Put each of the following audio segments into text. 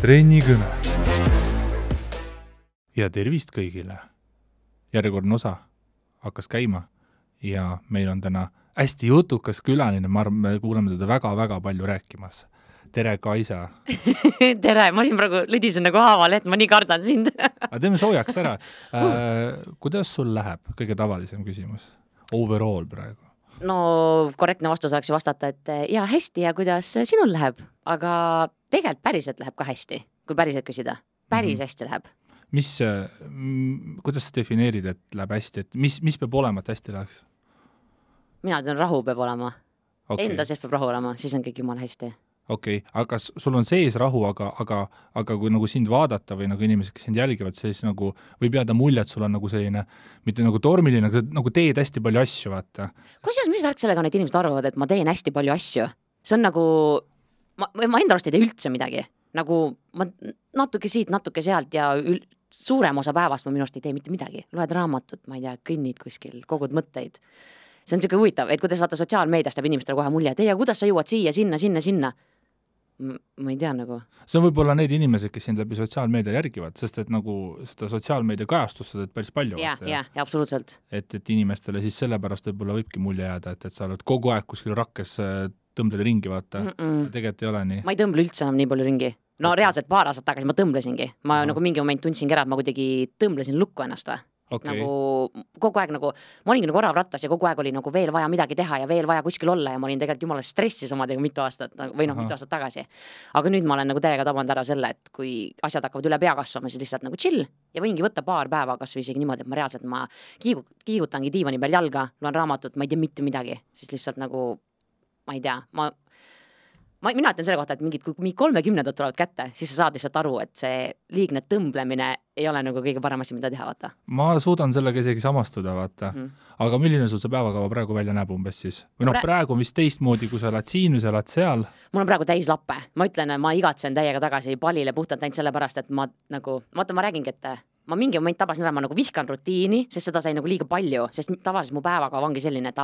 trennikõne. Ja tervist kõigile. Järjekordne osa hakkas käima ja meil on täna hästi jutukas külaline, ma arvan, me kuuleme teda väga-väga palju rääkimas. Tere, Kaisa! Tere, ma siin praegu lõdisen nagu haaval, et ma nii kardan sind. Aga teeme soojaks ära. Kuidas sul läheb? Kõige tavalisem küsimus. Overall praegu. No korrektne vastus oleks ju vastata, et ja hästi ja kuidas sinul läheb, aga tegelikult päriselt läheb ka hästi, kui päriselt küsida. Päris hästi läheb. Kuidas sa defineerid, et läheb hästi? Et mis peab olema, et hästi läheks? Mina ütlen, rahu peab olema. Okay. Enda sees peab rahu olema, siis on kõik jumala hästi. Okei, aga sul on sees rahu, aga kui nagu sind vaadata või nagu inimesed, kes sind jälgivad, siis nagu võib jääda mulje, et sul on nagu selline, mitte nagu tormiline, aga nagu teed hästi palju asju, vaata. Kusjuures, mis värk sellega need inimesed arvavad, et ma teen hästi palju asju? See on nagu, ma enda arust ei tee üldse midagi. Nagu ma natuke siit, natuke sealt ja suurem osa päevast ma minu arust ei tee mitte midagi. Loed raamatut, ma ei tea, kõnnid kuskil, kogud mõtteid. See on siuke huvitav, et kuidas vaata sotsiaalmeediast jääb inimestele kohe mulje, et kuidas sa jõuad siia, sinna. Ma ei tea nagu. See on võib-olla need inimesed, kes sind läbi sotsiaalmeedia järgivad, sest et nagu seda sotsiaalmeedia kajastust sa teed päris palju. Ja, absoluutselt. Et inimestele siis sellepärast võib-olla võibki mulje jääda, et sa oled kogu aeg kuskil rakkes tõmbled ringi, vaata. Tegelikult ei ole nii. Ma ei tõmble üldse enam nii palju ringi. No reaalselt paar aastat tagasi ma tõmblesingi. Ma nagu mingi moment tundsingi ära, et ma kuidagi tõmblesin lukku ennast või. Okay. Nagu kogu aeg nagu, ma olingi nagu orav rattas ja kogu aeg oli nagu veel vaja midagi teha ja veel vaja kuskil olla ja ma olin tegelikult jumala stressis omadega mitu aastat või mitu aastat tagasi. Aga nüüd ma olen nagu täiega tabanud ära selle, et kui asjad hakkavad üle pea kasvama, siis lihtsalt nagu chill ja võingi võtta paar päeva kas või isegi niimoodi, et ma reaalselt kiigutangi diivani peal jalga, loen raamatut, ma ei tea mitte midagi, siis lihtsalt nagu, ma ei tea, mina ütlen selle kohta, et kui 30 tulevad kätte, siis sa saad lihtsalt aru, et see liigne tõmblemine ei ole nagu kõige parem asi, mida teha, vaata. Ma suudan sellega isegi samastuda, vaata. Aga milline sul see päevakava praegu välja näeb umbes siis? Või praegu on vist teistmoodi, kui sa oled siin või sa oled seal? Mul on praegu täis lappe. Ma ütlen, ma igatsen täiega tagasi Palile puhtalt ainult sellepärast, et ma räägingi, et ma mingi moment tabasin ära, ma nagu vihkan rutiini, sest seda sai nagu liiga palju, sest tavaliselt mu päevakava ongi selline, et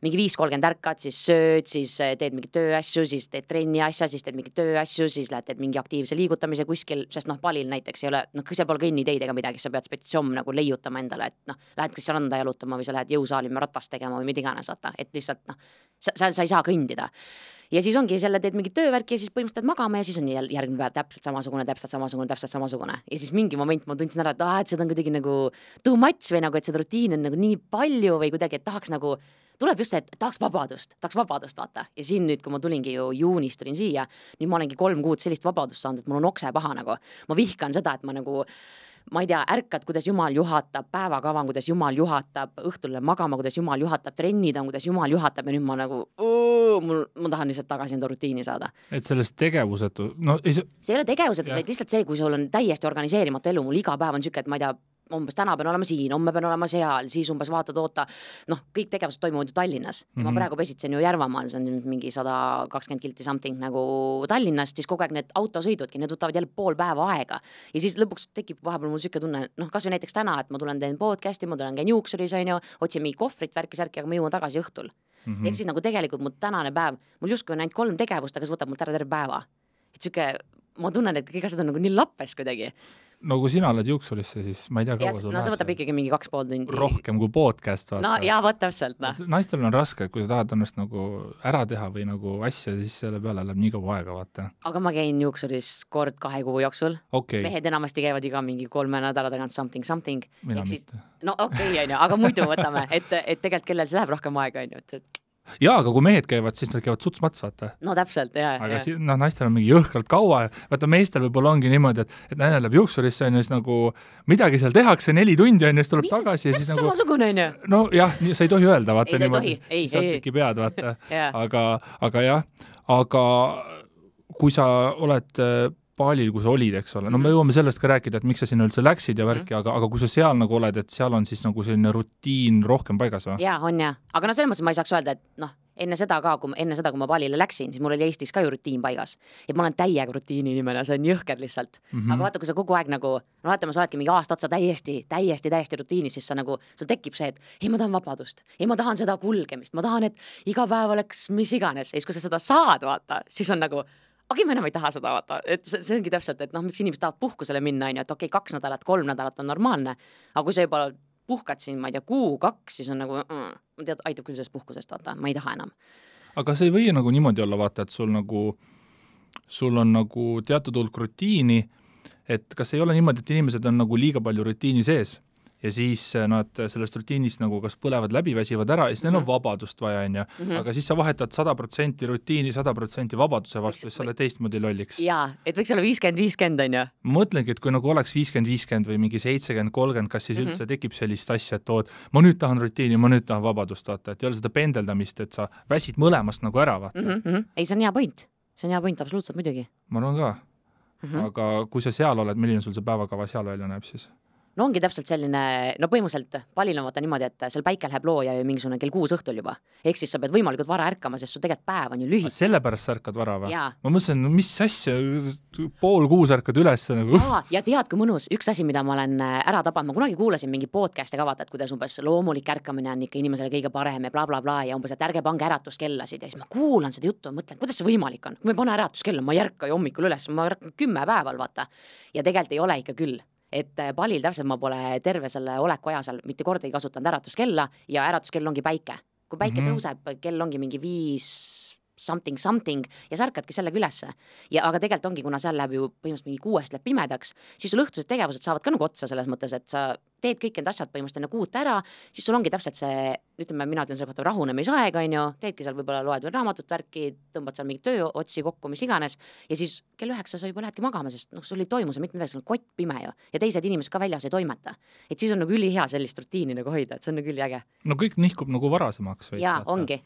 mingi 5:30 ärkad, siis sööd, siis teed mingi tööasju, siis teed trenni asja, siis teed mingi tööasju, siis teed mingi aktiivse liigutamise kuskil, sest Palil näiteks ei ole, seal pole kõnniteid ega midagi, sa pead spetsiomm nagu leiutama endale, et lähed kas randa jalutama või sa lähed jõusaali ratast tegema või mida iganes, vaata, et lihtsalt sa ei saa kõndida. Ja siis ongi selle teed mingi töövärki ja siis põhimõtteliselt magama ja siis on järgmine päev täpselt samasugune. Ja siis mingi moment ma tundsin ära, et seda on kuidagi nagu too much või nagu, et seda rutiini on nagu nii palju või kuidagi, et tahaks nagu, tuleb just see, et tahaks vabadust, vaata. Ja siin nüüd, kui ma tulingi ju juunis tulin siia, nüüd ma olengi 3 kuud sellist vabadust saanud, et mul on okse paha nagu. Ma vihkan seda, et ma nagu ma ei tea, ärkad, kuidas Jumal juhatab, päevakavan, kuidas Jumal juhatab, õhtulle magama, kuidas Jumal juhatab, trennid on, kuidas Jumal juhatab ja nüüd ma nagu, ma tahan lihtsalt tagasi enda rutiini saada. Et sellest tegevusetu, see ei ole tegevusetus, vaid lihtsalt see, kui sul on täiesti organiseerimata elu, mul iga päev on siuke, et ma ei tea, umbes täna pean olema siin, homme pean olema seal, siis umbes oota, kõik tegevused toimuvad ju Tallinnas. Ma praegu pesitsen ju Järvamaal, see on mingi 120 kilti something nagu Tallinnast, siis kogu aeg need autosõidudki, need võtavad jälle pool päeva aega. Ja siis lõpuks tekib vahepeal mul siuke tunne, kas või näiteks täna, et ma tulen teen podcasti, ma tulen käin juuksuris, otsin mingi kohvrit, värki-särki, aga ma jõuan tagasi õhtul. Ehk siis nagu tegelikult mu tänane päev, mul justkui on ainult 3 tegevust, aga see võtab mult ära terve päeva. Et siuke, ma tunnen, et kõik asjad on nagu nii lappes kuidagi. No kui sina oled juuksurisse, siis ma ei tea, kaua sul see võtab ikkagi mingi 2,5 tundi. Rohkem kui podcast, vaata. No jaa, võt täpselt. Naistel on raske, kui sa tahad ennast nagu ära teha või nagu asja, siis selle peale läheb nii kaua aega, vaata. Aga ma käin juuksuris kord 2 kuu jooksul. Okay. Mehed enamasti käivad iga mingi 3 nädala tagant something. Mina mitte. No okei, aga muidu võtame, et tegelikult kellel see läheb rohkem aega, et jaa, aga kui mehed käivad, siis nad käivad suts-mats, vaata. No täpselt, jaa. Aga naistel on mingi jõhkralt kaua. Vaata, meestel võib-olla ongi niimoodi, et naine läheb juuksurisse, on siis nagu midagi seal tehakse 4 tundi, on siis tuleb tagasi. Ja siis nagu, samasugune, on ju. No jah, sa ei tohi öelda, vaata. Ei, sa ei tohi. Siis sa teki pead, vaata. Aga jah, aga kui sa oled Palil, kui sa olid, eks ole. No me jõuame sellest ka rääkida, et miks sa sinna üldse läksid ja värki, aga kui sa seal nagu oled, et seal on siis nagu selline rutiin rohkem paigas või? Jaa, on jah. Aga selles mõttes ma ei saaks öelda, et enne seda, kui ma Palile läksin, siis mul oli Eestis ka ju rutiin paigas. Ja ma olen täiega rutiini inimene, see on jõhker lihtsalt. Aga vaata, kui sa kogu aeg nagu, vaatame, sa oledki mingi aasta otsa täiesti rutiinis, siis sa nagu, sul tekib see, et ei, ma tahan vabadust, ei, ma tahan seda kulgemist, ma tahan, et iga päev oleks mis iganes. Ja siis, kui sa seda saad, vaata, siis on nagu okei, ma enam ei taha seda vaata, et see ongi täpselt, et noh, miks inimesed tahavad puhkusele minna, on ju, et okei, 2 nädalat, 3 nädalat on normaalne, aga kui sa juba puhkad siin, ma ei tea, 1-2, siis on nagu, tead, aitab küll sellest puhkusest, vaata, ma ei taha enam. Aga see ei või nagu niimoodi olla, vaata, et sul on nagu teatud hulk rutiini, et kas ei ole niimoodi, et inimesed on nagu liiga palju rutiini sees ja siis nad sellest rutiinist nagu kas põlevad läbi, väsivad ära ja siis neil on vabadust vaja, on ju. Aga siis sa vahetad 100% rutiini, 100% vabaduse vastu, siis sa oled teistmoodi lolliks. Jaa, et võiks olla 50-50, on ju. Ma mõtlengi, et kui nagu oleks 50-50 või mingi 70-30, kas siis üldse tekib sellist asja, et ma nüüd tahan rutiini, ma nüüd tahan vabadust, vaata, et ei ole seda pendeldamist, et sa väsid mõlemast nagu ära, vaata. Ei, see on hea point. See on hea point, absoluutselt muidugi. Ma arvan ka. Aga kui sa seal oled, milline sul see päevakava seal välja näeb siis? No ongi täpselt selline, no põhimõtteliselt palil on vaata niimoodi, et seal päike läheb looja ju mingisugune kell 6 õhtul juba. Ehk siis sa pead võimalikult vara ärkama, sest su tegelikult päev on ju lühike. Sellepärast sa ärkad vara või? Jaa. Ma mõtlesin, no mis asja, 5:30 ärkad üles nagu. Ja tead, kui mõnus, üks asi, mida ma olen ära tabanud, ma kunagi kuulasin mingi podcast'i ka vaata, et kuidas umbes loomulik ärkamine on ikka inimesele kõige parem ja bla, ja umbes, et ärge pange äratuskellasid ja siis ma kuulan seda juttu ja mõtlen, kuidas see võimalik on. Kui ma ei pane äratuskella, ma ei ärka ju hommikul üles, ma ärkan 10 päeval, vaata. Ja tegelikult ei ole ikka küll. Et palil täpselt ma pole terve selle oleku aja seal mitte kordagi kasutanud äratuskella ja äratuskell ongi päike. Kui päike tõuseb, kell ongi mingi 5 something ja sa ärkadki sellega ülesse. Aga tegelikult ongi, kuna seal läheb ju põhimõtteliselt mingi 6 läheb pimedaks, siis sul õhtused tegevused saavad ka nagu otsa selles mõttes, et sa teed kõik need asjad põhimõtteliselt enne 6 ära, siis sul ongi täpselt see, ütleme, mina ütlen selle kohta rahunemisaeg, on ju, teedki seal võib-olla loed veel raamatut värki, tõmbad seal mingi tööotsi kokku, mis iganes, ja siis kell 9 sa juba lähedki magama, sest sul ei toimu see mitte midagi, see on kott pime ju, ja teised inimesed ka väljas ei toimeta. Et siis on nagu ülihea sellist rutiini nagu hoida, et see on nagu üliäge. No kõik nihkub nagu varasemaks veits. Jaa, ongi.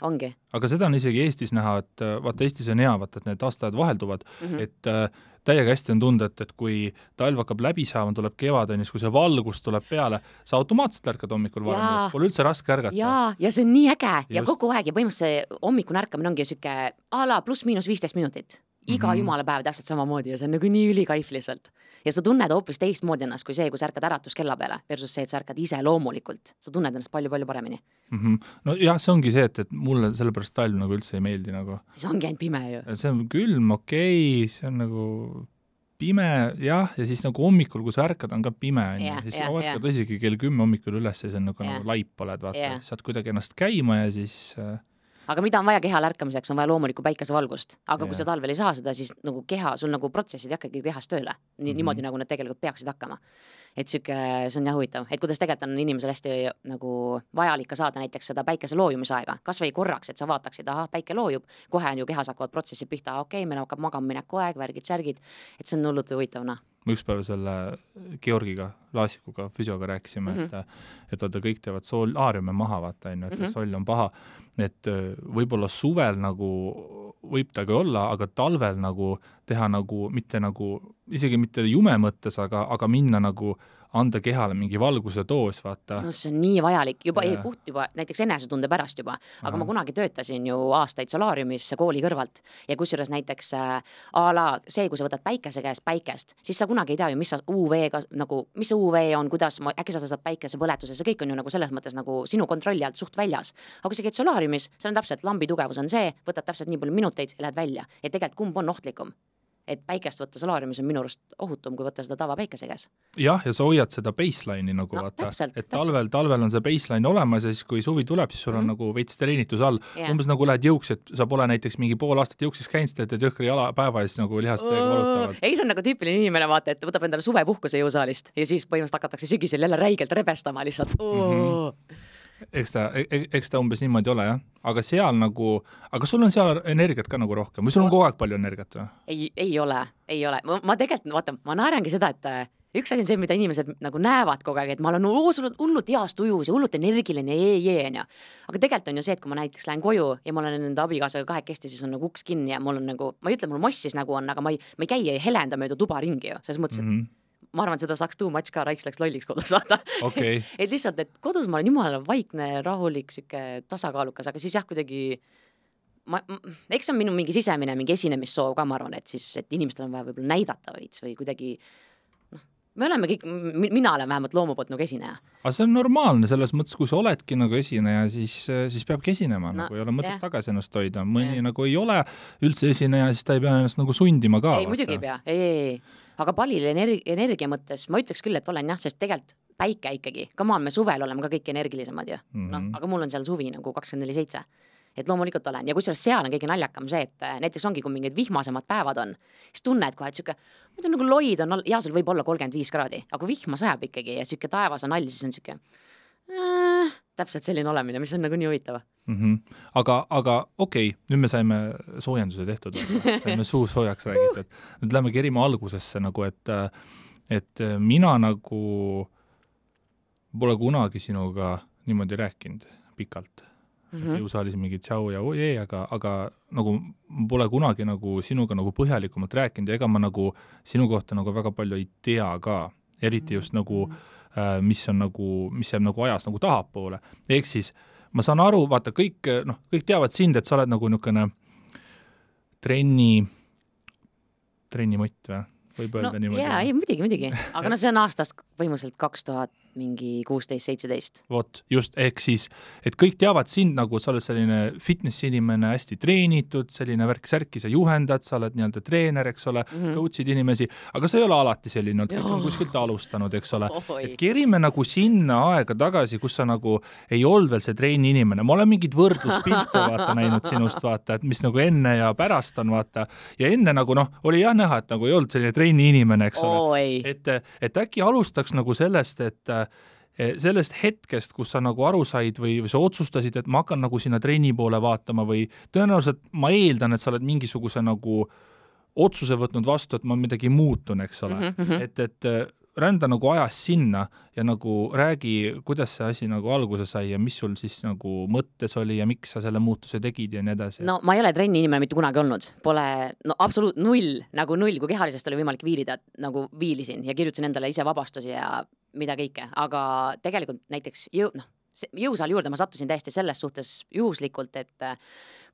Aga seda on isegi Eestis näha, et vaata, Eestis on hea, vaata, et need aastaajad vahelduvad, et täiega hästi on tunda, et kui talv hakkab läbi saama, tuleb kevad, kui see valgus tuleb peale, sa automaatselt ärkad hommikul varem, pole üldse raske ärgata. Ja see on nii äge ja kogu aeg ja põhimõtteliselt hommikune ärkamine ongi siuke ala pluss-miinus 15 minutit. Iga jumala päev täpselt samamoodi ja see on nagu nii ülikaif lihtsalt. Ja sa tunned hoopis teistmoodi ennast kui see, kui sa ärkad äratuskella peale versus see, et sa ärkad ise loomulikult. Sa tunned ennast palju-palju paremini. No jah, see ongi see, et mulle sellepärast talv nagu üldse ei meeldi nagu. See ongi ainult pime ju. See on külm, okei, see on nagu pime, jah, ja siis nagu hommikul, kui sa ärkad, on ka pime, siis sa ärkad isegi kell 10 hommikul üles ja see on nagu laip oled, vaata, saad kuidagi ennast käima ja siis aga mida on vaja kehal ärkamiseks, on vaja loomulikku päikesevalgust. Aga kui sa talvel ei saa seda, siis nagu keha, sul nagu protsessid hakkagi kehas tööle. Niimoodi nagu need tegelikult peaksid hakkama. Et see on jah huvitav. Et kuidas tegelikult on inimesel hästi nagu vajalik ka saada näiteks seda päikese loojumisaega. Kas või korraks, et sa vaataksid, päike loojub, kohe on ju kehas hakkavad protsessid pihta, okei, meil hakkab magama mineku aeg, värgid, särgid. Et see on hullult huvitavna. Ma üks päev selle Georgiga, Laasikuga, füsioga rääkisime, et vaata kõik teevad solaariume maha, vaata, et soll on paha, et võib-olla suvel nagu võib ta ka olla, aga talvel nagu teha nagu, mitte nagu, isegi mitte jume mõttes, aga minna nagu anda kehale mingi valguse doos, vaata. No see on nii vajalik, juba puht juba, näiteks enesetunde pärast juba, aga ma kunagi töötasin ju aastaid solaariumis kooli kõrvalt ja kusjuures näiteks see, kui sa võtad päikese käest päikest, siis sa kunagi ei tea ju, mis UV-ga, nagu, mis see UV on, kuidas, äkki sa saad päikese põletuses, see kõik on ju nagu selles mõttes nagu sinu kontrolli alt suht väljas. Aga kui sa käid solaariumis, see on täpselt, lambi tugevus on see, võtad täpselt nii palju minuteid ja lähed välja. Et tegelikult kumb on ohtlikum? Et päikest võtta solaariumis on minu arust ohutum, kui võtta seda tava päikese käes. Jah, ja sa hoiad seda baseline'i nagu vaata, et talvel on see baseline olemas ja siis kui suvi tuleb, siis sul on nagu veits treenitus all. Umbes nagu lähed jõuks, et sa pole näiteks mingi pool aastat jõuksis käinud, et jõhkri jalapäeva ja siis nagu lihast valutavad. Ei, see on nagu tüüpiline inimene, vaata, et võtab endale suvepuhkuse jõusaalist ja siis põhimõtteliselt hakatakse sügisel jälle räigelt rebestama lihtsalt. Eks ta umbes niimoodi ole, jah. Aga seal nagu, aga sul on seal energiat ka nagu rohkem või sul on kogu aeg palju energiat või? Ei ole. Ma tegelikult, vaata, ma naerangi seda, et üks asi on see, mida inimesed nagu näevad kogu aeg, et ma olen hullult heast ujus ja hullult energiline ja. Aga tegelikult on ju see, et kui ma näiteks lähen koju ja ma olen enda abikaasaga kahekesti, siis on nagu uks kinni ja mul on nagu, ma ei ütle, mul mossis nagu on, aga ma ei käi ja helenda mööda tuba ringi ju, selles mõttes, et ma arvan, et seda saaks too much ka, raiks läks lolliks kodus saada. Okay. Et lihtsalt, et kodus ma olen jumala vaikne, rahulik, süke tasakaalukas, aga siis jah, kuidagi eks on minu mingi sisemine, mingi esinemissoov ka, ma arvan, et siis, et inimestel on vaja võib-olla näidata veits või kuidagi me oleme kõik, mina olen vähemalt loomu poolt nagu esineja. Aga see on normaalne, selles mõttes, kui sa oledki nagu esineja, siis peabki esinema, nagu ei ole mõtet tagasi ennast hoida. Mõni nagu ei ole üldse esineja, siis ta ei pea ennast nagu sundima ka. Ei, muidugi ei pea, ei. Aga palil energia mõttes ma ütleks küll, et olen jah, sest tegelikult päike ikkagi, me suvel oleme ka kõik energilisemad ju. Aga mul on seal suvi nagu 24/7. Et loomulikult olen. Ja kusjuures seal on kõige naljakam see, et näiteks ongi, kui mingid vihmasemad päevad on, siis tunned kohe, et siuke, muidu nagu loid on, ja sul võib olla 35 kraadi, aga kui vihma sajab ikkagi ja siuke taevas on all, siis on siuke täpselt selline olemine, mis on nagu nii huvitav. Aga okei, nüüd me saime soojenduse tehtud, saime suu soojaks räägitud. Nüüd lähme kerima algusesse nagu, et mina nagu pole kunagi sinuga niimoodi rääkinud pikalt. Jõusaalis mingi tšau ja ojee, aga nagu pole kunagi nagu sinuga nagu põhjalikumalt rääkinud ja ega ma nagu sinu kohta nagu väga palju ei tea ka, eriti just nagu mis jääb nagu ajas nagu tahapoole. Ehk siis ma saan aru, vaata, kõik teavad sind, et sa oled nagu niisugune trennimott või? Võib öelda niimoodi. Jaa, ei, muidugi. Aga see on aastast põhimõtteliselt 2015-17. Vot, just, ehk siis, et kõik teavad sind nagu, et sa oled selline fitnessi inimene, hästi treenitud, selline värk-särki, sa juhendad, sa oled nii-öelda treener, eks ole, coach'id inimesi, aga sa ei ole alati selline, kõik on kuskilt alustanud, eks ole. Et kerime nagu sinna aega tagasi, kus sa nagu ei olnud veel see treeni inimene. Ma olen mingid võrdluspilte vaata näinud sinust, vaata, et mis nagu enne ja pärast on, vaata. Ja enne nagu oli jah näha, et nagu ei olnud selline treeni inimene, eks ole. Et äkki alustaks nagu sellest, et sellest hetkest, kus sa nagu aru said või sa otsustasid, et ma hakkan nagu sinna trenni poole vaatama või tõenäoliselt ma eeldan, et sa oled mingisuguse nagu otsuse võtnud vastu, et ma midagi muutun, eks ole. Et rända nagu ajas sinna ja nagu räägi, kuidas see asi nagu alguse sai ja mis sul siis nagu mõttes oli ja miks sa selle muutuse tegid ja nii edasi. No ma ei ole trenni inimene mitte kunagi olnud. Pole, absoluut null, kui kehalisest oli võimalik viilida, nagu viilisin ja kirjutasin endale ise vabastusi ja mida kõike, aga tegelikult näiteks jõusaali juurde ma sattusin täiesti selles suhtes juhuslikult, et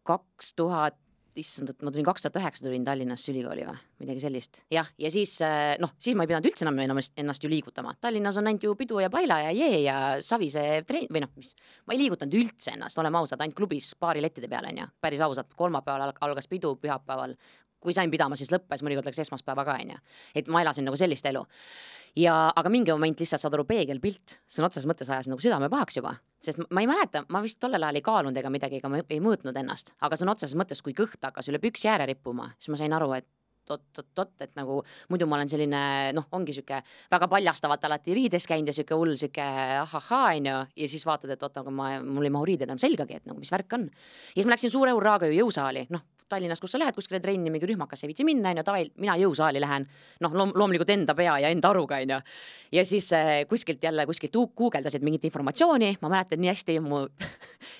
2009 tulin Tallinnasse ülikooli või midagi sellist. Jah, ja siis ma ei pidanud üldse enam ennast ju liigutama. Tallinnas on ainult ju pidu ja paila ja jee ja savise või ma ei liigutanud üldse ennast, oleme ausad, ainult klubis paari lettide peale, on ju. Päris ausad, kolmapäeval algas pidu, pühapäeval, kui sain pidama, siis lõppes, mõnikord läks esmaspäeva ka, on ju. Et ma elasin nagu sellist elu. Aga mingi moment lihtsalt saad aru peegelpilt, see on otses mõttes ajas nagu südame pahaks juba, sest ma ei mäleta, ma vist tollel ajal ei kaalunud ega midagi, ega ma ei mõõtnud ennast, aga see on otses mõttes, kui kõht hakkas üle püksi ääre rippuma, siis ma sain aru, et et nagu muidu ma olen selline, ongi siuke väga paljastavat alati riides käinud ja siuke hull siuke ahahaa, on ju, ja siis vaatad, et aga mul ei mahu riided enam selgagi, et nagu mis värk on. Ja siis ma läksin suure urraaga ju jõusaali, Tallinnas, kus sa lähed kuskile trenni, mingi rühmakas ei viitsi minna, mina jõusaali lähen, loomulikult enda pea ja enda aruga, on ju. Ja siis kuskilt guugeldasid mingit informatsiooni, ma mäletan nii hästi,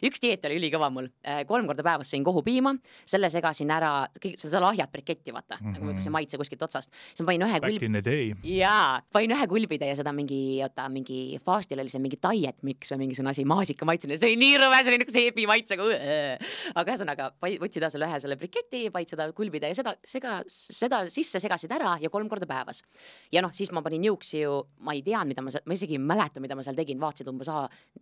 üks dieet oli ülikõva mul, 3 korda päevas sõin kohupiima, selle segasin ära, seda lahjat briketti, vaata, nagu see maitse kuskilt otsast. Siis ma panin ühe kulbide ja seda mingi faastil oli see mingi diet mix või mingisugune asi, maasika maitsene, see oli nii rõve, see oli nagu seebi maitsega, aga ühesõnaga, võtsid selle briketi, vaid seda kulbida ja seda sisse segasid ära ja 3 korda päevas. Ja siis ma panin jõuksi ju, ma ei teadnud, ma isegi ei mäleta, mida ma seal tegin, vaatasid umbes,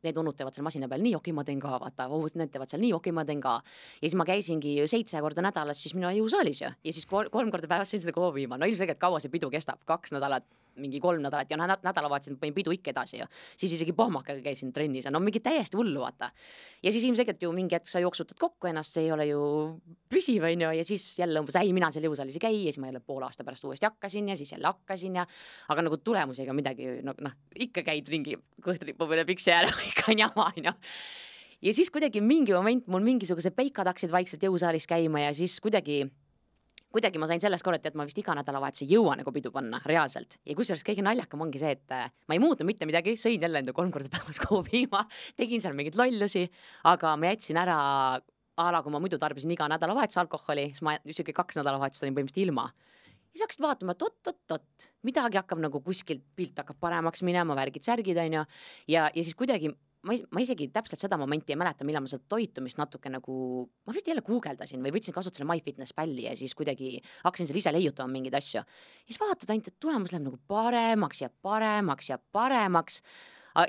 need unnud teevad seal masina peal, nii okei, ma teen ka, vaata, need teevad seal nii okei, ma teen ka. Ja siis ma käisingi 7 korda nädalas siis minu jõusaalis ju. Ja siis 3 korda päevas sõin seda kohupiima. Ilmselgelt kaua see pidu kestab, 2 nädalat, mingi 3 nädalat ja nädalavahetusel panin pidu ikka edasi ju. Siis isegi pohmakaga käisin trennis ja mingi täiesti hullu, vaata. Ja siis ilmselgelt ju mingi hetk sa jooksutad kokku ennast, see ei ole ju püsiv, on ju, ja siis jälle umbes, mina seal jõusaalis ei käi ja siis ma jälle pool aasta pärast uuesti hakkasin ja siis jälle hakkasin ja aga nagu tulemusi ega midagi, ikka käid ringi kõhtripu peale piksi ääre, ikka on jama, on ju. Ja siis kuidagi mingi moment mul mingisugused peikad hakkasid vaikselt jõusaalis käima ja siis kuidagi ma sain sellest korrati, et ma vist iga nädalavahetus ei jõua nagu pidu panna reaalselt. Ja kusjuures kõige naljakam ongi see, et ma ei muutnud mitte midagi, sõin jälle enda 3 korda päevas kohupiima, tegin seal mingeid lollusi, aga ma jätsin ära kui ma muidu tarbisin iga nädalavahetus alkoholi, siis ma isegi 2 nädalavahetust olin põhimõtteliselt ilma. Ja hakkasid vaatama, midagi hakkab nagu kuskilt pilt hakkab paremaks minema, värgid, särgid, on ju. Ja siis kuidagi ma isegi täpselt seda momenti ei mäleta, millal ma seda toitumist natuke nagu, ma vist jälle guugeldasin või võtsin kasutusele MyFitnessPalli ja siis kuidagi hakkasin seal ise leiutama mingeid asju. Ja siis vaatad ainult, et tulemus läheb nagu paremaks ja paremaks ja paremaks.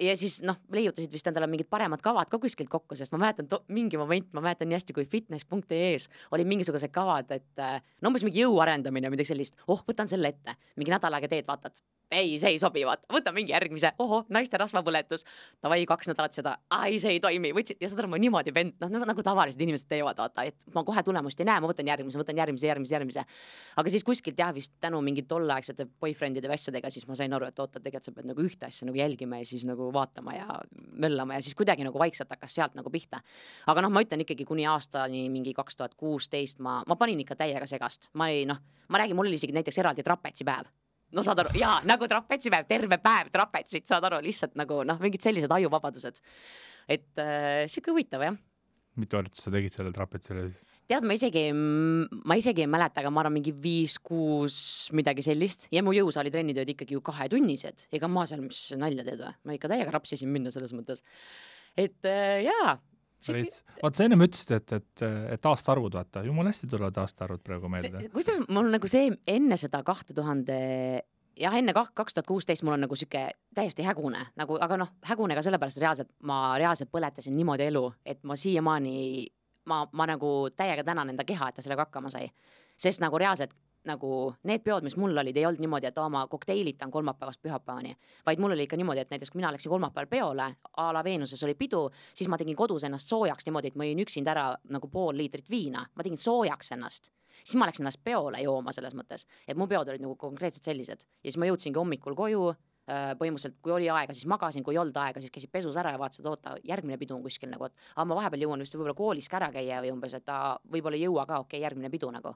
Ja siis leiutasid vist endale mingid paremad kavad ka kuskilt kokku, sest ma mäletan mingi moment, ma mäletan nii hästi, kui fitness.ee-s oli mingisugused kavad, et umbes mingi jõu arendamine, midagi sellist, võtan selle ette, mingi nädal aega teed, vaatad, ei, see ei sobi, vaata, võta mingi järgmise, naiste rasvapõletus, davai 2 nädalat seda, ei, see ei toimi, võtsid, ja seda ma niimoodi nagu tavalised inimesed teevad, vaata, et ma kohe tulemust ei näe, ma võtan järgmise. Aga siis kuskilt jah, vist tänu mingi tolleaegsete boyfriendide vässadega, siis ma sain aru, et oota, tegelikult sa pead nagu ühte asja nagu jälgima ja siis nagu vaatama ja möllama ja siis kuidagi nagu vaikselt hakkas sealt nagu pihta. Aga ma ütlen ikkagi kuni aastani mingi 2016 ma panin ikka täiega segast. Ma räägin, mul oli isegi näiteks eraldi trapetsipäev. Saad aru, jaa, nagu trapetsipäev, terve päev trapetsit, saad aru, lihtsalt nagu mingid sellised ajuvabadused. Et siuke huvitav, jah. Mitu harjutust sa tegid selle trapetsile? Tead, ma isegi ei mäleta, aga ma arvan mingi 5-6 midagi sellist ja mu jõusaalitrennid olid ikkagi ju 2-tunnised. Ega ma seal mis nalja teed või? Ma ikka täiega rapsisin minna selles mõttes. Et jaa. Vaat sa ennem ütlesid, et aastaarvud, vaata, jumal hästi tulevad aastaarvud praegu meelde. Kuidas mul nagu see enne seda 2000, jah, enne 2016 mul on nagu siuke täiesti hägune, nagu, aga hägune ka sellepärast reaalselt, ma reaalselt põletasin niimoodi elu, et ma siiamaani, ma nagu täiega tänan enda keha, et ta sellega hakkama sai. Sest nagu reaalselt, nagu need peod, mis mul olid, ei olnud niimoodi, et ma kokteilitan kolmapäevast pühapäevani, vaid mul oli ikka niimoodi, et näiteks kui mina läksin kolmapäeval peole, a la Veenuses oli pidu, siis ma tegin kodus ennast soojaks niimoodi, et ma jõin üksinda ära nagu 0,5 liitrit viina, ma tegin soojaks ennast. Siis ma läksin ennast peole jooma selles mõttes, et mu peod olid nagu konkreetselt sellised. Ja siis ma jõudsingi hommikul koju, põhimõtteliselt kui oli aega, siis magasin, kui ei olnud aega, siis käisid pesus ära ja vaatasid, oota, järgmine pidu on kuskil nagu, et ma vahepeal jõuan vist võib-olla koolis kära käia või umbes, et võib-olla ei jõua ka, okei, järgmine pidu nagu.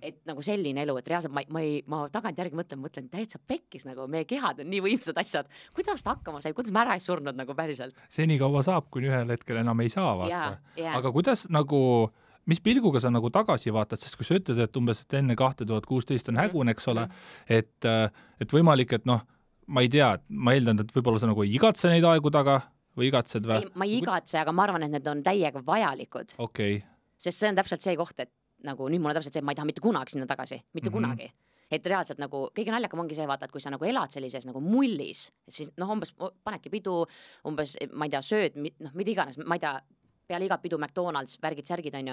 Et nagu selline elu, et reaalselt ma tagantjärgi mõtlen, täitsa pekkis nagu, meie kehad on nii võimsad asjad. Kuidas ta hakkama sai, kuidas ma ära ei surnud nagu päriselt? Seni kaua saab, kuni ühel hetkel enam ei saa, vaata. Aga kuidas nagu mis pilguga sa nagu tagasi vaatad, sest kui sa ütled, et umbes et enne 2016 on hägun, eks ole, et võimalik, et ma ei tea, ma eeldan, et võib-olla sa nagu ei igatse neid aegu taga või igatsed või? Ma ei igatse, aga ma arvan, et need on täiega vajalikud. Okay. Sest see on täpselt see koht, et nagu nüüd mul on täpselt see, et ma ei taha mitte kunagi sinna tagasi, mitte kunagi. Et reaalselt nagu kõige naljakam ongi see, vaata, et kui sa nagu elad sellises nagu mullis, siis umbes panedki pidu, umbes, ma ei tea, sööd, mida iganes, ma ei tea, peale igat pidu McDonald's, värgid-särgid on ju.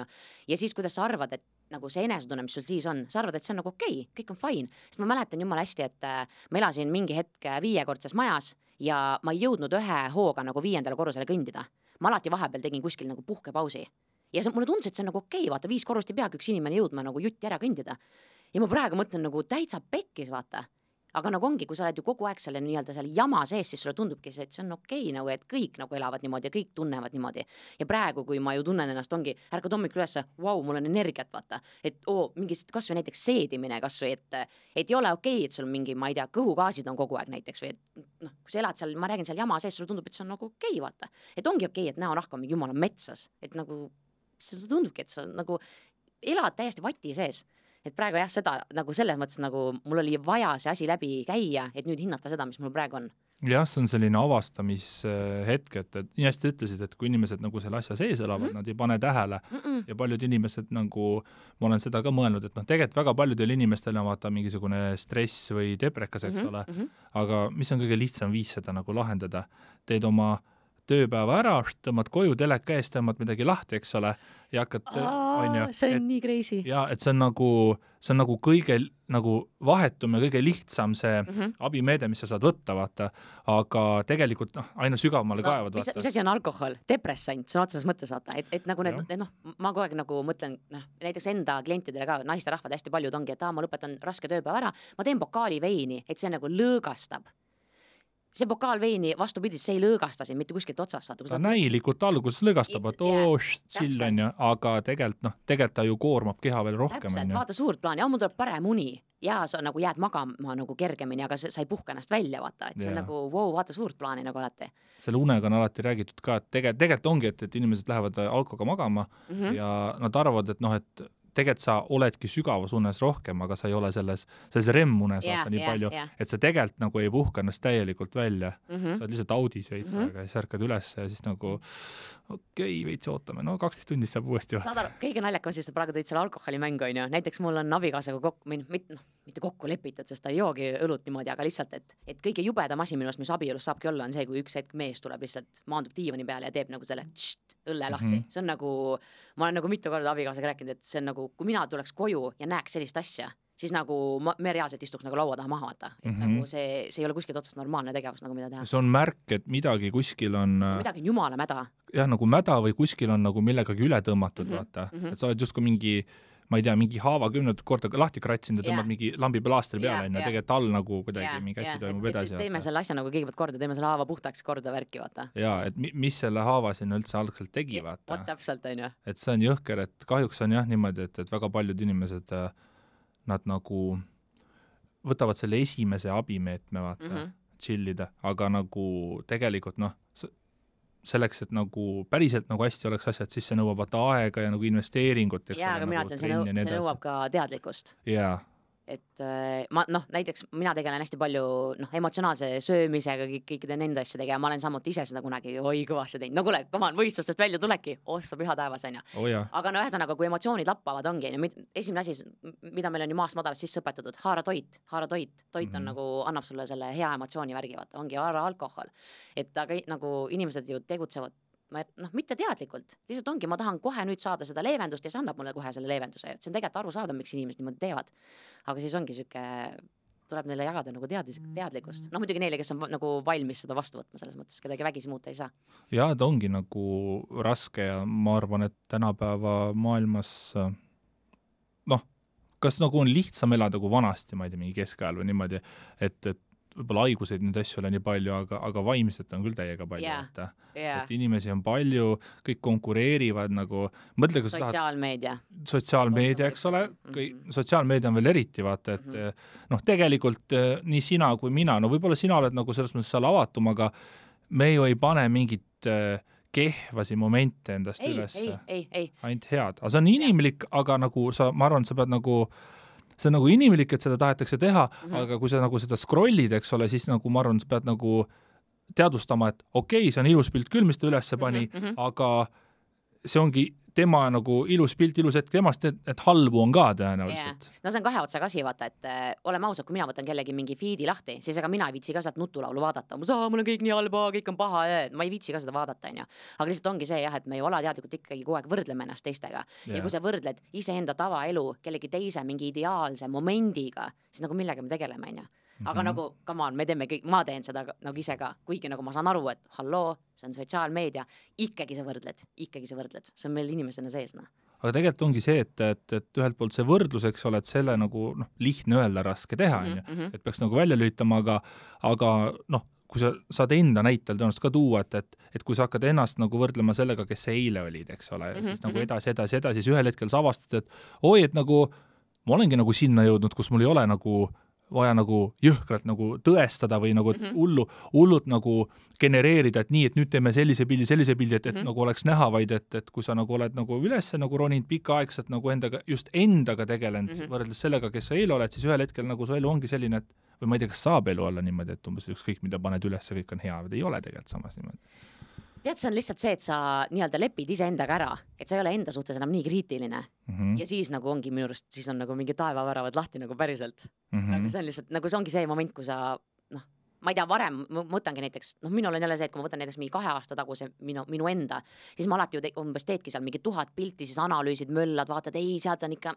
Ja siis, kuidas sa arvad, et nagu see enesetunne, mis sul siis on, sa arvad, et see on nagu okei, kõik on fine. Sest ma mäletan jumala hästi, et ma elasin mingi hetk 5-kordses majas ja ma ei jõudnud ühe hooga nagu 5. korrusele kõndida. Ma alati vahepeal tegin kuskil nagu puhkepausi. Ja mulle tundus, et see on nagu okei, vaata, 5 korrust ei peagi üks inimene jõudma nagu jutti ära kõndida. Ja ma praegu mõtlen nagu täitsa pekkis, vaata. Aga nagu ongi, kui sa oled ju kogu aeg selle nii-öelda seal jama sees, siis sulle tundubki see, et see on okei, nagu, et kõik nagu elavad niimoodi ja kõik tunnevad niimoodi. Ja praegu, kui ma ju tunnen ennast, ongi, ärkad hommikul üles, wow, mul on energiat, vaata. Et mingist kas või näiteks seedimine kas või, et ei ole okei, et sul mingi, ma ei tea, kõhugaasid on kogu aeg näiteks või et kui sa elad seal, ma räägin seal jama sees, sulle tundub, et see on nagu okei, vaata. Et ongi okei, et näonahk on mingi jumala metsas, et nagu see tundubki, et sa nagu elad täiesti vati sees. Et praegu jah, seda nagu selles mõttes nagu mul oli vaja see asi läbi käia, et nüüd hinnata seda, mis mul praegu on. Jah, see on selline avastamishetk, et nii hästi ütlesid, et kui inimesed nagu selle asja sees elavad, nad ei pane tähele ja paljud inimesed nagu, ma olen seda ka mõelnud, et tegelikult väga paljudel inimestel on vaata mingisugune stress või deprekas, eks ole, aga mis on kõige lihtsam viis seda nagu lahendada? Teed oma tööpäeva ära, tõmbad koju, teleka eest, tõmbad midagi lahti, eks ole, ja hakkad, see on nii crazy. Ja, et see on nagu kõige nagu vahetum ja kõige lihtsam see abimeede, mis sa saad võtta, vaata, aga tegelikult aina sügavamale kaevad, vaata. Mis asi on alkohol? Depressant, see on otseses mõttes, vaata, et nagu need, ma kogu aeg nagu mõtlen, näiteks enda klientidele ka, naisterahvad hästi paljud ongi, et ma lõpetan raske tööpäeva ära, ma teen pokaali veini, et see nagu lõõgastab. See pokaal veini vastupidis, see ei lõõgasta siin mitte kuskilt otsast. Ta näilikult alguses lõõgastab, et chill on ju, aga tegelikult ta ju koormab keha veel rohkem. Täpselt, vaata suurt plaani, mul tuleb parem uni ja sa nagu jääd magama nagu kergemini, aga sa ei puhka ennast välja, vaata, et see on nagu, vaata suurt plaani nagu alati. Selle unega on alati räägitud ka, et tegelikult ongi, et inimesed lähevad alkoga magama ja nad arvavad, et tegelikult sa oledki sügavas unes rohkem, aga sa ei ole selles REM-unes nii palju, et sa tegelikult nagu ei puhka ennast täielikult välja. Sa oled lihtsalt audis veits aega ja siis ärkad üles ja siis nagu okei, veits ootame, 12 tundi saab uuesti saad aru, kõige naljakam siis, et praegu tõid selle alkoholimängu, on ju. Näiteks mul on abikaasaga mitte kokku lepitud, sest ta ei joogi õlut niimoodi, aga lihtsalt, et kõige jubedam asi minust, mis abielus saabki olla, on see, kui üks hetk mees tuleb lihtsalt, maandub diivani peale ja teeb nagu selle õlle lahti. See on nagu, ma olen nagu mitu korda abikaasaga rääkinud, et see on nagu, kui mina tuleks koju ja näeks sellist asja, siis nagu me reaalselt istuks nagu laua taha maha vaata. Et nagu see ei ole kuskilt otsast normaalne tegevus, nagu mida teha. See on märk, et midagi kuskil on midagi on jumala mäda. Jah, nagu mäda või kuskil on nagu millegagi üle tõmmatud, vaata. Et sa oled just kui mingi, ma ei tea, mingi haava 10 korda lahti kratsinud ja tõmbad mingi lambi plaastri peale, tegelikult all nagu kuidagi mingi asi toimub edasi. Teeme selle asja nagu kõigepealt korda, teeme selle haava puhtaks korda värki, vaata. Jaa, et mis selle haava sinna üldse algselt tegi, vaata. Täpselt, on ju. Et see on jõhker, et kahjuks on jah niimoodi, et väga paljud inimesed, nad nagu võtavad selle esimese abimeetme, vaata, chillida, aga nagu tegelikult selleks, et nagu päriselt nagu hästi oleks asjad, siis see nõuab aega ja nagu investeeringut. Jaa, aga mina ütlen, see nõuab ka teadlikkust. Jaa. Et näiteks mina tegelen hästi palju emotsionaalse söömisega, kõikide nende asjadega ja ma olen samuti ise seda kunagi kõvasti teinud. No kuule, võistlustest välja tuleki, sa püha taevas, on ju. Aga ühesõnaga, kui emotsioonid lappavad, ongi. Esimene asi, mida meil on ju maast madalast sisse õpetatud, haara toit. Toit on nagu, annab sulle selle hea emotsiooni värgi, vaata, ongi haara alkohol. Et aga nagu inimesed ju tegutsevad mitte teadlikult, lihtsalt ongi, ma tahan kohe nüüd saada seda leevendust ja see annab mulle kohe selle leevenduse. See on tegelikult aru saada, miks inimesed niimoodi teevad. Aga siis ongi süke, tuleb neile jagada nagu teadlikkust. Muidugi neile, kes on nagu valmis seda vastu võtma selles mõttes, kedagi vägisi muuta ei saa. Jaa, ta ongi nagu raske ja ma arvan, et tänapäeva maailmas kas nagu on lihtsam elada kui vanasti, ma ei tea, mingi keskajal või niimoodi, et võib-olla haiguseid neid asju ole nii palju, aga vaimselt on küll täiega palju. Et inimesi on palju, kõik konkureerivad nagu sotsiaalmeedia, eks ole, sotsiaalmeedia on veel eriti, vaata, et tegelikult nii sina kui mina, võib-olla sina oled nagu selles mõttes seal avatum, aga me ju ei pane mingit kehvasi momente endast üles. Ainult head. Aga see on inimlik, aga nagu ma arvan, sa pead nagu see on nagu inimlik, et seda tahetakse teha, aga kui sa nagu seda scrollid, eks ole, siis nagu ma arvan, sa pead nagu teadvustama, et okei, see on ilus pilt küll, mis ta üles pani, aga see ongi tema nagu ilus pilt, ilus hetk temast, et halbu on ka tõenäoliselt. No see on kahe otsaga asi, vaata, et oleme ausad, kui mina võtan kellegi mingi feedi lahti, siis ega mina ei viitsi ka sealt nutulaulu vaadata. Mul on kõik nii halba, kõik on paha, ma ei viitsi ka seda vaadata, on ju. Aga lihtsalt ongi see, et me ei ole teadlikult ikkagi kogu aeg võrdleme ennast teistega. Ja kui sa võrdled iseenda tavaelu kellegi teise mingi ideaalse momendiga, siis nagu millega me tegeleme, on ju. Aga nagu, come on, ma teen seda nagu ise ka, kuigi nagu ma saan aru, et halloo, see on sotsiaalmeedia, ikkagi sa võrdled, see on meil inimesena sees. Aga tegelikult ongi see, et ühelt poolt see võrdlus, eks ole, et selle nagu lihtne öelda, raske teha, et peaks nagu välja lülitama, aga kui sa saad enda näitel tõenäoliselt ka tuua, et kui sa hakkad ennast nagu võrdlema sellega, kes sa eile olid, eks ole, siis nagu edasi, siis ühel hetkel sa avastad, et et nagu ma olengi nagu sinna jõudnud, kus mul ei ole nagu vaja nagu jõhkralt nagu tõestada või nagu hullult nagu genereerida, et nii, et nüüd teeme sellise pildi, et nagu oleks näha, vaid et kui sa nagu oled nagu üles nagu roninud pikaaegselt nagu endaga tegelenud võrreldes sellega, kes sa eile oled, siis ühel hetkel nagu su elu ongi selline, et või ma ei tea, kas saab elu olla niimoodi, et umbes ükskõik, mida paned üles, kõik on hea, või ei ole tegelikult samas niimoodi. Tead, see on lihtsalt see, et sa nii-öelda lepid ise endaga ära, et sa ei ole enda suhtes enam nii kriitiline. Ja siis nagu ongi minu arust, siis on nagu mingi taevaväravad lahti nagu päriselt. Nagu see on lihtsalt, nagu see ongi see moment, kui sa, ma ei tea, varem mõtlengi näiteks, minul on jälle see, et kui ma võtan näiteks mingi 2 aasta taguse minu enda, siis ma alati ju umbes teedki seal mingi 1000 pilti, siis analüüsid, möllad, vaatad, ei, sealt on ikka,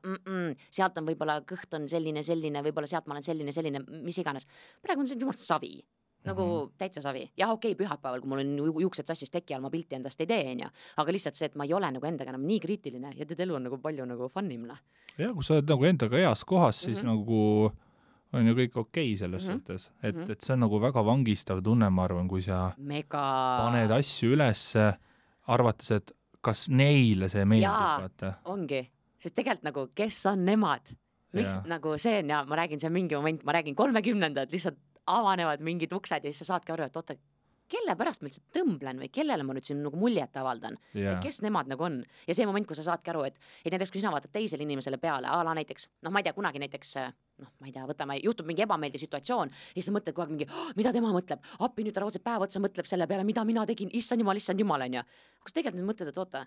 sealt on võib-olla kõht on selline, võib-olla sealt ma olen selline, mis iganes. Praegu on see jumalt savi. Nagu täitsa savi. Jah, okei, pühapäeval, kui mul on juuksed sassis teki all, ma pilti endast ei tee, aga lihtsalt see, et ma ei ole nagu endaga enam nii kriitiline ja elu on nagu palju nagu funnim. Ja, kui sa oled nagu endaga heas kohas, siis nagu on ju kõik okei selles suhtes. Et see on nagu väga vangistav tunne, ma arvan, kui sa paned asju üles, arvates, et kas neile see meeldib. Jaa, ongi. Sest tegelikult nagu, kes on nemad? Miks nagu see on, ja ma räägin, see on mingi moment, ma räägin 30-ndad, lihtsalt avanevad mingid uksed ja siis sa saadki aru, et oota, kelle pärast ma üldse tõmblen või kellele ma nüüd siin nagu muljet avaldan kes nemad nagu on ja see moment, kui sa saadki aru, et näiteks kui sina vaatad teisele inimesele peale, näiteks, ma ei tea, kunagi näiteks ma ei tea, võtame, juhtub mingi ebameeldiv situatsioon ja siis sa mõtled kogu aeg mingi, mida tema mõtleb, appi nüüd ta raudselt päev otsa mõtleb selle peale, mida mina tegin, issand jumal, on ju. Kas tegelikult need mõtled, et oota,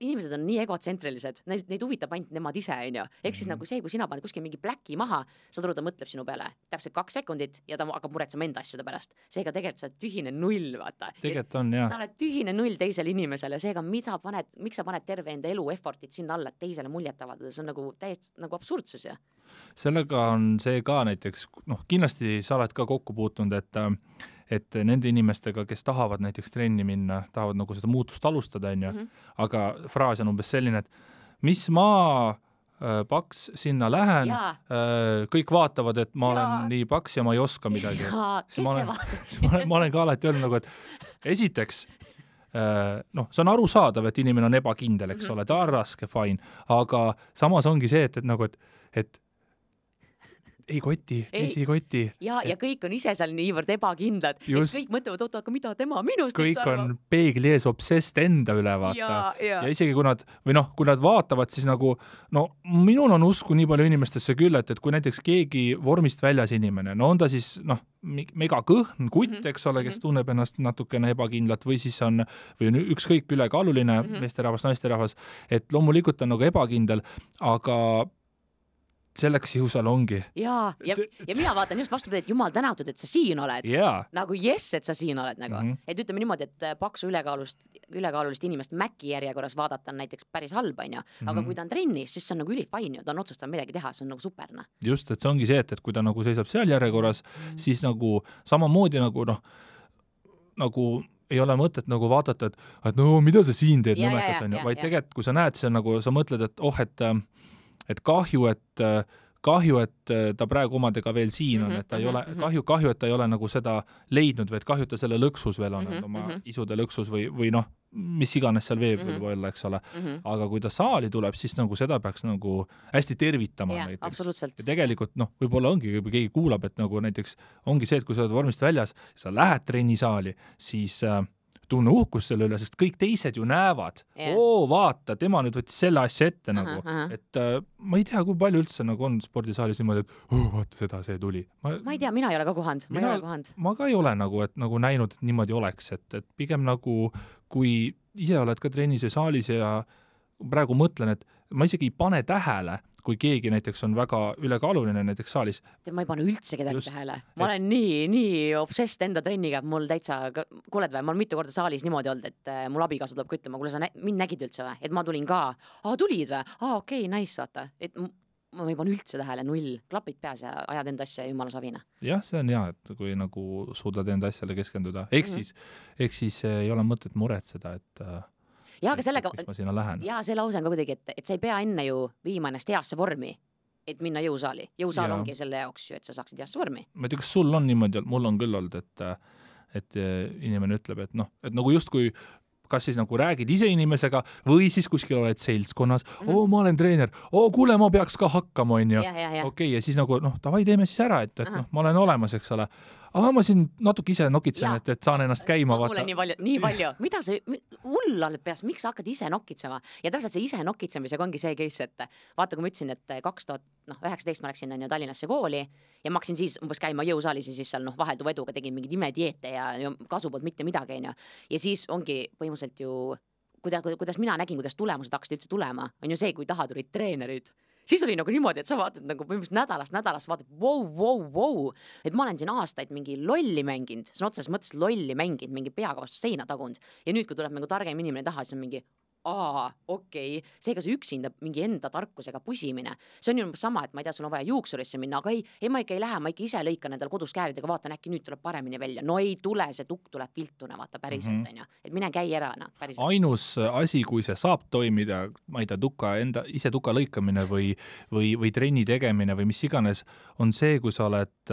inimesed on nii egotsentrilised, neid huvitab ainult nemad ise, on ju. Ehk siis nagu see, kui sina paned kuskil mingi pläki maha, saad aru, ta mõtleb sinu peale täpselt 2 sekundit ja ta hakkab muretsema enda asjade pärast. Seega tegelikult sa oled tühine null, vaata. Tegelikult on, jah. Sa oled tühine null teisele inimesele, seega miks sa paned terve enda elu effortit sinna alla, et teisele muljet avaldada, see on nagu täiesti nagu absurdsus, ja. Sellega on see ka näiteks, kindlasti sa oled ka kokku puutunud, et nende inimestega, kes tahavad näiteks trenni minna, tahavad nagu seda muutust alustada, on ju, aga fraas on umbes selline, et mis ma paks sinna lähen, kõik vaatavad, et ma olen nii paks ja ma ei oska midagi. Ma olen ka alati öelnud nagu, et esiteks, see on arusaadav, et inimene on ebakindel, eks ole, ta on raske, fine, aga samas ongi see, et ei koti, teisi ei koti. Ja kõik on ise seal niivõrd ebakindlad, et kõik mõtlevad, oota, aga mida tema minust kõik on peegli ees obsessed enda üle, vaata. Ja isegi kui nad vaatavad, siis nagu, minul on usku nii palju inimestesse küll, et kui näiteks keegi vormist väljas inimene, on ta siis, mega kõhn kutt, eks ole, kes tunneb ennast natukene ebakindlat või siis on ükskõik ülekaaluline meesterahvas, naisterahvas, et loomulikult on nagu ebakindel, aga selleks ju seal ongi. Ja mina vaatan just vastupidi, et jumal tänatud, et sa siin oled. Nagu et sa siin oled nagu. Et ütleme niimoodi, et paksu ülekaalulist inimest Mäki järjekorras vaadata on näiteks päris halb, on ju. Aga kui ta on trennis, siis see on nagu ülifain ju, ta on otsustanud midagi teha, see on nagu superna. Just, et see ongi see, et kui ta nagu seisab seal järjekorras, siis nagu samamoodi nagu ei ole mõtet nagu vaadata, et mida sa siin teed nõmekas, on ju, vaid tegelikult, kui sa näed, see on nagu, sa mõtled, et kahju, et ta praegu omadega veel siin on, et ta ei ole, kahju, et ta ei ole nagu seda leidnud või et kahju, et ta selle lõksus veel on, oma isude lõksus või mis iganes seal veeb võib olla, eks ole. Aga kui ta saali tuleb, siis nagu seda peaks nagu hästi tervitama näiteks. Ja tegelikult, võib-olla ongi, kui keegi kuulab, et nagu näiteks ongi see, et kui sa oled vormist väljas, sa lähed trennisaali, siis tunne uhkus selle üle, sest kõik teised ju näevad, vaata, tema nüüd võttis selle asja ette nagu, et ma ei tea, kui palju üldse nagu on spordisaalis niimoodi, et vaata see tuli. Ma ei tea, mina ei ole ka kohanud, ma ka ei ole nagu, et nagu näinud, et niimoodi oleks, et pigem nagu, kui ise oled ka trennis ja saalis ja praegu mõtlen, et ma isegi ei pane tähele, kui keegi näiteks on väga ülekaaluline näiteks saalis. Ma ei pane üldse kedagi tähele. Ma olen nii obsessed enda trenniga, et mul täitsa, kuuled või, ma olen mitu korda saalis niimoodi olnud, et mul abikaasa tuleb küttama, kuule sa mind nägid üldse või, et ma tulin ka, tulid või, okei, nice, vaata, et ma ei pane üldse tähele, null, klapid peas ja ajad enda asja jumala savina. Jah, see on hea, et kui nagu suudad enda asjale keskenduda, ehk siis ei ole mõtet muretseda, et aga sellega, see lause on ka kuidagi, et sa ei pea enne ju viima ennast heasse vormi, et minna jõusaali. Jõusaal ongi selle jaoks ju, et sa saaksid heasse vormi. Ma ei tea, kas sul on niimoodi, mul on küll olnud, et inimene ütleb, et nagu justkui kas siis nagu räägid ise inimesega või siis kuskil oled seltskonnas, ma olen treener, kuule, ma peaks ka hakkama, on ju. Okei, ja siis nagu, davai, teeme siis ära, et ma olen olemas, eks ole. Ma siin natuke ise nokitsen, et saan ennast käima. Mulle nii palju. Mida see hull oled peas, miks sa hakkad ise nokitsema? Ja täpselt see ise nokitsemisega ongi see case, et vaata, kui ma ütlesin, et 2019 ma läksin Tallinnasse kooli ja ma hakkasin siis umbes käima jõusaalis ja siis seal vahelduva eduga tegin mingid imedieete ja kasu poolt mitte midagi, on ju. Ja siis ongi põhimõtteliselt ju, kuidas mina nägin, kuidas tulemused hakkasid üldse tulema, on ju see, kui taha tulid treenerid. Siis oli nagu niimoodi, et sa vaatad nagu põhimõtteliselt nädalast vaatad, wow, et ma olen siin aastaid mingi lolli mänginud, see on otseses mõttes lolli mänginud, mingi peaga vastu seina tagund ja nüüd, kui tuleb nagu targem inimene taha, siis on mingi okei, seega see üksinda mingi enda tarkusega pusimine, see on ju sama, et ma ei tea, sul on vaja juuksurisse minna, aga ei, ma ikka ei lähe, ma ikka ise lõikan endal kodus kääridega, vaatan, äkki nüüd tuleb paremini välja, no ei tule, see tukk tuleb viltuna, vaata päriselt, on ju, et mine käi ära, päriselt. Ainus asi, kui see saab toimida, ma ei tea, ise tuka lõikamine või trenni tegemine või mis iganes, on see, kui sa oled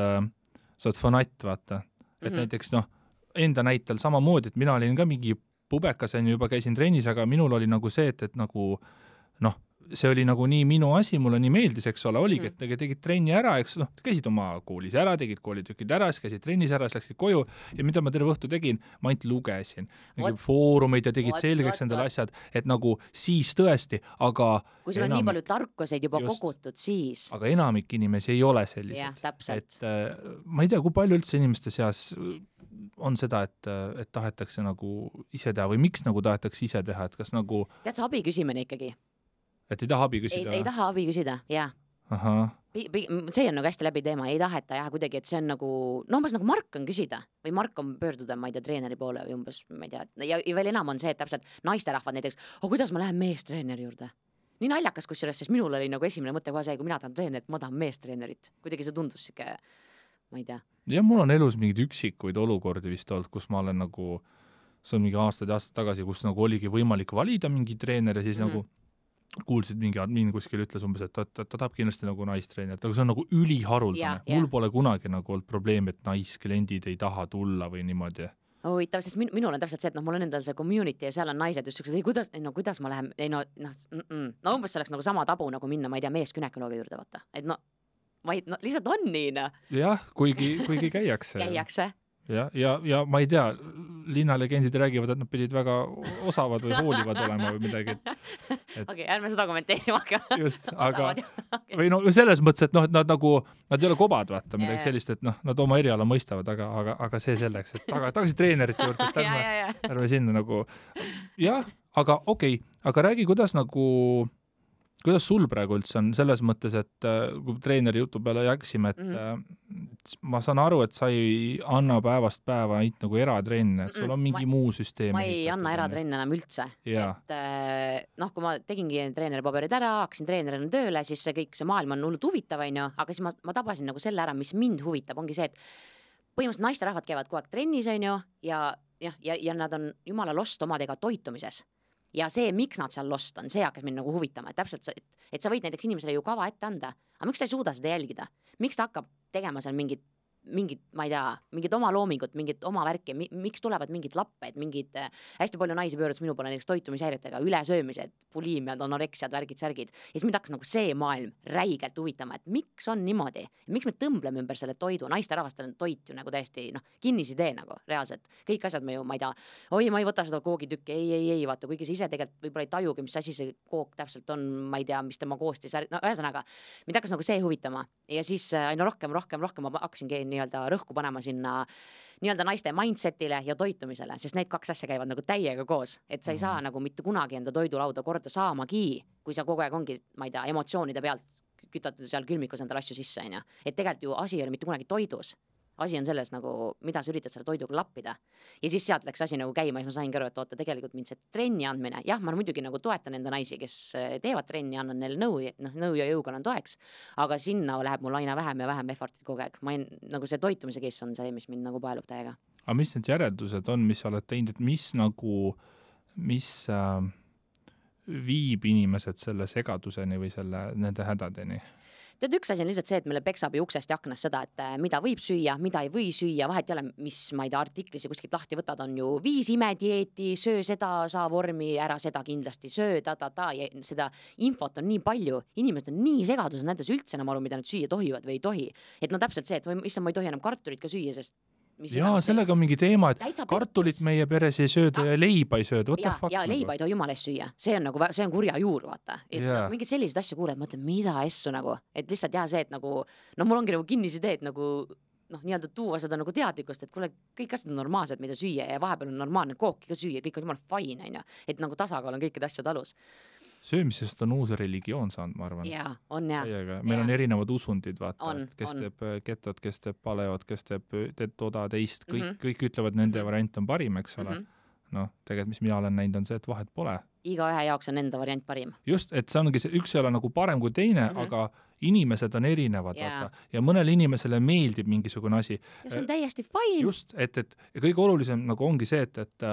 fanatt, vaata, et näiteks enda näitel samamoodi, et mina olin ka mingi pubekas, juba käisin trennis, aga minul oli nagu see, et nagu see oli nagu nii minu asi, mulle nii meeldis, eks ole, oligi, et tegid trenni ära, eks käisid oma koolis ära, tegid koolitükid ära, siis käisid trennis ära, siis läksid koju ja mida ma terve õhtu tegin, ma ainult lugesin foorumeid ja tegid selgeks endale asjad, et nagu siis tõesti, aga kui sul on nii palju tarkuseid juba kogutud, siis aga enamik inimesi ei ole sellised. Et ma ei tea, kui palju üldse inimeste seas on seda, et tahetakse nagu ise teha või miks nagu tahetakse ise teha, et kas nagu tead sa abi küsimine ikkagi? Et ei taha abi küsida? Ei taha abi küsida, jah. See on nagu hästi läbi teema, ei taheta jah kuidagi, et see on nagu, umbes nagu Mark on küsida või Mark on pöörduda, ma ei tea, treeneri poole või umbes, ma ei tea, ja veel enam on see, et täpselt naisterahvad näiteks, kuidas ma lähen meestreeneri juurde? Nii naljakas kusjuures, sest minul oli nagu esimene mõte kohe see, kui mina tahan treenerit, ma tahan meestreenerit. Kuidagi see tundus siuke, ma ei tea. Ja mul on elus mingid üksikuid olukordi vist olnud, kus ma olen nagu, see on mingi aastad tagasi, kus nagu oligi võimalik valida mingi treener ja siis nagu kuulsid mingi admin kuskil ütles umbes, et ta tahab kindlasti nagu naistreenerit, aga see on nagu üliharuldane. Mul pole kunagi nagu olnud probleem, et naiskliendid ei taha tulla või niimoodi. Huvitav, sest minul on täpselt see, et mul on endal see community ja seal on naised just siuksed, kuidas ma lähen, umbes see oleks nagu sama tabu nagu minna, ma ei tea, meeskünekoloogi juurde vaata, et lihtsalt on nii, Jah, kuigi käiakse. Käiakse. Ja ma ei tea, linnalegendid räägivad, et nad pidid väga osavad või hoolivad olema või midagi. Okei, ärme seda kommenteerima hakka. Just, aga või selles mõttes, et nad ei ole kobad, vaata, midagi sellist, et nad oma eriala mõistavad, aga see selleks, et tagasi treenerite juurde, et ärme sinna nagu, jah, aga okei, aga räägi, kuidas sul praegu üldse on selles mõttes, et kui treeneri jutu peale jaksime, et ma saan aru, et sa ei anna päevast päeva ainult nagu eratrenne, et sul on mingi muu süsteem. Ma ei anna eratrenne enam üldse. Et kui ma tegingi treeneri paberid ära, hakkasin treenerina tööle, siis see maailm on hullult huvitav, aga siis ma tabasin nagu selle ära, mis mind huvitab, ongi see, et põhimõtteliselt naisterahvad käivad kogu aeg trennis, ja nad on jumala lost omadega toitumises. Ja see, miks nad seal lost on, see hakkas mind nagu huvitama, et täpselt, et sa võid näiteks inimesele ju kava ette anda, aga miks ta ei suuda seda jälgida? Miks ta hakkab tegema seal mingit, ma ei tea, mingit oma loomingut, mingit oma värki, miks tulevad mingid lapped, hästi palju naisi pöördus minu poole näiteks toitumishäiretega, ülesöömised, puliimiad, anoreksiad, värgid. Ja siis mind hakkas nagu see maailm räigelt huvitama, et miks on niimoodi, miks me tõmbleme ümber selle toidu, naisterahvastel on toit ju nagu täiesti kinnisidee nagu reaalselt, kõik asjad me ju, ma ei tea, ma ei võta seda koogitükki, ei, vaata, kuigi sa ise tegelikult võib-olla ei tajugi, mis asi see kook täpselt on, ma ei tea, mis tema koostis, ühesõnaga, mind hakkas nagu see huvitama ja siis aina rohkem ma hakkasingi nii-öelda rõhku panema sinna nii-öelda naiste mindsetile ja toitumisele, sest need kaks asja käivad nagu täiega koos, et sa ei saa nagu mitte kunagi enda toidulauda korda saamagi, kui sa kogu aeg ongi, ma ei tea, emotsioonide pealt kütatud seal külmikus endal asju sisse, et tegelikult ju asi ei ole mitte kunagi toidus. Asi on selles nagu, mida sa üritad selle toiduga lappida. Ja siis sealt läks asi nagu käima ja siis ma sain aru, et oota, tegelikult mind see trenni andmine, jah, ma muidugi nagu toetan enda naisi, kes teevad trenni, annan neile nõu ja jõuga on toeks, aga sinna läheb mul aina vähem ja vähem effortit kogu aeg. Nagu see toitumise case on see, mis mind nagu paelub täiega. Aga mis need järeldused on, mis sa oled teinud, et mis viib inimesed selle segaduseni või nende hädadeni? Tead, üks asi on lihtsalt see, et meile peksab ju uksest ja aknast seda, et mida võib süüa, mida ei või süüa, vahet ei ole, mis, ma ei tea, artiklis ja kuskilt lahti võtad, on ju 5 imedieeti, söö seda, saa vormi, ära seda kindlasti söö, ja seda infot on nii palju, inimesed on nii segadus, näides üldse enam aru, mida nad süüa tohivad või ei tohi. Et täpselt see, et issand, ma ei tohi enam kartulit ka süüa, sest sellega on mingi teema, et kartulit meie peres ei sööda ja leiba ei sööda. Ja leiba ei tohi jumala eest süüa. See on kurja juur, vaata. Et mingid sellised asju kuuled, mõtled, mida essu nagu. Et lihtsalt see, et nagu, mul ongi nagu kinnisidee, et nagu, nii-öelda tuua seda nagu teadlikkust, et kuule, kõik asjad on normaalsed, mida süüa ja vahepeal on normaalne kooki ka süüa, kõik on jumala fine, et nagu tasakaal on kõikide asjad alus. Söömisest on uus religioon saanud, ma arvan. Jaa, on jah. Meil on erinevad usundid, vaata, kes teeb ketot, kes teeb paleot, kes teeb toda teist, kõik ütlevad, nende variant on parim, eks ole. Tegelikult, mis mina olen näinud, on see, et vahet pole. Iga ühe jaoks on enda variant parim. Just, et see ongi see, üks ei ole nagu parem kui teine, aga inimesed on erinevad, vaata. Ja mõnele inimesele meeldib mingisugune asi. Ja see on täiesti fine. Just, et kõige olulisem nagu ongi see, et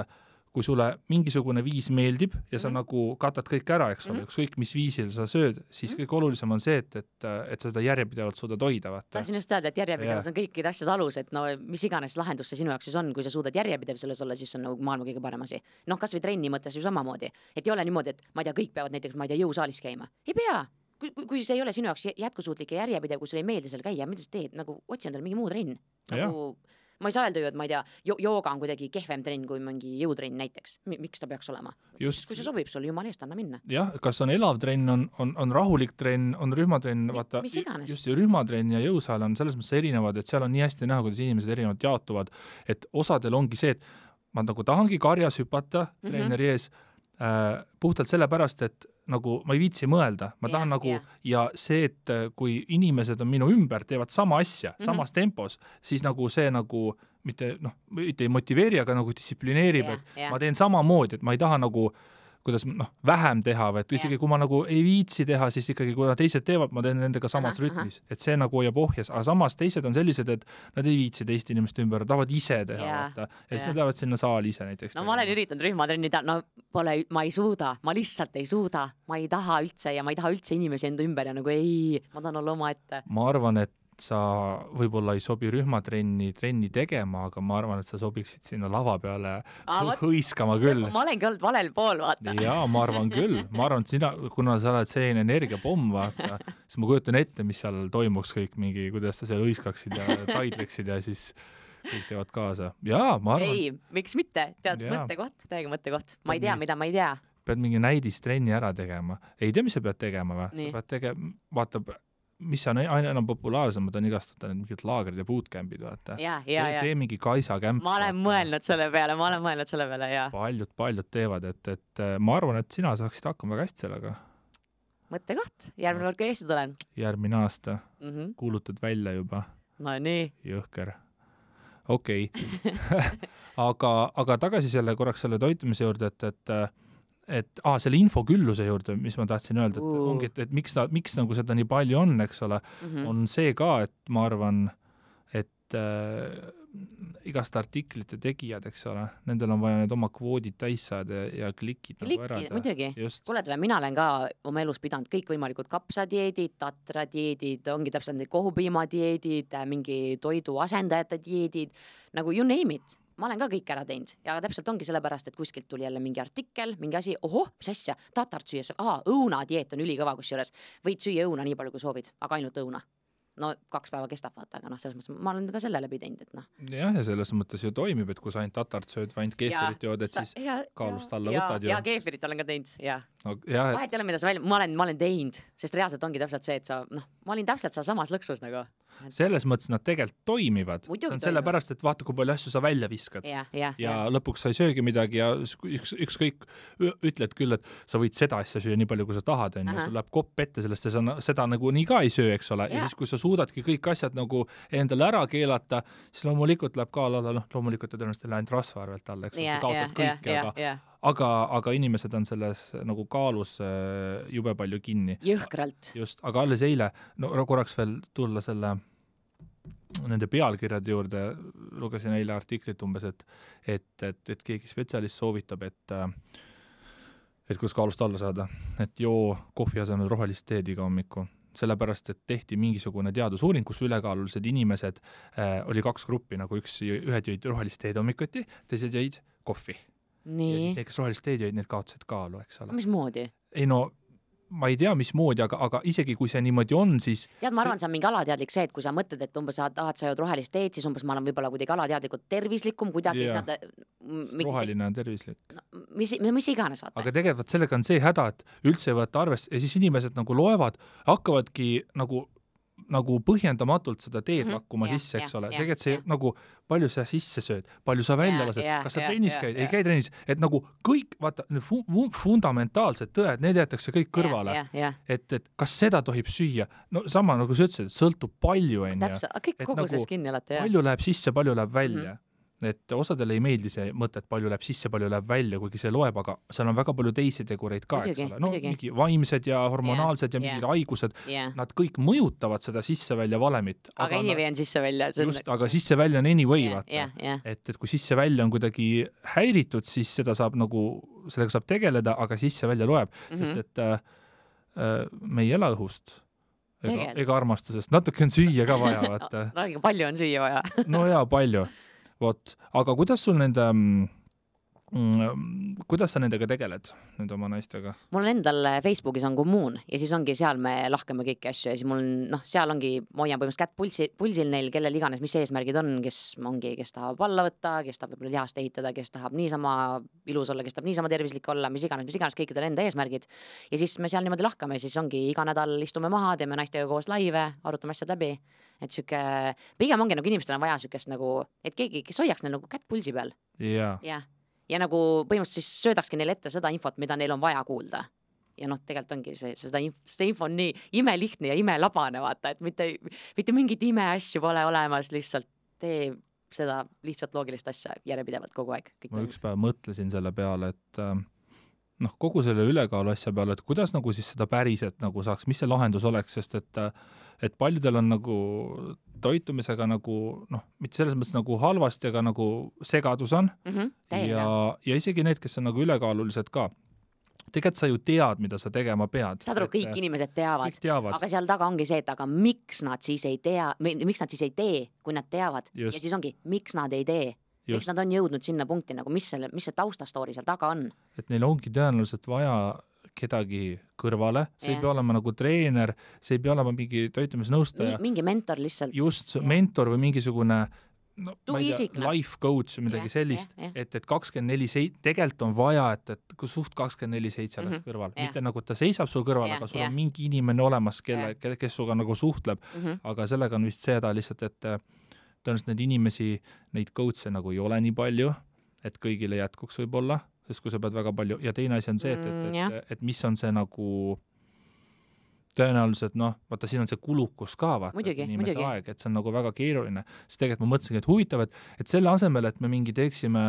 kui sulle mingisugune viis meeldib ja sa nagu katad kõik ära, eks ole, ükskõik mis viisil sa sööd, siis kõik olulisem on see, et sa seda järjepidevalt suudad hoida, vaata. Tahtsin just öelda, et järjepidevus on kõikide asjade alus, et no mis iganes lahendus see sinu jaoks siis on, kui sa suudad järjepidev selles olla, siis on nagu maailma kõige parem asi. Noh, kas või trenni mõttes ju samamoodi, et ei ole niimoodi, et ma ei tea, kõik peavad näiteks, ma ei tea, jõusaalis käima. Ei pea. Kui see ei ole sinu jaoks jätkusuutlik ja järjepidev, kui sulle ei meeldi seal käia, mida sa teed, nagu otsi endale mingi muu trenn. Nagu ma ei saa öelda ju, et ma ei tea, jooga on kuidagi kehvem trenn kui mingi jõutrenn näiteks. Miks ta peaks olema? Just, kui see sobib sulle, jumal eest, anna minna. Jah, kas on elav trenn, on rahulik trenn, on rühmatrenn, vaata, just rühmatrenn ja jõusaal on selles mõttes erinevad, et seal on nii hästi näha, kuidas inimesed erinevalt jaotuvad, et osadel ongi see, et ma nagu tahangi karjas hüpata treeneri ees puhtalt sellepärast, et nagu ma ei viitsi mõelda, ma tahan ja see, et kui inimesed on minu ümber, teevad sama asja, samas tempos, siis nagu see nagu mitte ei motiveeri, aga nagu distsiplineerib, et ma teen samamoodi, et ma ei taha nagu kuidas vähem teha, või et isegi kui ma nagu ei viitsi teha, siis ikkagi kui teised teevad, ma teen nendega samas rütmis, et see nagu hoiab ohjas, aga samas teised on sellised, et nad ei viitsi teiste inimeste ümber, tahavad ise teha, vaata, ja siis nad lähevad sinna saali ise näiteks. No ma olen üritanud rühmatrenni teha, ma ei suuda, ma lihtsalt ei suuda, ma ei taha üldse ja ma ei taha üldse inimesi enda ümber ja nagu ma tahan olla oma ette. Ma arvan, et sa võib-olla ei sobi rühmatrenni tegema, aga ma arvan, et sa sobiksid sinna lava peale hõiskama küll. Ma olengi olnud valel pool, vaata. Jaa, ma arvan küll. Ma arvan, et sina, kuna sa oled selline energiapomm, vaata, siis ma kujutan ette, mis seal toimuks kõik mingi, kuidas sa seal hõiskaksid ja taidleksid ja siis kõik teevad kaasa. Jaa, ma arvan. Ei, miks mitte? Tead, mõttekoht, täiega mõttekoht. Ma ei tea, mida ma ei tea. Pead mingi näidistrenni ära tegema. Ei tea, mis sa pead tegema või? Sa pead tegema, vaata, mis on aina enam populaarsemad on igastata need mingid laagrid ja bootcampid, vaata. Tee mingi Kaisa kämp. Ma olen mõelnud selle peale, jaa. Paljud teevad, et ma arvan, et sina saaksid hakkama väga hästi sellega. Mõttekoht, järgmine kord, kui Eesti tulen. Järgmine aasta. Kuulutad välja juba. No nii. Jõhker. Okei. Aga tagasi korraks selle toitumise juurde, et selle infokülluse juurde, mis ma tahtsin öelda, et ongi, et miks nagu seda nii palju on, eks ole, on see ka, et ma arvan, et igast artiklite tegijad, eks ole, nendel on vaja need oma kvoodid täis saada ja klikid nagu ära. Muidugi. Kuuled, mina olen ka oma elus pidanud kõik võimalikud kapsadieedid, tatradieedid, ongi täpselt need kohupiimadieedid, mingi toidu asendajate dieedid, nagu you name it. Ma olen ka kõik ära teinud ja täpselt ongi sellepärast, et kuskilt tuli jälle mingi artikkel, mingi asi, mis asja, tatart süües, õunadieet on ülikõva kusjuures, võid süüa õuna nii palju, kui soovid, aga ainult õuna. No 2 päeva kestab, vaata, aga selles mõttes ma olen ka selle läbi teinud, et Jah, ja selles mõttes ju toimib, et kui sa ainult tatart sööd või ainult keefirit jood, et siis kaalust alla võtad ju. Ja keefirit olen ka teinud, jah. Vahet ei ole, mida sa ma olen teinud, sest reaalselt ongi täpselt see, et ma olin täpselt samas lõksus nagu. Selles mõttes nad tegelikult toimivad. See on sellepärast, et vaata, kui palju asju sa välja viskad. Ja lõpuks sa ei söögi midagi ja ükskõik ütled küll, et sa võid seda asja süüa nii palju, kui sa tahad, ja sul läheb kopp ette sellest ja seda nagu nii ka ei söö, eks ole. Ja siis, kui sa suudadki kõik asjad nagu endale ära keelata, siis loomulikult läheb ka loomulikult ja tõenäoliselt läinud rasva arvelt alla, eks ole, sa kaotad kõik, aga inimesed on selles nagu kaalus jube palju kinni. Jõhkralt. Just, aga alles eile, korraks veel tulla nende pealkirjade juurde, lugesin eile artiklit umbes, et keegi spetsialist soovitab, et kuidas kaalust alla saada, et joo kohvi asemel rohelist teed iga hommiku. Sellepärast, et tehti mingisugune teadusuuring, kus ülekaalulised inimesed oli 2 gruppi, nagu ühed jõid rohelist teed hommikuti, teised jõid kohvi. Nii. Ja siis need, kes rohelist teed jõid, need kaotasid kaalu, eks ole. Mis moodi? Ei ma ei tea, mis moodi, aga isegi kui see niimoodi on, siis... Tead, ma arvan, see on mingi alateadlik see, et kui sa mõtled, et umbes sa jõud rohelist teed, siis umbes ma olen võib-olla kuidagi alateadlikult tervislikum, kuidagi roheline on tervislik. Mis iganes, vaata. Aga tegelikult sellega on see häda, et üldse võtta arvest ja siis inimesed nagu loevad, hakkavadki nagu põhjendamatult seda teed lakkuma sisse, eks ole. Tegelikult see nagu, palju sa sisse sööd, palju sa välja lased, kas sa trennis käid, ei käi trennis, et nagu kõik, vaata, fundamentaalsed tõed, need jäetakse kõik kõrvale, et kas seda tohib süüa, no sama nagu sa ütlesid, sõltub palju, täpselt, kõik koguses kinni alati, palju läheb sisse, palju läheb välja. et osadele ei meeldi see mõte, et palju läheb sisse, palju läheb välja, kuigi see loeb, aga seal on väga palju teisi tegureid ka, eks ole. No mingi vaimsed ja hormonaalsed ja mingid haigused, nad kõik mõjutavad seda sisse-välja valemit. Aga anyway on sisse-välja. Just, aga sisse-välja on anyway, vaata. Et kui sisse-välja on kuidagi häiritud, siis seda saab nagu, sellega saab tegeleda, aga sisse-välja loeb, sest et me ei ela õhust. Ega armastusest. Natuke on süüa ka vaja, vaata. No, palju on süüa vaja. No jaa, palju. Vot, aga kuidas sul kuidas sa nendega tegeled, nende oma naistega? Mul on endal Facebookis on kommuun ja siis ongi seal me lahkame kõiki asju ja siis mul on, seal ongi, ma hoian põhimõtteliselt kätt pulsil neil, kellel iganes, mis eesmärgid on, kes tahab alla võtta, kes tahab võib-olla lihast ehitada, kes tahab niisama ilus olla, kes tahab niisama tervislik olla, mis iganes kõikidel enda eesmärgid. Ja siis me seal niimoodi lahkame, siis ongi iga nädal istume maha, teeme naistega koos laive, arutame asjad läbi. Et süke, pigem ongi nagu inimestel on vaja sükest nagu, et keegi, kes hoiaks neil nagu kätt pulsi peal. Ja nagu põhimõtteliselt siis söödakski neile ette seda infot, mida neil on vaja kuulda. Ja tegelikult ongi see info on nii imelihtne ja imelabane, vaata, et mitte mingit imeasju pole olemas, lihtsalt tee seda lihtsalt loogilist asja järjepidevalt kogu aeg. Ma üks päev mõtlesin selle peale, et kogu selle ülekaalu asja peale, et kuidas nagu siis seda päriselt nagu saaks, mis see lahendus oleks, sest et paljudel on nagu toitumisega nagu, mitte selles mõttes nagu halvasti, aga nagu segadus on ja isegi need, kes on nagu ülekaalulised ka. Tegelikult sa ju tead, mida sa tegema pead. Saad aru, kõik inimesed teavad, aga seal taga ongi see, et aga miks nad siis ei tee, kui nad teavad. Ja siis ongi, miks nad ei tee. Miks nad on jõudnud sinna punkti, nagu mis see taustastoori seal taga on. Et neil ongi tõenäoliselt vaja kedagi kõrvale, see ei pea olema nagu treener, see ei pea olema mingi toitumisnõustaja. Mingi mentor lihtsalt. Just, mentor või mingisugune life coach või midagi sellist, et 24/7, tegelikult on vaja, et kui suht 24/7 oleks kõrval. Mitte nagu ta seisab sul kõrval, aga sul on mingi inimene olemas, kes suga nagu suhtleb, aga sellega on vist seda lihtsalt, et tõenäoliselt neid inimesi, neid coach'e nagu ei ole nii palju, et kõigile jätkuks võib-olla, sest kui sa pead väga palju, ja teine asi on see, et mis on see nagu tõenäoliselt, vaata siin on see kulukus ka, vaata, inimese aeg, et see on nagu väga keeruline, sest tegelikult ma mõtlesingi, et huvitav, et selle asemel, et me mingi teeksime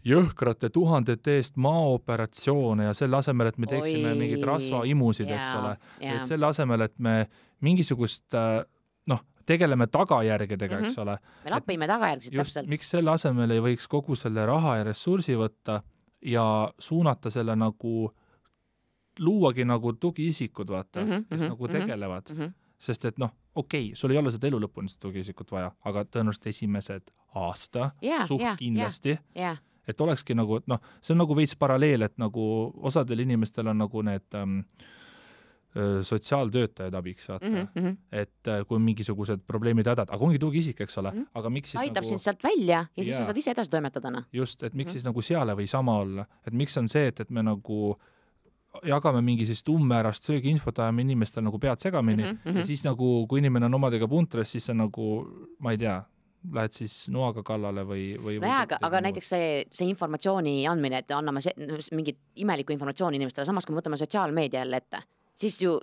jõhkrate 1000 eest maaoperatsioone ja selle asemel, et me teeksime mingid rasvaimusid, eks ole, et selle asemel, et me mingisugust tegeleme tagajärgedega, eks ole. Me lapime tagajärgsid täpselt. Miks selle asemel ei võiks kogu selle raha ja ressursi võtta ja suunata selle nagu, luuagi nagu tugiisikud, vaata, kes nagu tegelevad. Sest et sul ei ole seda elu lõpuni seda tugiisikut vaja, aga tõenäoliselt esimesed aasta suht kindlasti. Et olekski nagu, et see on nagu veits paralleel, et nagu osadel inimestel on nagu need sotsiaaltöötajad abiks, vaata. Et kui mingisugused probleemid hädad, aga ongi tugiisik, eks ole, aga miks siis aitab sind sealt välja ja siis sa saad ise edasi toimetadana. Just, et miks siis nagu seale või sama olla, et miks on see, et me nagu jagame mingi siis tummäärast söögiinfot, ajame inimestel nagu pead segamini ja siis nagu, kui inimene on omadega puntres, siis see nagu, ma ei tea, lähed siis noaga kallale või aga näiteks see informatsiooni andmine, et anname mingit imelikku informatsiooni inimestele, samas kui me võtame sotsiaalmeedia jälle ette, siis ju,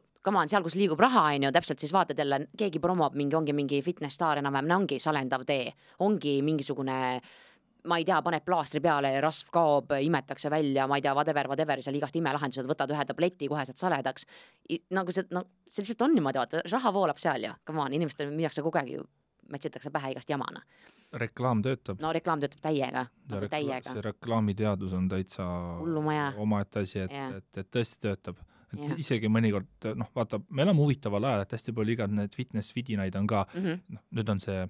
seal, kus liigub raha, täpselt siis vaatad jälle, keegi promob ongi mingi fitness-staar enam-vähem, ongi salendav tee, ongi mingisugune, ma ei tea, paned plaastri peale, rasv kaob, imetakse välja, ma ei tea, whatever, seal igast imelahendused, võtad ühe tableti, kohe saad saledaks. Nagu see lihtsalt on niimoodi, vaata, raha voolab seal ju, come on, inimestel müüakse kogu aeg ju, mätsitakse pähe igast jamana. Reklaam töötab. No reklaam töötab täiega. See reklaamiteadus on täitsa omaette asi, et tõesti töötab. Et isegi mõnikord, vaata, me oleme huvitaval ajal, et hästi palju igad need fitness-vidinaid on ka, nüüd on see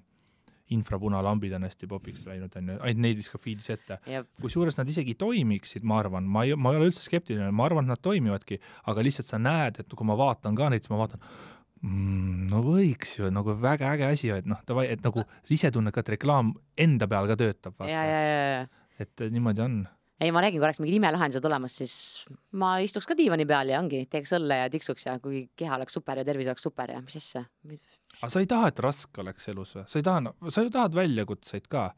infrapunalambid on hästi popiks läinud, ainult neid viskab feedis ette. Kui suures nad isegi toimiksid, ma arvan, ma ei ole üldse skeptiline, ma arvan, et nad toimivadki, aga lihtsalt sa näed, et kui ma vaatan ka neid, siis ma vaatan, võiks ju, nagu väga äge asi, et et nagu ise tunned ka, et reklaam enda peal ka töötab. Et niimoodi on. Ei, ma räägin, kui oleks mingid imelahendused olemas, siis ma istuks ka diivani peal ja teeks õlle ja tiksuks ja kui keha oleks super ja tervis oleks super ja mis asja. Aga sa ei taha, et raske oleks elus või? Sa ju tahad väljakutseid ka.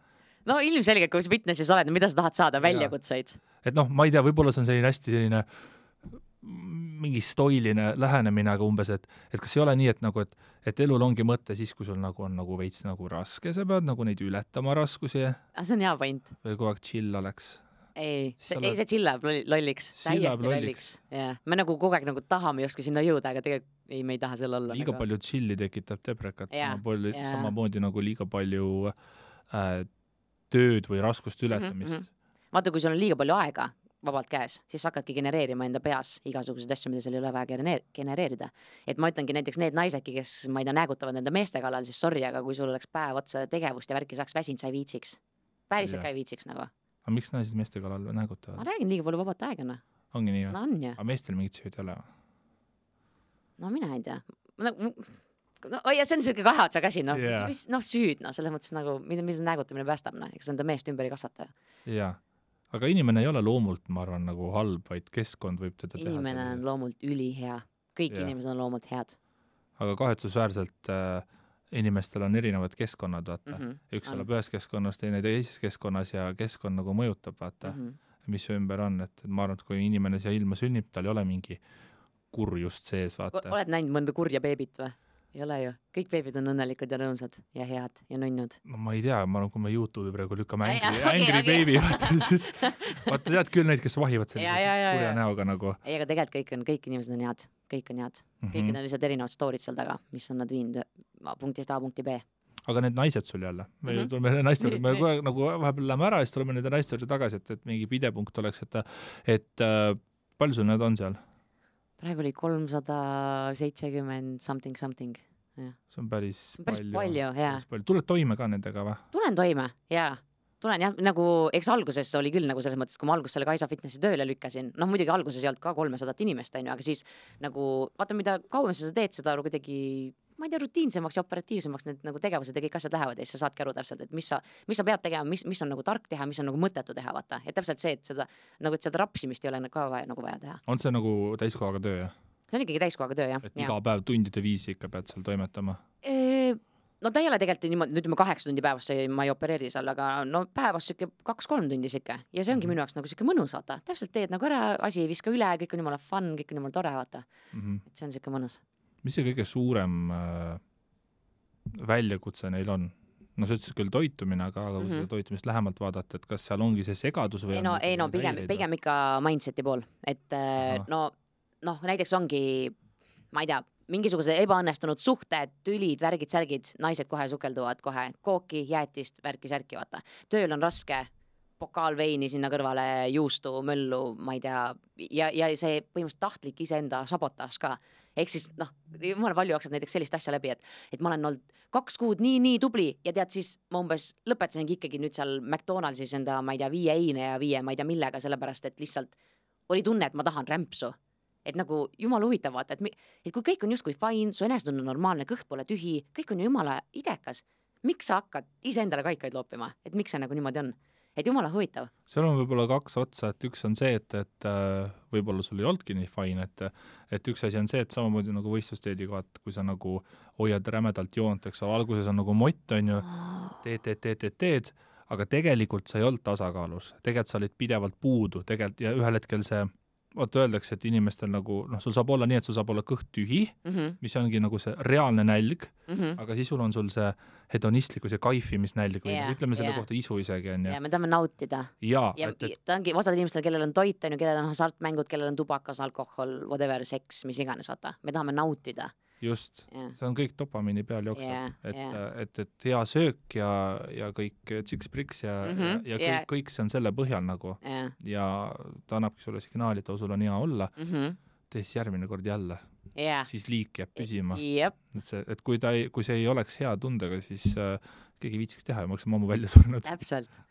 No ilmselgelt, kui sa fitnessis oled, mida sa tahad saada, väljakutseid? Et ma ei tea, võib-olla see on selline hästi selline mingi stoiline lähenemine, aga umbes, et kas ei ole nii, et nagu, et elul ongi mõte siis, kui sul nagu on nagu veits nagu raske, sa pead nagu neid ületama raskusi. See on hea point. Või kogu aeg chill oleks. Ei, see chill läheb lolliks, täiesti lolliks. Yeah. Me nagu kogu aeg nagu tahame justkui sinna jõuda, aga tegelikult ei, me ei taha selle olla. Liiga palju chilli tekitab deprekat, samamoodi nagu liiga palju tööd või raskust ületamist. Vaata, kui sul on liiga palju aega vabalt käes, siis hakkadki genereerima enda peas igasuguseid asju, mida seal ei ole vaja genereerida. Et ma ütlengi näiteks need naisedki, kes ma ei tea, näägutavad enda meeste kallal, siis sorry, aga kui sul oleks päev otsa tegevust ja värki saaks väsinud, sa ei viitsiks. Päriselt ka ei viitsiks nagu. Aga miks naised meeste kallal näägutavad? Ma räägin liiga palju vabat aegana. Ongi nii või? No on jah. Aga meestel mingit süüd ei ole? No mina ei tea. Ja see on selline kahe otsa käsi, süüd, selles mõttes nagu, mis näägutamine päästab, eks enda meest ümber ei kasvata. Jaa. Aga inimene ei ole loomult, ma arvan, nagu halb, vaid keskkond võib teda teha. Inimene on loomult ülihea. Kõik inimesed on loomult head. Aga kahetsusväärselt inimestel on erinevad keskkonnad, vaata. Üks elab ühes keskkonnas, teine teises keskkonnas ja keskkond nagu mõjutab, vaata, mis ümber on. Et ma arvan, et kui inimene siia ilma sünnib, tal ei ole mingi kurjust sees, vaata. Oled näinud mõnda kurja beebit või? Ei ole ju. Kõik beebid on õnnelikud ja rõõmsad ja head ja nunnud. No ma ei tea, ma arvan, kui me YouTube'i praegu lükkame Angry Baby, siis vaata tead küll neid, kes vahivad sellise kurja näoga nagu. Ei, aga tegelikult kõik inimesed on head. Kõik on head. Kõik on lihtsalt erinevad storid seal taga, mis on nad viinud punktist A punkti B. Aga need naised sul jälle. Me tuleme naiste juurde, me kogu aeg nagu vahepeal läheme ära ja siis tuleme nende naiste juurde tagasi, et mingi pidepunkt oleks, et palju sul need on seal? Praegu oli 370 something. Ja. See on päris palju, jaa. Tuled toime ka nendega või? Tulen toime, jaa. Tulen jah, nagu, eks alguses oli küll nagu selles mõttes, kui ma alguses selle Kaisa Fitnessi tööle lükkasin, muidugi alguses ei olnud ka 300 inimest, aga siis nagu, vaata, mida kauem sa teed, seda kuidagi, ma ei tea, rutiinsemaks ja operatiivsemaks need nagu tegevused ja kõik asjad lähevad ja siis sa saadki aru täpselt, et mis sa pead tegema, mis on nagu tark teha, mis on nagu mõttetu teha, vaata. Ja täpselt see, et seda rapsimist ei ole ka vaja teha. On see nagu täiskohaga töö, jah? See on ikkagi täiskohaga töö, jah. Et iga päev tundide viisi ikka pead seal toimetama? No ta ei ole tegelikult niimoodi, ütleme 8 tundi päevas ma ei opereeri seal, aga no päevas siuke 2-3 tundi siuke. Ja see ongi minu jaoks nagu siuke mõnus, vaata. Täpselt teed nagu ära, asi ei viska üle, kõik on jumala fun, kõik on jumala tore, vaata. Et see on siuke mõnus. Mis see kõige suurem väljakutse neil on? No see ütles küll toitumine, aga kui seda toitumist lähemalt vaadata, et kas seal ongi see segadus või ei no pigem ikka mindseti pool. Et näiteks ongi, ma ei tea, mingisugused ebaõnnestunud suhted, tülid, värgid, särgid, naised kohe sukelduvad kohe kooki, jäätist, värki, särki, vaata. Tööl on raske, pokaal veini sinna kõrvale, juustu, möllu, ma ei tea, ja see põhimõtteliselt tahtlik iseenda sabotaaž ka. Ehk siis, jumala palju jookseb näiteks sellist asja läbi, et ma olen olnud 2 kuud nii tubli ja tead siis ma umbes lõpetasingi ikkagi nüüd seal McDonaldsis enda, ma ei tea, 5 eine ja 5 ma ei tea millega, sellepärast et lihtsalt oli tunne, et ma tahan rämpsu. Et nagu jumala huvitav vaata, et kui kõik on justkui fine, su enesetunne on normaalne, kõht pole tühi, kõik on jumala idekas, miks sa hakkad iseendale kaikaid loopima, et miks see nagu niimoodi on? Et jumala huvitav. Seal on võib-olla 2 otsa, et üks on see, et võib-olla sul ei oldki nii fine, et üks asi on see, et samamoodi nagu võistlusteediga, kui sa nagu hoiad rämedalt joont, eks ole, alguses on nagu mott, on ju, teed, aga tegelikult sa ei olnud tasakaalus, tegelikult sa olid pidevalt puudu, tegelikult ja ühel hetkel see vaata öeldakse, et inimestel nagu, sul saab olla nii, et sul saab olla kõht tühi, mis ongi nagu see reaalne nälg, aga siis sul on sul see hedonistlik või see kaifimisnälg või ütleme selle kohta isu isegi on. Ja me tahame nautida. Ja ta ongi osad inimestel, kellel on toit, kellel on hasartmängud, kellel on tubakas, alkohol, whatever, seks, mis iganes, vaata. Me tahame nautida. Just, see on kõik dopamiini peal jookseb, et hea söök ja kõik tsiks-priks ja kõik see on selle põhjal nagu ja ta annabki sulle signaali, et sul on hea olla, tees järgmine kord jälle, siis liik jääb püsima. Et kui see ei oleks hea tundega, siis keegi viitsiks teha ja ma oleks ammu välja surnud. Täpselt.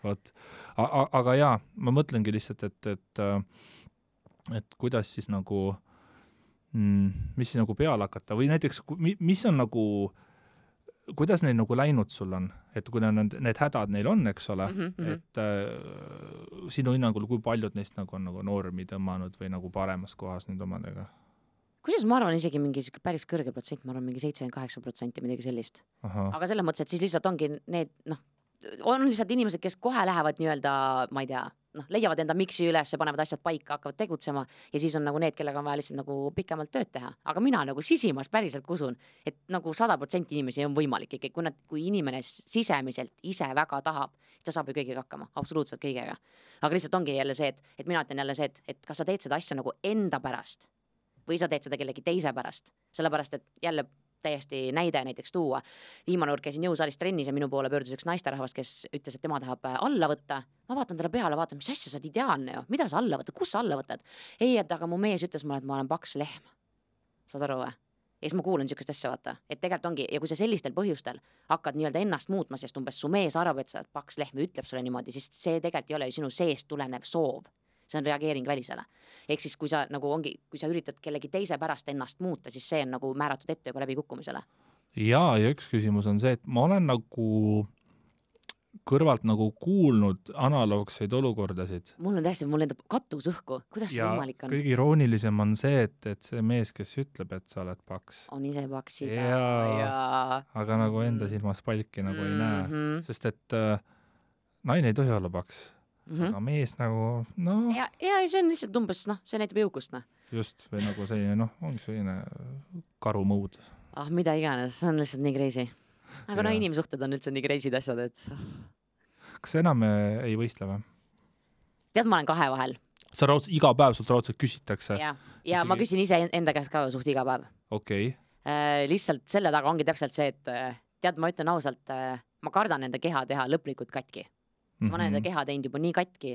Aga jaa, ma mõtlengi lihtsalt, et kuidas siis nagu mis siis nagu peale hakata või näiteks, mis on nagu, kuidas neil nagu läinud sul on, et kui need hädad neil on, eks ole, et sinu hinnangul, kui paljud neist nagu on nagu normi tõmmanud või nagu paremas kohas nüüd omadega? Kusjuures ma arvan isegi mingi päris kõrge protsent, ma arvan mingi 78% midagi sellist. Aga selles mõttes, et siis lihtsalt ongi need, on lihtsalt inimesed, kes kohe lähevad nii-öelda, ma ei tea, leiavad enda miksi üles, panevad asjad paika, hakkavad tegutsema ja siis on nagu need, kellega on vaja lihtsalt nagu pikemalt tööd teha. Aga mina nagu sisimas päriselt usun, et nagu 100% inimesi on võimalik ikkagi, kui inimene sisemiselt ise väga tahab, ta saab ju kõigega hakkama, absoluutselt kõigega. Aga lihtsalt ongi jälle see, et mina ütlen jälle see, et kas sa teed seda asja nagu enda pärast või sa teed seda kellegi teise pärast, sellepärast et jälle täiesti näide näiteks tuua. Viimane kord käisin jõusaalis trennis ja minu poole pöördus üks naisterahvas, kes ütles, et tema tahab alla võtta. Ma vaatan talle peale, vaatan, mis asja, sa oled ideaalne ju. Mida sa alla võtad? Kus sa alla võtad? Ei, et aga mu mees ütles mulle, et ma olen paks lehm. Saad aru või? Ja siis ma kuulen niisugust asja, vaata. Et tegelikult ongi, ja kui sa sellistel põhjustel hakkad nii-öelda ennast muutma, sest umbes su mees arvab, et sa oled paks lehm ja ütleb sulle niimoodi, siis see tegelikult ei ole ju sinu seest tulenev soov. See on reageering välisele. Ehk siis kui sa nagu ongi, kui sa üritad kellegi teise pärast ennast muuta, siis see on nagu määratud ette juba läbi kukkumisele. Ja üks küsimus on see, et ma olen nagu kõrvalt nagu kuulnud analoogseid olukordasid. Mul on täiesti, mul endab katus õhku. Kuidas see võimalik on? Kõige iroonilisem on see, et see mees, kes ütleb, et sa oled paks. On ise paks aga nagu enda silmas palki nagu ei näe. Sest et naine ei tohi olla paks. Aga mees nagu, Ja see on lihtsalt umbes, see näitab jõukust, Just, või nagu selline, ongi selline karumõud. Mida iganes, see on lihtsalt nii crazy. Aga inimsuhted on üldse nii crazy'd asjad, et... Kas enam ei võistle või? Tead, ma olen kahe vahel. Sa iga päev sult raudselt küsitakse? Ja ma küsin ise enda käest ka suht iga päev. Okei. Lihtsalt selle taga ongi täpselt see, et tead, ma ütlen ausalt, ma kardan enda keha teha lõplikult katki. Ma olen enda keha teinud juba nii katki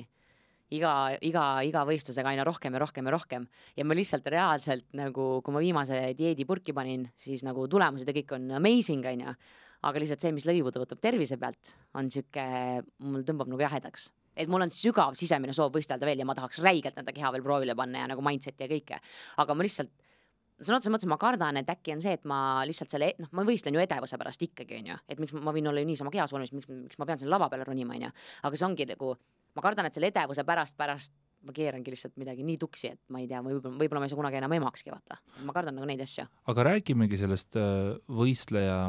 iga võistlusega aina rohkem ja rohkem ja rohkem ja ma lihtsalt reaalselt nagu, kui ma viimase dieedi purki panin, siis nagu tulemused ja kõik on amazing, aga lihtsalt see, mis lõivuda võtab tervise pealt, on siuke, mul tõmbab nagu jahedaks. Et mul on sügav sisemine soov võistelda veel ja ma tahaks räigelt enda keha veel proovile panna ja nagu mindset ja kõike, aga ma lihtsalt sõna otseses mõttes ma kardan, et äkki on see, et ma lihtsalt selle, ma võistlen ju edevuse pärast ikkagi, et miks ma võin olla ju niisama kehas vormis, miks ma pean selle lava peale ronima, aga see ongi nagu, ma kardan, et selle edevuse pärast ma keerangi lihtsalt midagi nii tuksi, et ma ei tea, võib-olla ma ei saa kunagi enam emakski, vaata. Ma kardan nagu neid asju. Aga räägimegi sellest võistleja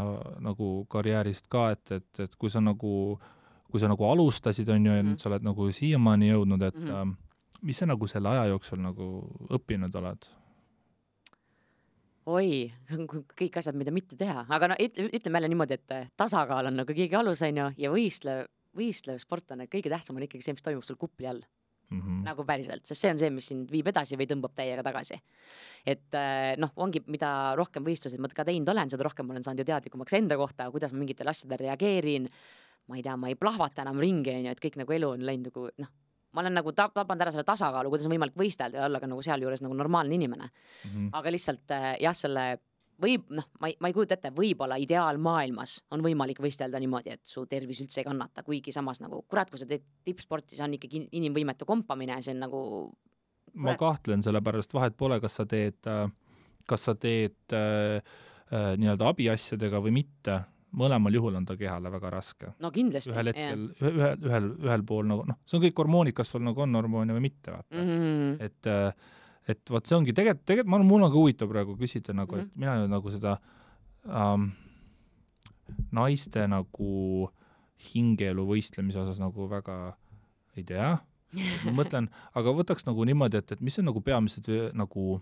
nagu karjäärist ka, et kui sa nagu alustasid, on ju, ja nüüd sa oled nagu siiamaani jõudnud, et mis sa nagu selle aja jooksul nagu õppinud oled? Oi, kõik asjad, mida mitte teha, aga ütleme jälle niimoodi, et tasakaal on nagu kõige alus, ja võistlev sportlane, kõige tähtsam on ikkagi see, mis toimub sul kupli all. Nagu päriselt, sest see on see, mis sind viib edasi või tõmbab täiega tagasi. Et ongi, mida rohkem võistlusid ma ka teinud olen, seda rohkem olen saanud ju teadlikumaks enda kohta, kuidas ma mingitel asjadel reageerin, ma ei tea, ma ei plahvata enam ringi, et kõik nagu elu on läinud nagu, ma olen nagu tapanud ära selle tasakaalu, kuidas on võimalik võistelda ja olla ka nagu seal juures nagu normaalne inimene. Aga lihtsalt selle ma ei kujuta ette, võib-olla ideaalmaailmas on võimalik võistelda niimoodi, et su tervis üldse ei kannata, kuigi samas nagu, kurat, kui sa teed tippsporti, see on ikkagi inimvõimetu kompamine, see on nagu... Ma kahtlen selle pärast, vahet pole, kas sa teed nii-öelda abiasjadega või mitte. Mõlemal juhul on ta kehale väga raske. No kindlasti. Ühel hetkel, ühel pool nagu, see on kõik hormoonid, kas sul nagu on hormoone või mitte, vaata. Et vaat see ongi, tegelikult mul on ka huvitav praegu küsida nagu, et mina nagu seda naiste nagu hingeelu võistlemise osas nagu väga ei tea. Ma mõtlen, aga võtaks nagu niimoodi, et mis on nagu peamised nagu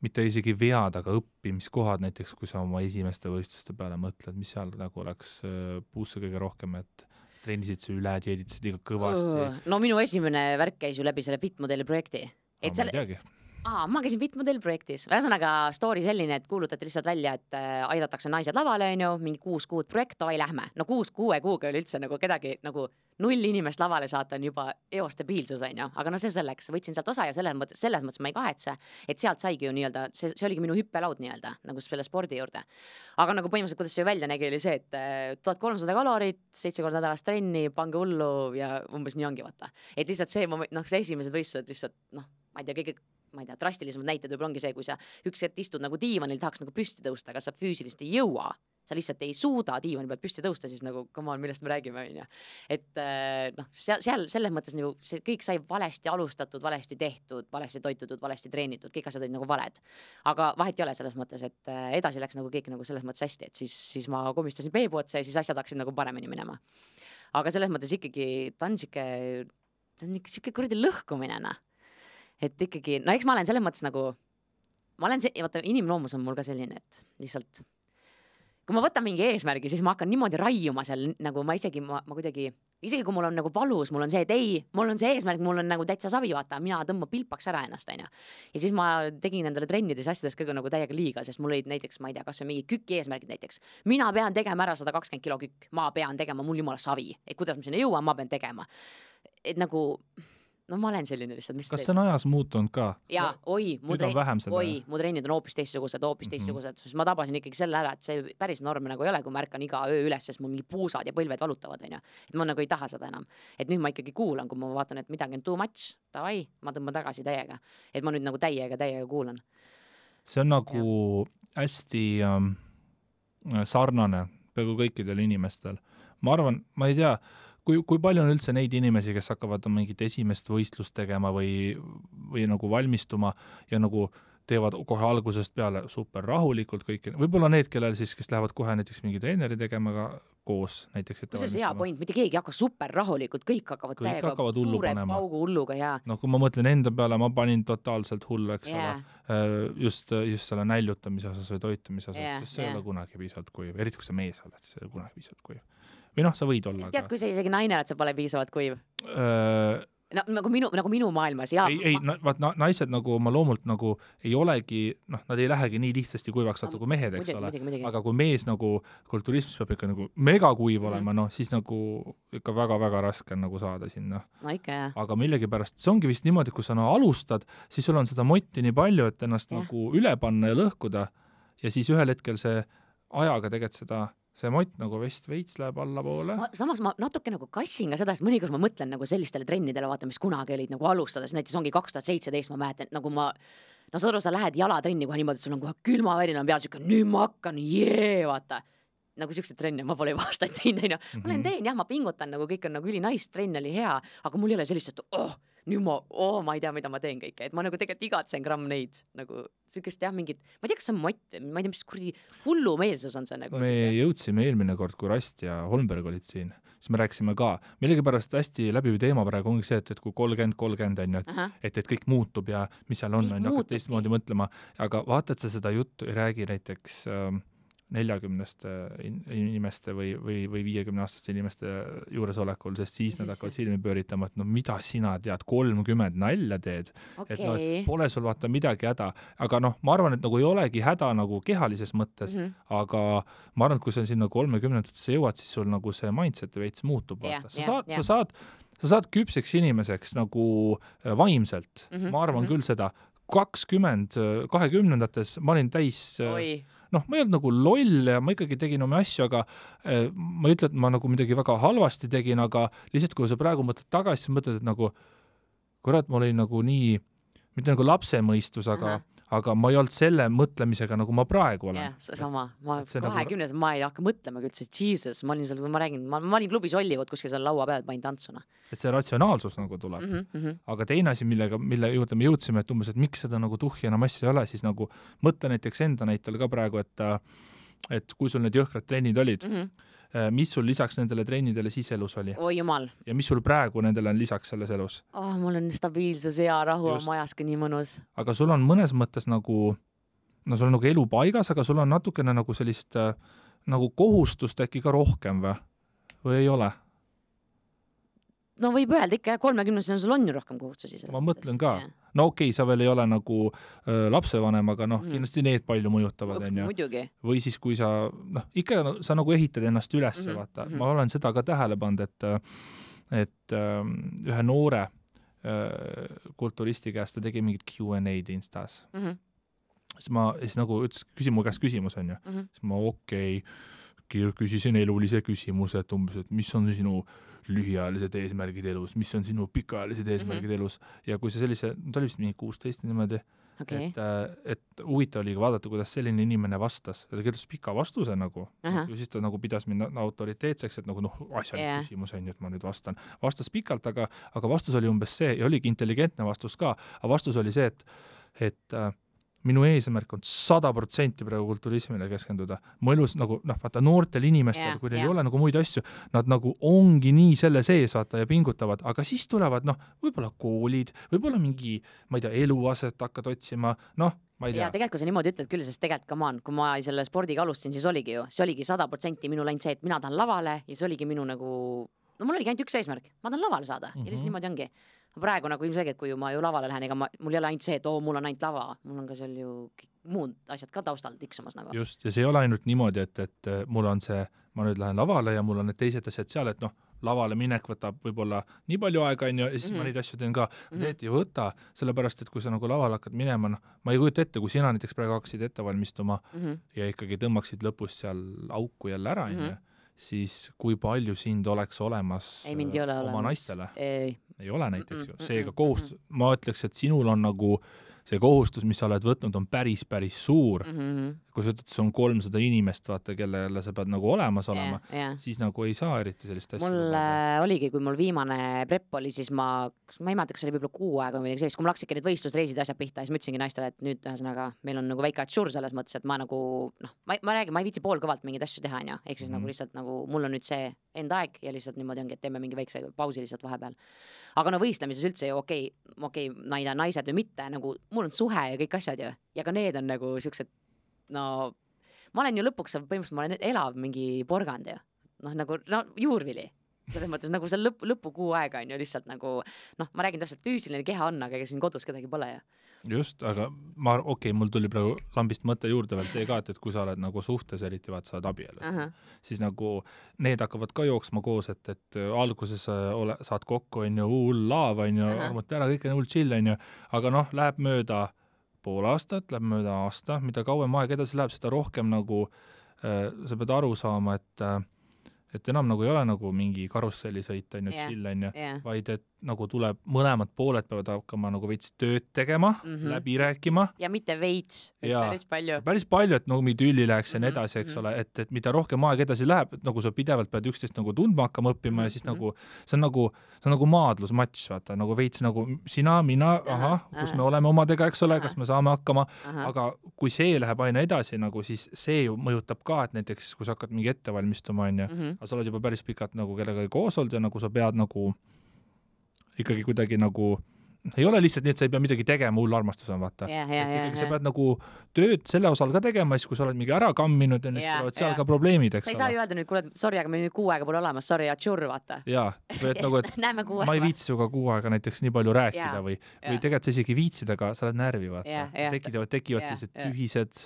mitte isegi vead, aga õppimiskohad näiteks, kui sa oma esimeste võistluste peale mõtled, mis seal nagu oleks puusse kõige rohkem, et treenisid sa üle, dieeditasid liiga kõvasti. No minu esimene värk käis ju läbi selle Fitmodeli projekti. Ma ei teagi. Ma käisin Fitmodeli projektis. Ühesõnaga story selline, et kuulutati lihtsalt välja, et aidatakse naised lavale, mingi 6 kuud projekt, oi lähme. No 6 kuuga oli üldse nagu kedagi nagu 0 inimest lavale saata on juba eostabiilsus, aga no see selleks, võtsin sealt osa ja selles mõttes ma ei kahetse, et sealt saigi ju nii-öelda, see oligi minu hüppelaud nii-öelda, nagu selle spordi juurde. Aga nagu põhimõtteliselt, kuidas see välja nägi, oli see, et 1300 kalorit, 7 korda nädalas trenni, pange hullu ja umbes nii ongi, vaata. Et lihtsalt see esimesed võistlused lihtsalt, ma ei tea, drastilisemad näited võib-olla ongi see, kui sa üks hetk istud nagu diivanil, tahaks nagu püsti tõusta, aga sa füüsilist ei jõua, sa lihtsalt ei suuda diivani pealt püsti tõusta, siis nagu, come on, millest me räägime, on ju. Et seal selles mõttes nagu see kõik sai valesti alustatud, valesti tehtud, valesti toitutud, valesti treenitud, kõik asjad olid nagu valed. Aga vahet ei ole selles mõttes, et edasi läks nagu kõik nagu selles mõttes hästi, et siis ma komistasin peebu otsa ja siis asjad hakkasid nagu paremini minema. aga selles mõttes ikkagi ta on siuke kuradi lõhkumine, et ikkagi, no eks ma olen selles mõttes nagu, vaata, inimloomus on mul ka selline, et lihtsalt kui ma võtan mingi eesmärgi, siis ma hakkan niimoodi raiuma seal, nagu ma kuidagi, isegi kui mul on nagu valus, mul on see, et ei, mul on see eesmärk, mul on nagu täitsa savi, vaata, mina tõmban pilpaks ära ennast, onju. Ja siis ma tegin endale trennides asjades kõige nagu täiega liiga, sest mul olid näiteks, ma ei tea, kas see mingi küki eesmärgid näiteks. Mina pean tegema ära 120 kilo kükk, ma pean tegema, mul jumala savi, et kuidas ma sinna jõuan, ma pean tegema. Et nagu, no ma olen selline lihtsalt, mis kas see on ajas muutunud ka? Jaa, mu trennid on hoopis teistsugused, sest ma tabasin ikkagi selle ära, et see päris norm nagu ei ole, kui ma ärkan iga öö üles, sest mul mingi puusad ja põlved valutavad, onju. Et ma nagu ei taha seda enam. Et nüüd ma ikkagi kuulan, kui ma vaatan, et midagi on too much, davai, ma tõmban tagasi täiega. Et ma nüüd nagu täiega kuulan. See on nagu hästi sarnane peaaegu kõikidel inimestel. Ma arvan, ma ei tea, kui palju on üldse neid inimesi, kes hakkavad mingit esimest võistlust tegema või nagu valmistuma ja nagu teevad kohe algusest peale super rahulikult kõik, võib-olla need, kellel siis, kes lähevad kohe näiteks mingi treeneri tegema ka koos näiteks ette valmistama. See on hea point, mitte keegi hakka super rahulikult, kõik hakkavad täiega suure paugu hulluga ja... No kui ma mõtlen enda peale, ma panin totaalselt hullu, eks ole, just selle näljutamise osas või toitumise osas, sest see ei ole kunagi piisavalt kuiv, eriti kui sa mees oled, see ei ole kunagi piisavalt kuiv. Või noh, sa võid olla. Tead, kui sa isegi naine oled, sa pole piisavalt kuiv? No, nagu minu maailmas, jaa. Ei, naised nagu oma loomult nagu ei olegi, noh, nad ei lähegi nii lihtsasti kuivaks saata kui mehed, eks ole. Aga kui mees nagu kulturismis peab ikka nagu megakuiv olema, noh, siis nagu ikka väga-väga raske on nagu saada sinna. No ikka, jah. Aga millegipärast, see ongi vist niimoodi, kui sa alustad, siis sul on seda motti nii palju, et ennast nagu üle panna ja lõhkuda ja siis ühel hetkel see ajaga tegelikult see mott nagu veits läheb alla poole. Samas ma natuke nagu kassin ka seda, sest mõnikord ma mõtlen nagu sellistele trennidele, vaata, mis kunagi olid nagu alustades, näiteks ongi 2017, ma mäletan, nagu sa lähed jalatrenni kohe niimoodi, et sul on kohe külmavärin on peal, nüüd ma hakkan, vaata. Nagu siukseid trenne ma pole aastaid teinud, ma teen, jah, ma pingutan, nagu kõik on nagu ülinais, trenn oli hea, aga mul ei ole sellist, et nüüd ma ei tea, mida ma teen kõike, et ma nagu tegelikult igatsen gramm neid, nagu siukest jah, mingit, ma ei tea, kas see on mott, ma ei tea, mis kurdi hullumeelsus on see nagu. Me jõudsime eelmine kord, kui Rast ja Holmberg olid siin, siis me rääkisime ka, millegipärast hästi läbiv teema praegu ongi see, et kui 30 on, et kõik muutub ja mis seal on, hakkad teistmoodi mõtlema, aga vaata, et sa seda juttu ei räägi näiteks 40 inimeste või 50-aastaste inimeste juuresolekul, sest siis nad hakkavad silmi pööritama, et no mida sina tead, 30 nalja teed, et no, pole sul vaata midagi häda, aga noh, ma arvan, et nagu ei olegi häda nagu kehalises mõttes, aga ma arvan, et kui sa sinna 30-ndatesse jõuad, siis sul nagu see mindset veits muutub, vaata. Sa saad küpseks inimeseks nagu vaimselt, ma arvan küll seda, 20-ndates ma olin täis noh, ma ei olnud nagu loll ja ma ikkagi tegin oma asju, aga ma ei ütle, et ma nagu midagi väga halvasti tegin, aga lihtsalt kui sa praegu mõtled tagasi, siis mõtled, et nagu kurat, ma olin nagu nii, mitte nagu lapsemõistus, aga ma ei olnud selle mõtlemisega, nagu ma praegu olen. Jah, sama. Ma 20 ma ei hakka mõtlema küll, Jesus, ma olin seal, ma räägin, ma olin klubis Hollywood kuskil seal laua peal, panin tantsuna. Et see ratsionaalsus nagu tuleb. Aga teine asi, mille juurde me jõudsime, et umbes, et miks seda nagu tuhhi enam asja ei ole, siis nagu mõtle näiteks enda näitel ka praegu, et kui sul need jõhkrad trennid olid, mis sul lisaks nendele trennidele siis elus oli? Oi jumal. Ja mis sul praegu nendele on lisaks selles elus? Mul on stabiilsus ja rahu on majas ka nii mõnus. Aga sul on mõnes mõttes nagu, no sul on nagu elu paigas, aga sul on natukene nagu sellist nagu kohustust äkki ka rohkem või ei ole? No võib öelda ikka, 30-sena sul on ju rohkem kohustusi. Ma mõtlen ka. No okei, sa veel ei ole nagu lapsevanem, aga noh, kindlasti need palju mõjutavad. Muidugi. Või siis, kui sa, noh, ikka sa nagu ehitad ennast üles, vaata. Ma olen seda ka tähele pannud, et ühe noore kulturisti käest ta tegi mingit Q&A-d Instas. Siis nagu ütles, mu käest küsimus on ju. Siis ma küsisin elulise küsimuse, et umbes, et mis on sinu lühiajalised eesmärgid elus, mis on sinu pikaajalised eesmärgid elus ja kui see sellise, ta oli vist mingi 16 niimoodi, et huvitav oli vaadata, kuidas selline inimene vastas ja ta kirjutas pika vastuse nagu ja siis ta nagu pidas mind autoriteetseks, et nagu asjalik küsimus on ju, et ma nüüd vastas pikalt, aga vastus oli umbes see ja oligi intelligentne vastus ka, aga vastus oli see, et minu eesmärk on 100% praegu kulturismile keskenduda. Mu elus nagu, vaata, noortel inimestel, kui neil ei ole nagu muid asju, nad nagu ongi nii selle sees, vaata, ja pingutavad, aga siis tulevad, võib-olla koolid, võib-olla mingi, ma ei tea, eluaset hakkad otsima, ma ei tea. Ja tegelikult kui sa niimoodi ütled küll, sest tegelikult come on, kui ma selle spordiga alustasin, siis oligi ju, see oligi 100% minu läinud see, et mina tahan lavale ja see oligi minu nagu, mul oligi ainult üks eesmärk, ma tahan lavale saada ja lihtsalt niimoodi ongi. Praegu nagu ilmselgelt, kui ma ju lavale lähen, ega mul ei ole ainult see, et mul on ainult lava, mul on ka seal ju muud asjad ka taustal tiksumas nagu. Just, ja see ei ole ainult niimoodi, et mul on see, ma nüüd lähen lavale ja mul on need teised asjad seal, et lavale minek võtab võib-olla nii palju aega, ja siis ma neid asju teen ka. Teed ei võta, sellepärast, et kui sa nagu lavale hakkad minema, ma ei kujuta ette, kui sina näiteks praegu hakkasid ette valmistuma ja ikkagi tõmbaksid lõpus seal auku jälle ära, siis kui palju sind oleks olemas oma naistele? Ei ole näiteks ju. Seega kohustus, ma ütleks, et sinul on nagu see kohustus, mis sa oled võtnud, on päris suur. Kui sa ütled, see on 300 inimest, vaata, kellele sa pead nagu olemas olema, siis nagu ei saa eriti sellist asja. Mul oligi, kui mul viimane prep oli, siis ma ei mäleta, kas see oli võib-olla 6 aega või sellist, kui mul hakkasidki need võistlusreisid asjad pihta, siis ma ütlesingi naistele, et nüüd ühesõnaga meil on nagu väike atšur selles mõttes, et ma nagu, ma räägin, ma ei viitsi poolkõvalt mingeid asju teha, ehk siis nagu lihtsalt nagu mul on nüüd see enda aeg ja lihtsalt niimoodi ongi, et teeme mingi väikse pausi lihtsalt vahepeal. Aga võistlemises üldse ju okei, naised või mitte, nagu mul on suhe ja kõik asjad ju, ja ka need on nagu siuksed, ma olen ju lõpuks, põhimõtteliselt ma olen elav mingi porgand ju, nagu juurvili. Selles mõttes nagu see lõpukuu aega on ju lihtsalt nagu, ma räägin täpselt füüsiline keha on, aga ega siin kodus kedagi pole ju. Just, aga mul tuli praegu lambist mõte juurde veel see ka, et kui sa oled nagu suhtes, eriti vaat sa oled abielus, siis nagu need hakkavad ka jooksma koos, et alguses saad kokku, on ju, hull laav, on ju, armute ära, kõik on hull chill, on ju, aga läheb mööda pool aastat, läheb mööda aasta, mida kauem aeg edasi läheb, seda rohkem nagu sa pead aru saama, et enam nagu ei ole nagu mingi karussellisõit, on ju, chill, on ju, vaid et nagu tuleb, mõlemad pooled peavad hakkama nagu veits tööd tegema, läbi rääkima. Ja mitte veits, päris palju. Päris palju, et nagu mingi tülli läheks ja nii edasi, eks ole, et mida rohkem aeg edasi läheb, et nagu sa pidevalt pead üksteist nagu tundma hakkama õppima ja siis nagu, see on nagu maadlusmatš, vaata, nagu veits nagu sina, mina, kus me oleme omadega, eks ole, kas me saame hakkama, aga kui see läheb aina edasi, nagu siis see ju mõjutab ka, et näiteks kui sa hakkad mingi ette valmistuma, on ju, aga sa oled juba päris pikalt nagu kellega koos olnud ja nagu sa pead nagu ikkagi kuidagi nagu, ei ole lihtsalt nii, et sa ei pea midagi tegema, hull armastus on, vaata. Sa pead nagu tööd selle osal ka tegema, siis kui sa oled mingi ära kamminud ja siis tulevad seal ka probleemid, eks ole. Sa ei saa ju öelda nüüd, kuule, sorry, aga me nüüd 6 aega pole olemas, sorry, atšur, vaata. Jaa, või et nagu, et ma ei viitsi suga 6 aega näiteks nii palju rääkida või tegelikult sa isegi viitsid, aga sa oled närvi, vaata. Tekivad sellised tühised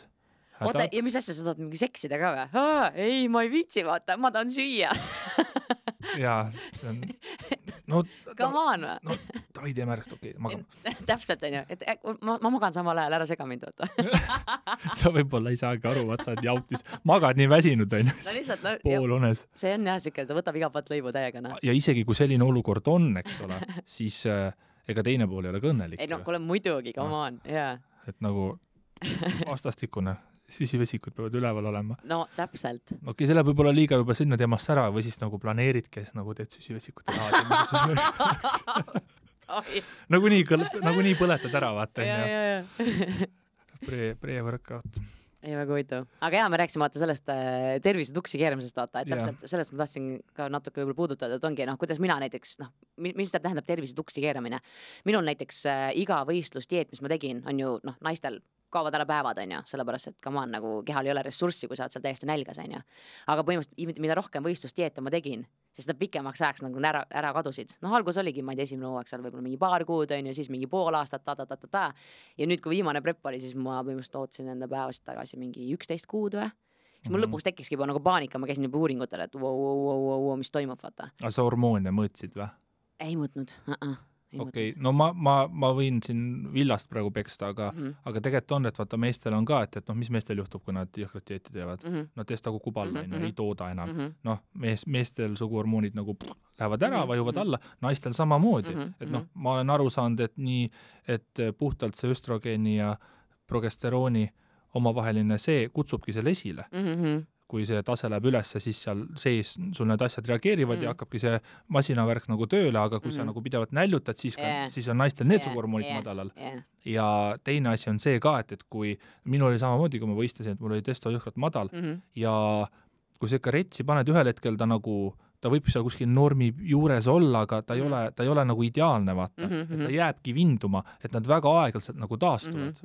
oota, ja mis asja sa tahad mingi seksida ka või? Ei, ma ei viitsi, vaata, ma tahan süüa. Jaa, see on come on või? No, ta ei tee märgst, okei, magam. Täpselt on ju, et ma magan samal ajal, ära sega mind, vaata. Sa võib-olla ei saagi aru, vaat sa oled jautis. Magad nii väsinud, on ju, poolunes. See on jah, siuke, ta võtab iga pat lõivu täiega. Ja isegi kui selline olukord on, eks ole, siis ega teine pool ei ole kõnnelik. Ei, kuule muidugi, come on, jaa. Et nagu vastastikune. Süsivesikud peavad üleval olema. No, täpselt. Okei, selle võib olla liiga juba sinna teemast ära või siis nagu planeerid, kes nagu teed süsivesikute taha. Nagu nii põletad ära, vaata. Pre-workout. Ei, väga huvitav. Aga jaa, me rääksime vaata sellest tervise tuksi keeramisest, vaata, et täpselt sellest ma tahtsin ka natuke võib-olla puudutada, et ongi, kuidas mina näiteks, mis ta tähendab tervise tuksi keeramine. Minul näiteks iga võistlusdieet, mis ma tegin, on ju, naistel kaovad ära päevad, on ju, sellepärast, et come on, nagu kehal ei ole ressurssi, kui sa oled seal täiesti nälgas, on ju. Aga põhimõtteliselt, mida rohkem võistlusdieete ma tegin, siis nad pikemaks ajaks nagu ära kadusid. Algus oligi, ma ei tea, esimene hooaeg seal võib-olla mingi paar kuud, on ju, siis mingi pool aastat, ja nüüd, kui viimane prep oli, siis ma põhimõtteliselt ootsin enda päevasid tagasi mingi 11 kuud või. Siis mul lõpuks tekkiski juba nagu paanika, ma käisin juba uuringutel, et mis toimub, vaata. Aga sa hormoone mõõtsid või? Ei mõõtnud, Okei, no ma võin siin villast praegu peksta, aga tegelikult on, et vaata meestel on ka, et mis meestel juhtub, kui nad jõhkrad dieeti teevad. Nad teest nagu kuballa, ei tooda enam. Meestel suguhormoonid nagu lähevad ära, vajuvad alla, naistel samamoodi. Et ma olen aru saanud, et nii, et puhtalt see östrogeeni ja progesterooni omavaheline see kutsubki selle esile. kui see tase läheb ülesse, siis seal sees sul need asjad reageerivad ja hakkabki see masinavärk nagu tööle, aga kui sa nagu pidevalt näljutad, siis on naistel neetsugormoonid madalal. Ja teine asi on see ka, et kui minul oli samamoodi, kui ma võistlesin, et mul oli testosteron madal ja kui sa ikka retsi paned ühel hetkel, ta võib seal kuskil normi juures olla, aga ta ei ole nagu ideaalne, vaata. Et ta jääbki vinduma, et nad väga aeglaselt nagu taastuvad.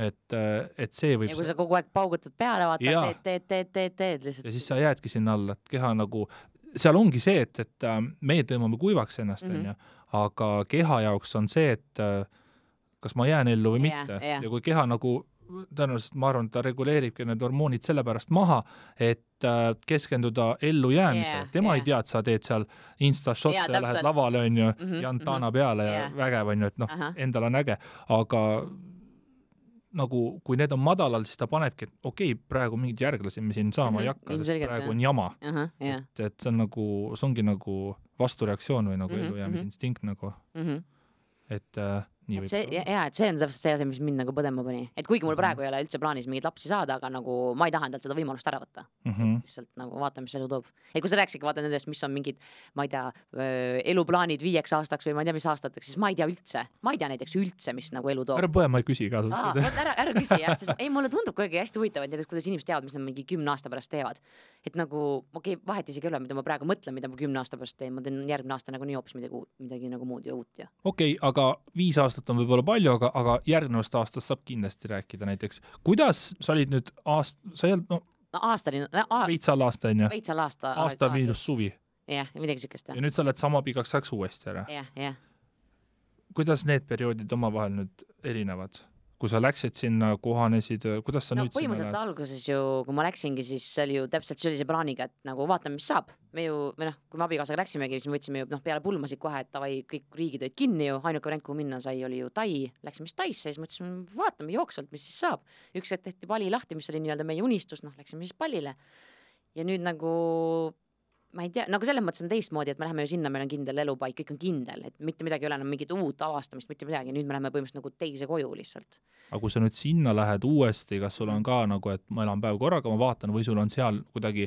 Et see võib... Ja kui sa kogu aeg paugutad peale, vaata, teed lihtsalt. Ja siis sa jäädki sinna alla, et keha nagu... Seal ongi see, et meie tõmbame kuivaks ennast, aga keha jaoks on see, et kas ma jään ellu või mitte. Ja kui keha nagu... Tõenäoliselt ma arvan, et ta reguleeribki need hormoonid sellepärast maha, et keskenduda ellu jäämisele. Tema ei tea, et sa teed seal Insta-shot ja lähed lavale, on ju, Jantana peale ja vägev, on ju, et endal on äge. Aga nagu, kui need on madalal, siis ta panebki, et okei, praegu mingid järglasi me siin saama ei hakka, sest praegu on jama. Et see on nagu, see ongi nagu vastureaktsioon või nagu ellu jäämisinstinkt nagu. Et et see on täpselt see asi, mis mind nagu põdema pani. Et kuigi mul praegu ei ole üldse plaanis mingid lapsi saada, aga nagu ma ei taha endalt seda võimalust ära võtta. Lihtsalt nagu vaatame, mis elu toob. Et kui sa rääksidki vaata nendest, mis on mingid, ma ei tea, eluplaanid 5 aastaks või ma ei tea, mis aastateks, siis ma ei tea üldse. Ma ei tea näiteks üldse, mis nagu elu toob. Ära põe, ma ei küsi ka. Ära küsi, jah. Sest ei, mulle tundub kuidagi hästi huvitav, et näiteks kuidas inimesed teavad, mis nad mingi 10 aasta pärast teevad. Et nagu, okei, vahet isegi ei ole, mida ma praegu mõtlen, mida ma 10 aasta pärast teen. Ma teen järgmine aasta nagu nii hoopis midagi nagu muud ja uut. Okei, aga 5 aastat on võib-olla palju, aga järgnevast aastast saab kindlasti rääkida näiteks. Kuidas sa olid nüüd sa ei olnud, veitsal aasta, on ju? Veitsal aasta. Aasta miinus suvi. Jah, midagi sükest. Ja nüüd sa oled sama pikaks ajaks uuesti ära. Jah. Kuidas need perioodid omavahel nüüd erinevad? Kui sa läksid sinna, kohanesid, kuidas sa nüüd sinna põhimõtteliselt alguses ju, kui ma läksingi, siis see oli ju täpselt sellise plaaniga, et nagu vaatame, mis saab. Me ju, kui me abikaasaga läksimegi, siis me võtsime ju peale pulmasid kohe, et tavai, kõik riigid olid kinni ju, ainuke variant, kuhu minna sai, oli ju Tai. Läksime siis Taisse, siis mõtlesime, vaatame jooksvalt, mis siis saab. Üks hetk tehti Bali lahti, mis oli nii-öelda meie unistus, läksime siis Balile. Ja nüüd nagu ma ei tea, nagu selles mõttes on teistmoodi, et me läheme ju sinna, meil on kindel elupaik, kõik on kindel, et mitte midagi ei ole enam mingit uut avastamist, mitte midagi, nüüd me läheme põhimõtteliselt nagu teise koju lihtsalt. Aga kui sa nüüd sinna lähed uuesti, kas sul on ka nagu, et ma elan päev korraga, ma vaatan, või sul on seal kuidagi...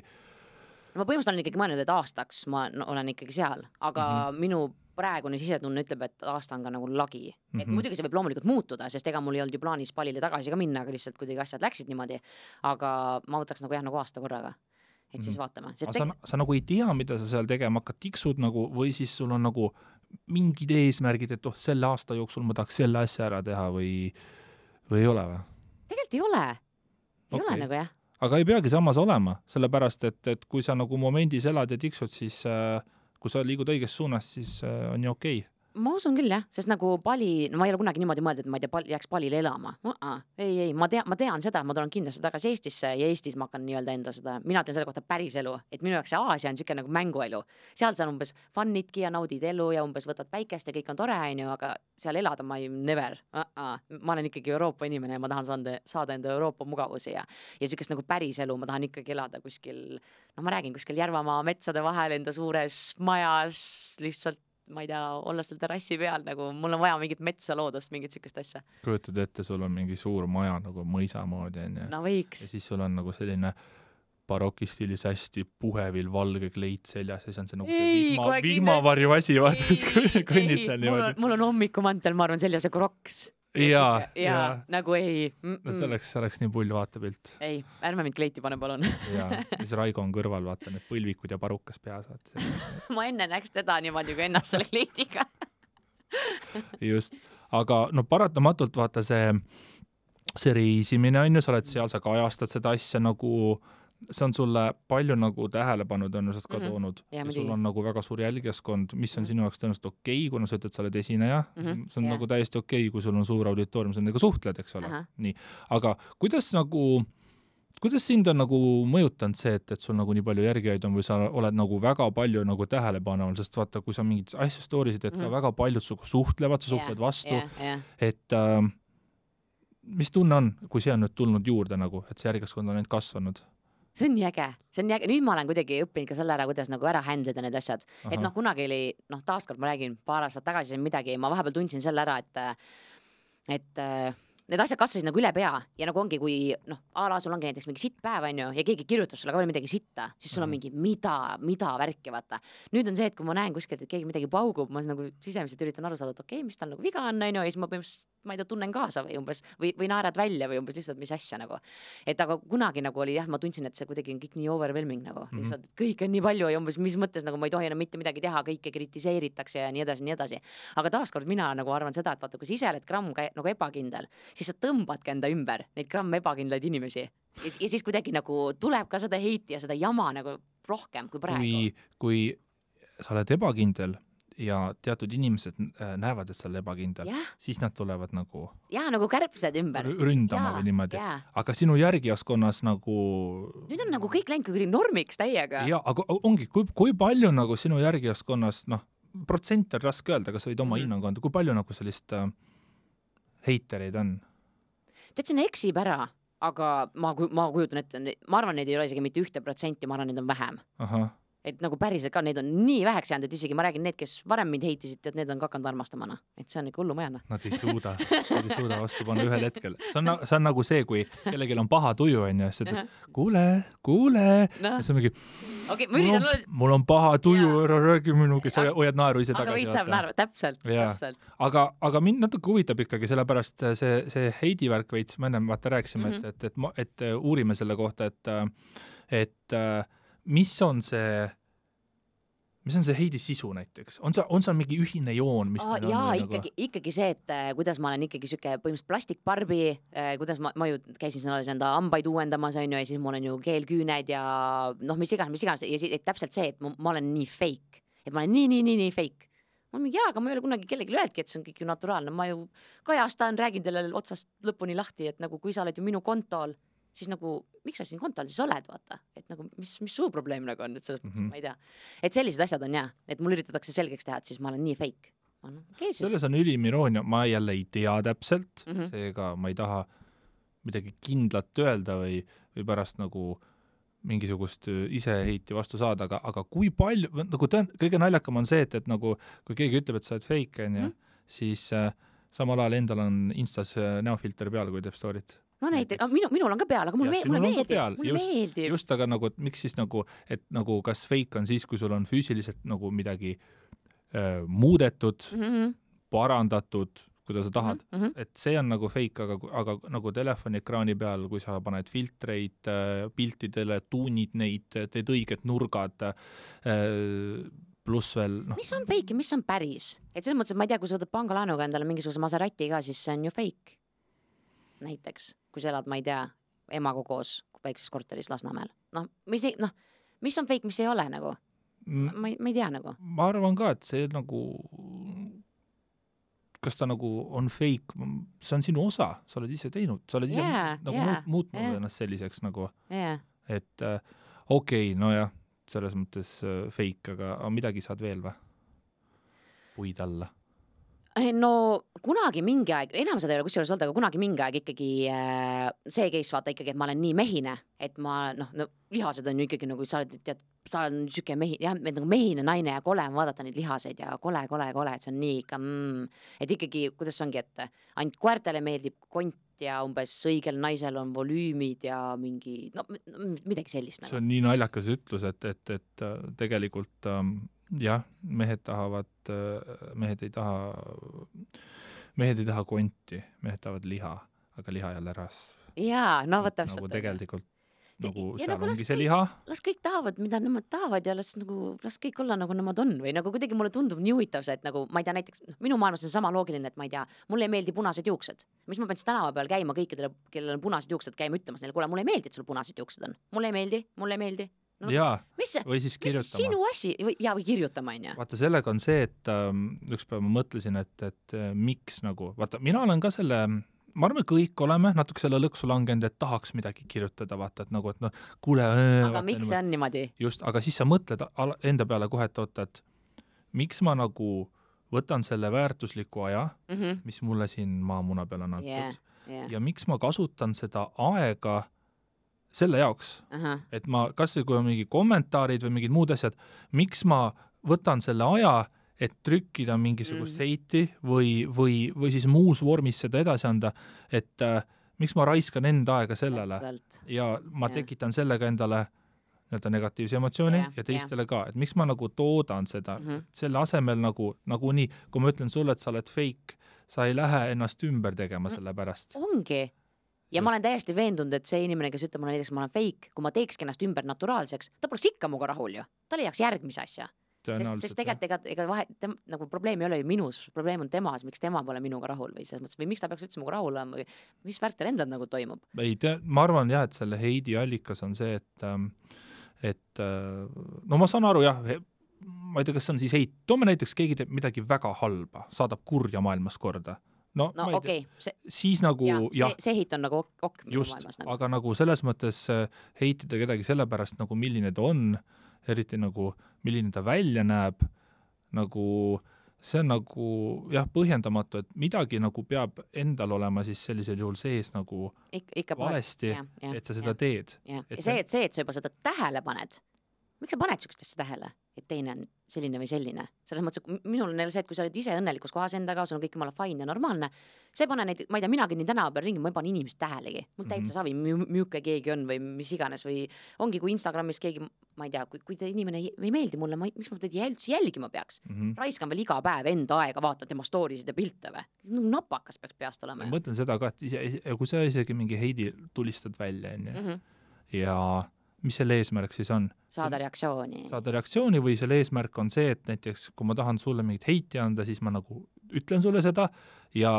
Ma põhimõtteliselt olen ikkagi mõelnud, et aastaks ma olen ikkagi seal, aga minu praegune sisetunne ütleb, et aasta on ka nagu lagi. Et muidugi see võib loomulikult muutuda, sest ega mul ei olnud ju plaanis Balile tagasi ka minna, aga lihtsalt kuidagi asjad läksid niimoodi, aga ma võtaks nagu aasta korraga. Et siis vaatame. Sa nagu ei tea, mida sa seal tegema hakkad, tiksud nagu, või siis sul on nagu mingid eesmärgid, et selle aasta jooksul ma tahaks selle asja ära teha või ei ole või? Tegelikult ei ole. Ei ole nagu jah. Aga ei peagi samas olema, sellepärast, et kui sa nagu momendis elad ja tiksud, siis kui sa liigud õiges suunas, siis on ju okei. Ma usun küll jah, sest nagu Bali, ma ei ole kunagi niimoodi mõelda, et ma ei tea, jääks Balile elama. Ei, ma tean seda, ma tulen kindlasti tagasi Eestisse ja Eestis ma hakkan nii-öelda enda seda, mina teen selle kohta päris elu, et minu jaoks see Aasia on siuke nagu mänguelu. Seal sa umbes funnidki ja naudid elu ja umbes võtad päikest ja kõik on tore, aga seal elada ma ei never. Ma olen ikkagi Euroopa inimene ja ma tahan saada enda Euroopa mugavusi ja siukest nagu päris elu, ma tahan ikkagi elada kuskil, ma räägin kuskil Järvamaa metsade vahel enda suures majas lihtsalt ma ei tea, olla seal terrassi peal, nagu mul on vaja mingit metsa loodust, mingit sükest asja. Kujutad ette, sul on mingi suur maja nagu mõisa moodi, on ju. No võiks. Ja siis sul on nagu selline barokistiilis hästi puhevil valge kleit seljas ja siis on see nagu see vihmavarju asi, vaatas, kõnnid seal niimoodi. Mul on hommikumantel, ma arvan, seljas ja kroks. Ja nagu ei. No see oleks nii pull vaatepilt. Ei, ärme mind kleiti pane, palun. Ja siis Raigo on kõrval, vaata need põlvikud ja parukas peas. Ma enne näeks teda niimoodi kui ennast selle kleitiga. Just, aga no paratamatult vaata see reisimine on ju, sa oled seal, sa kajastad seda asja nagu, see on sulle palju nagu tähelepanu tõenäoliselt ka toonud ja sul on nagu väga suur jälgijaskond, mis on sinu jaoks tõenäoliselt okei, kuna sa ütled, sa oled esineja, see on nagu täiesti okei, kui sul on suur auditoorium, sa nendega suhtled, eks ole. Nii. Aga kuidas sind on nagu mõjutanud see, et sul nagu nii palju järgijaid on või sa oled nagu väga palju nagu tähelepaneval, sest vaata, kui sa mingid asju stoorisid, et ka väga paljud suhtlevad, sa suhtled vastu, et mis tunne on, kui see on nüüd tulnud juurde nagu, et see järgijaskond on nüüd kasvanud? See on nii äge. Nüüd ma olen kuidagi õppinud ka selle ära, kuidas nagu ära händleda need asjad. Et kunagi oli, taaskord ma räägin paar aastat tagasi midagi, ma vahepeal tundsin selle ära, et need asjad kasvasid nagu üle pea ja nagu ongi, kui noh, a la sul ongi näiteks mingi sitt päev, on ju, ja keegi kirjutab sulle ka veel midagi sitta, siis sul on mingi mida värki, vaata. Nüüd on see, et kui ma näen kuskilt, et keegi midagi paugub, ma nagu sisemiselt üritan aru saada, et okei, mis tal nagu viga on, ja siis ma põhimõtteliselt, ma ei tea, tunnen kaasa või umbes, või naerad välja või umbes lihtsalt mis asja nagu. Et aga kunagi nagu oli jah, ma tundsin, et see kuidagi on kõik nii overwhelming nagu, lihtsalt kõik on nii palju ja umbes mis mõttes nagu ma ei tohi enam mitte midagi teha, kõike kritiseeritakse ja nii edasi. Aga taaskord mina nagu arvan seda, et vaata, kui sa ise oled gramm nagu ebakindel, siis sa tõmbadki enda ümber neid gramm ebakindlaid inimesi ja siis kuidagi nagu tuleb ka seda heiti ja seda jama nagu rohkem kui praegu. Kui sa oled ebakindel ja teatud inimesed näevad, et sa oled ebakindel, siis nad tulevad nagu nagu kärbsed ümber ründama või niimoodi. Aga sinu järgijaskonnas nagu nüüd on nagu kõik läinud kuidagi normiks täiega. Ja, aga ongi, kui palju nagu sinu järgijaskonnas, noh, protsent on raske öelda, kas võid oma hinnangu anda, kui palju nagu sellist heitereid on? Tead, see eksib ära, aga ma kujutan ette, ma arvan, neid ei ole isegi mitte 1%, ma arvan, neid on vähem. Aha. Et nagu päriselt ka, neid on nii väheks jäänud, et isegi ma räägin need, kes varem mind heitisid, et need on ka hakanud armastamana. Et see on ikka hullu majana. Nad ei suuda vastu panna ühel hetkel. See on nagu see, kui kellelgi on paha tuju, on ju, siis kuule, no. Ja see on mingi, mul on paha tuju, ära räägi minuga, sa hoiad naeru ise tagasi. Aga võid saab naeru, täpselt. Aga mind natuke huvitab ikkagi, sellepärast see heidivärk veits, ma enne vaata rääkisime, et uurime selle kohta, et mis on see heidi sisu näiteks? On see mingi ühine joon? Mis ikkagi see, et kuidas ma olen ikkagi süke põhimõtteliselt plastikbarbi, kuidas ma ju käisin enda ambaid uuendamas, on ju, ja siis mul on ju keelküüned ja noh, mis iganes, ja siis täpselt see, et ma olen nii fake, et ma olen nii fake. Ma olen mingi, aga ma ei ole kunagi kellegi öeldki, et see on kõik ju naturaalne, ma ju kajastan, räägin teile otsast lõpuni lahti, et nagu kui sa oled ju minu kontol, siis nagu, miks sa siin kontol siis oled, vaata, et nagu, mis suu probleem nagu on, et selles mõttes, ma ei tea. Et sellised asjad on et mul üritatakse selgeks teha, et siis ma olen nii fake. Selles on ülim iroonia, ma jälle ei tea täpselt, seega ma ei taha midagi kindlat öelda või pärast nagu mingisugust iseheiti vastu saada, aga kui palju, nagu kõige naljakam on see, et nagu, kui keegi ütleb, et sa oled fake, siis samal ajal endal on Instas näofilter peal, kui teeb story't. No näiteks, minul on ka peal, aga mulle meeldib. Just, aga nagu, et miks siis nagu, et nagu kas fake on siis, kui sul on füüsiliselt nagu midagi muudetud, parandatud, kuidas sa tahad. Et see on nagu fake, aga nagu telefoniekraani peal, kui sa paned filtreid piltidele, tuunid neid, teed õiged nurgad, pluss veel... No. Mis on fake ja mis on päris? Et selles mõttes, et ma ei tea, kui sa võtad pangalaenuga endale mingisuguse Maserati ka, siis see on ju fake. Näiteks, kui sa elad, ma ei tea, emaga koos väikses korteris Lasnamäel. Mis on fake, mis ei ole nagu? Ma ei tea nagu. Ma arvan ka, et see nagu, kas ta nagu on fake, see on sinu osa, sa oled ise teinud, sa oled ise muutnud ennast selliseks nagu, et okei, no jah, selles mõttes fake, aga midagi saad veel või? Puid alla. No kunagi mingi aeg, enam seda ei ole kusjuures olnud, aga kunagi mingi aeg ikkagi see case vaata ikkagi, et ma olen nii mehine, et ma, lihased on ju ikkagi nagu, sa oled süke nagu mehine naine ja kole on vaadata neid lihaseid ja kole, et see on nii ikka, et ikkagi, kuidas ongi, et ainult koertele meeldib kont ja umbes õigel naisel on volüümid ja mingi, midagi sellist. See on nii naljakas ütlus, et tegelikult jah, mehed ei taha konti, mehed tahavad liha, aga liha jälle rasv. Jaa, võt täpselt. Nagu tegelikult, nagu seal ongi see liha. Las kõik tahavad, mida nemad tahavad ja las kõik olla nagu nemad on või nagu kuidagi mulle tundub nii huvitav see, et nagu, ma ei tea, näiteks minu maailmas on sama loogiline, et ma ei tea, mulle ei meeldi punased juuksed. Mis ma pean siis tänava peal käima kõikidele, kellel on punased juuksed, käima ütlemas neile, kuule, mulle ei meeldi, et sul punased juuksed on. Mulle ei meeldi. No, või siis kirjutama. Mis sinu asi? Või kirjutama, on ju? Vaata, sellega on see, et üks päev ma mõtlesin, et miks nagu, vaata, mina olen ka selle, ma arvan, kõik oleme natuke selle lõksu langenud, et tahaks midagi kirjutada, vaata, et nagu, et kuule. Aga miks see on niimoodi? Just, aga siis sa mõtled enda peale kohe, et miks ma nagu võtan selle väärtusliku aja, mis mulle siin maamuna peal on antud, ja miks ma kasutan seda aega selle jaoks, et ma, kas või kui on mingi kommentaarid või mingid muud asjad, miks ma võtan selle aja, et trükkida mingisugust heiti või siis muus vormis seda edasi anda, et miks ma raiskan enda aega sellele ja ma tekitan sellega endale nii-öelda negatiivse emotsiooni ja teistele ka, et miks ma nagu toodan seda, selle asemel nagu nii, kui ma ütlen sulle, et sa oled fake, sa ei lähe ennast ümber tegema selle pärast. Ongi. Ja ma olen täiesti veendunud, et see inimene, kes ütleb mulle näiteks, ma olen fake, kui ma teekski ennast ümber naturaalseks, ta poleks ikka muga rahul ju. Ta leiaks järgmise asja. Sest tegelikult ega nagu probleem ei ole ju minus, probleem on temas, miks tema pole minuga rahul või selles mõttes, või miks ta peaks üldse muga rahul olema või mis värk teil endal nagu toimub? Ma arvan jah, et selle heidi allikas on see, et no ma saan aru jah, ma ei tea, kas see on siis heit, toome näiteks keegi teeb midagi väga halba, saadab kurja maailmas korda. No okei. Siis nagu see heit on nagu just, maailmas. Nagu. Aga nagu selles mõttes heitida kedagi sellepärast nagu milline ta on, eriti nagu milline ta välja näeb, nagu see on nagu jah, põhjendamatu, et midagi nagu peab endal olema siis sellisel juhul sees nagu ikka valesti, et sa seda teed. Ja see, et sa juba seda tähele paned, miks sa paned sükstesse tähele, et teine on selline või selline? Selles mõttes, minul on see, et kui sa oled ise õnnelikus kohas endaga, sul on kõik jumala fine ja normaalne, see ei pane neid, ma ei tea, minagi nii tänava peal ringi, ma ei pane inimest tähelegi. Mul täitsa savi, müüke keegi on või mis iganes või ongi, kui Instagramis keegi, ma ei tea, kui te inimene ei meeldi mulle, miks ma teda jälgima peaks? Raiskan veel iga päev enda aega, vaatan tema storysid ja pilte või? Napakas peaks peast olema. Ma mõtlen seda ka, et kui sa isegi mingi heidi tulistad välja ja mis selle eesmärk siis on? Saada reaktsiooni. Saada reaktsiooni või selle eesmärk on see, et näiteks kui ma tahan sulle mingit heiti anda, siis ma nagu ütlen sulle seda ja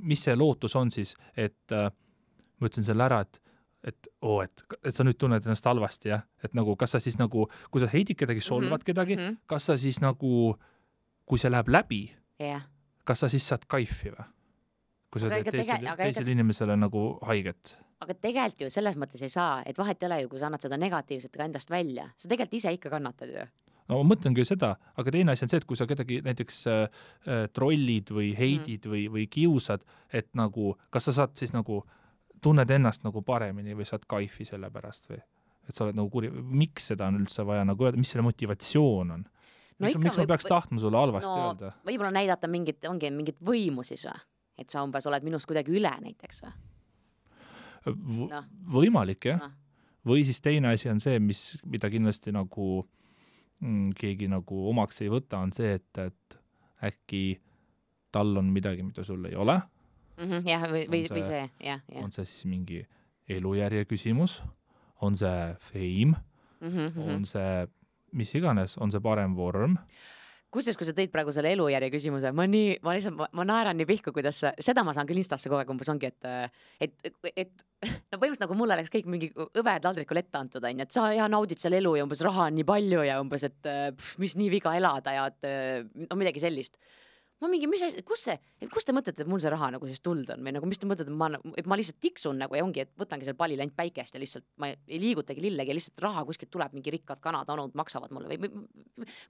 mis see lootus on siis, et ma ütlen selle ära, et sa nüüd tunned ennast halvasti, jah? Et nagu, kas sa siis nagu, kui sa heidid kedagi, solvad kedagi, kas sa siis nagu, kui see läheb läbi, kas sa siis saad kaifi või? Kui sa teed teisele inimesele nagu haiget? Aga tegelikult ju selles mõttes ei saa, et vahet ei ole ju, kui sa annad seda negatiivset ka endast välja. Sa tegelikult ise ikka kannatad ju. No ma mõtlen küll seda, aga teine asi on see, et kui sa kedagi näiteks trollid või heidid või kiusad, et nagu, kas sa saad siis nagu, tunned ennast nagu paremini või saad kaifi selle pärast või? Et sa oled nagu kuri, miks seda on üldse vaja nagu öelda, mis selle motivatsioon on? Miks ma peaks tahtma sulle halvasti öelda? Võib-olla näidata mingit võimu siis või? Et sa umbes oled minust kuidagi üle näiteks või? Võimalik, jah. Või siis teine asi on see, mida kindlasti nagu keegi nagu omaks ei võta, on see, et äkki tal on midagi, mida sul ei ole. Jah, või see, jah. On see siis mingi elujärje küsimus, on see fame, on see mis iganes, on see parem vorm. Kusjuures, kui sa tõid praegu selle elujärje küsimuse, ma naeran nii pihku, kuidas seda ma saan küll Instasse kogu aeg umbes ongi, et no põhimõtteliselt nagu mulle läks kõik mingi õved taldrikul ette antud, et sa naudid selle elu ja umbes raha on nii palju ja umbes, et mis nii viga elada ja et midagi sellist. Ma mingi, kus te mõtlete, et mul see raha nagu siis tuld on või nagu mis te mõtlete, et ma lihtsalt tiksun nagu ja ongi, et võtangi selle pallil ainult päikest ja lihtsalt ma ei liigutagi lillegi ja lihtsalt raha kuskilt tuleb, mingi rikkad kanad, anud maksavad mulle või